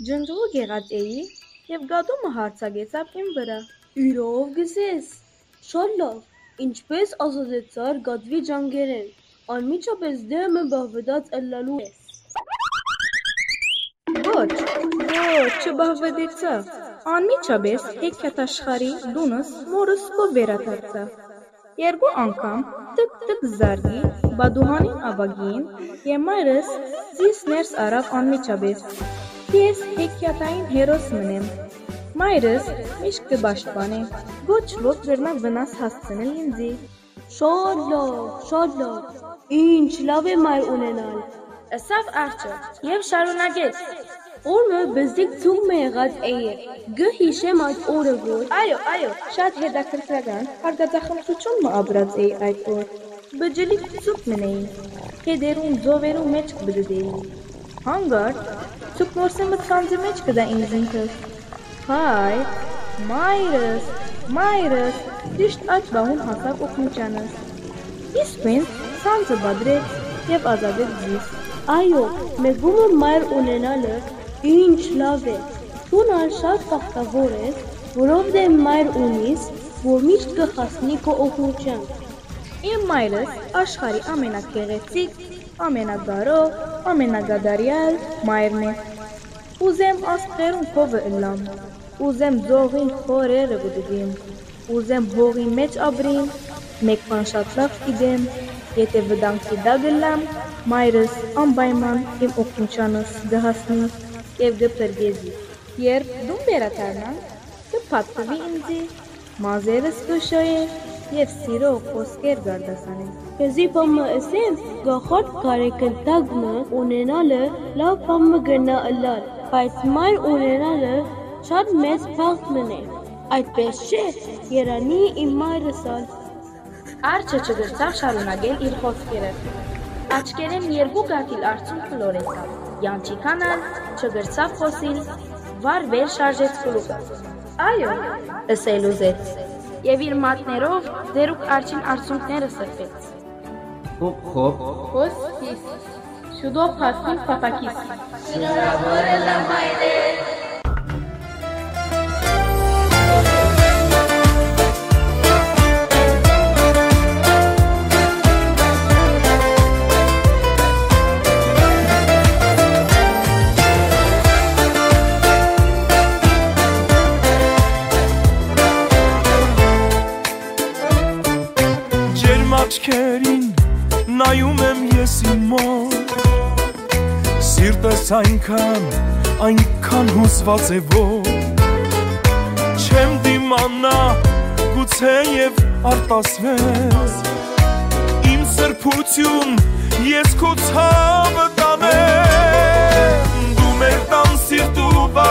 ջնջուղ եղած էի եւ կատու մը յարձակեցաւ իմ վրայ։ Իրաւ կ'ըսես։ Շատ լաւ, ինչպէս ազատեցար կատուի ճանկերէն, անմիջապէս դէհ մը պահպտած ըլլալու ես։ Ոչ, ոչ, չպահպտեցայ։ Անմիջապէս հեքիաթաշխարհի տունս մօրս քով վերադարձայ։ Երկու անգամ տկ-տկ զարկի պատուհանին ապակին եւ մայրս զիս ներս առաւ անմիջապէս։ Ես հեքիաթային հերոս մըն եմ։ Մայրս միշտ կը պաշտպանէ, ոչ ոք կրնայ վնաս հասցնել ինծի։ Շատ լաւ, շատ լաւ։ Ինչ լաւ է մայր ունենալ, ըսաւ արջը եւ շարունակեց. Օր մը բզդիկ ձուկ մը եղած էի։ Կը յիշեմ այդ օրը, որ այո, այո, շատ հետաքրքրական արկածախնդրութիւն մը ապրած էի այդ օր։ Բջլիկ ձուկ մըն էի, հետերուն ծովերու մէջ կը բդդէի։ Հանկարծ ձուկ մորսէ մը ցանցի մէջ կը տայ ինքզինքս։ Հայ, մայրս, մայրս, ճիշդ այդ պահուն հասաւ օգնութեանս։ Իսկոյն ցանցը պատրեց եւ ազատեց զիս։ Այո, մեկումը մայր ունենալը ինչ լաւ է։ Դուն ալ շատ բախտաւոր ես, որովհետեւ մայր ունիս, որ միշտ կը հասնի քո օգնութեան։ Իմ մայրս աշխարհի ամենագեղեցիկ, ամենակարող, ամենակատարեալ մայրն է։ Ուզեմ աստղերուն քովը ըլլամ, ուզեմ ծովին խորերը կուտուկիմ, ուզեմ հողի մէջ ապրիմ, մէկ բան շատ լաւ գիտեմ, եթէ վտանգի տակ ըլլամ, մայրս անպայման իմ օգնութեանս կը հասնի եւ կը փրկէ զիս։ Երբ տուն վերադառնամ, կը փաթթուի ինծի, մազերս կը շոյեն եւ սիրող խօսքեր կ'արտասանեն։ Քեզի բան մը ըսեմ, կախարդ կարեգնդակ մը ունենալը լաւ բան մը կրնայ ըլլալ, բայց մայր ունենալը շատ մեծ բախտ մըն է։ Այդպես չէ, երանի իմ մայրս ալ։ Արջը չկրցաւ շարունակել իր խօսքերը։ Աչքերէն երկու կաթիլ արցունք կլորեցաւ։ Յանչիկան ալ չկրցաւ խօսիլ, վար վեր շարժեց գլուխը։ Այո, ըսել ուզեց, եւ իր մատներով ծերուկ արջին արցունքները սրբեց։ Խոփ խոփ, հոս հիս, Շուտով փաստին փաթակիս։ Շնորհաւոր ըլլամ, մայրեր։ Ջերմ աչքերին նայում եմ ես իմ մոտ, սիրտս այնքան, այնքան հուզված է, որ չեմ դիմանա, գուցե և արտասվեմ։ Իմ սրբություն, ես քո ցավը կանեմ, դու մեր տան սիրտու վա,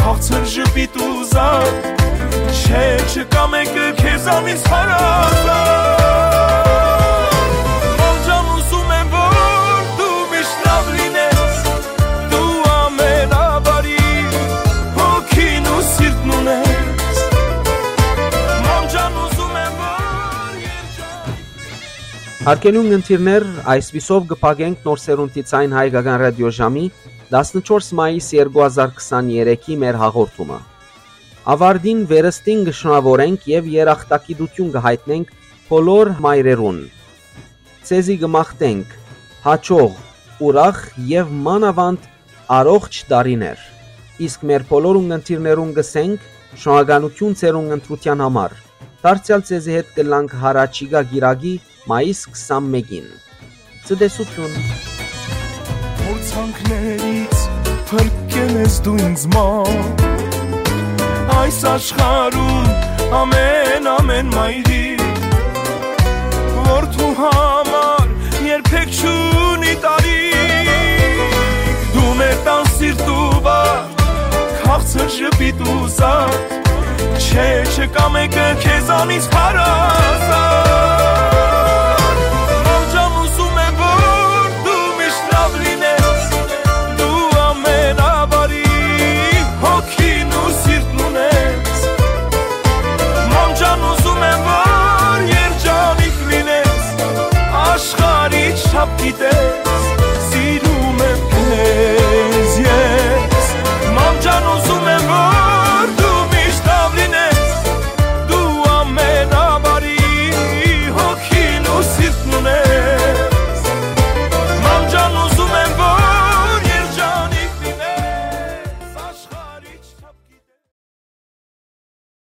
քաղցր ժպիտ ու զար, չէ, չկա մեկը քեզանից հարազատ։ Մամ ջան, ուզում եմ, որ դու միշտ լաւ լինես, դու ամենաբարի հոգին ու սիրտն ունես։ Մամ ջան, ուզում եմ, որ երջան Հարգելի ունգընտիրներ, այսպիսով կը փակենք Նոր սերունդի Ձայն հայկական ռադիոժամի տասնչորս մայիս երկու հազար քսաներեքի մեր հաղորդումը։ Աւարտին վերստին կը շնորհավորենք եւ երախտագիտութիւն կը յայտնենք բոլոր մայրերուն։ Ձեզի կը մաղթենք հաճող, ուրախ եւ մանաւանդ առողջ տարիներ։ Իսկ մեր բոլոր ունգընտիրներուն կ'ըսենք շնորհակալութիւն ձեր ունգընտրութեան համար։ Դարձեալ ձեզի հետ կ'ըլլանք յառաջիկայ կիրակի, մայիս քսանմէկին։ Ցտեսութիւն։ Փորձանքներից փրկել ես դու ինձ, մամ, այս աշխարհում ամեն, ամեն մայրի, որ դու համար երբեք չունի տարի, դու մեր տան սիրտու վա, քաղցր ժպիտ ու զար, չէ, չկա մեկը քեզանից հարազատ։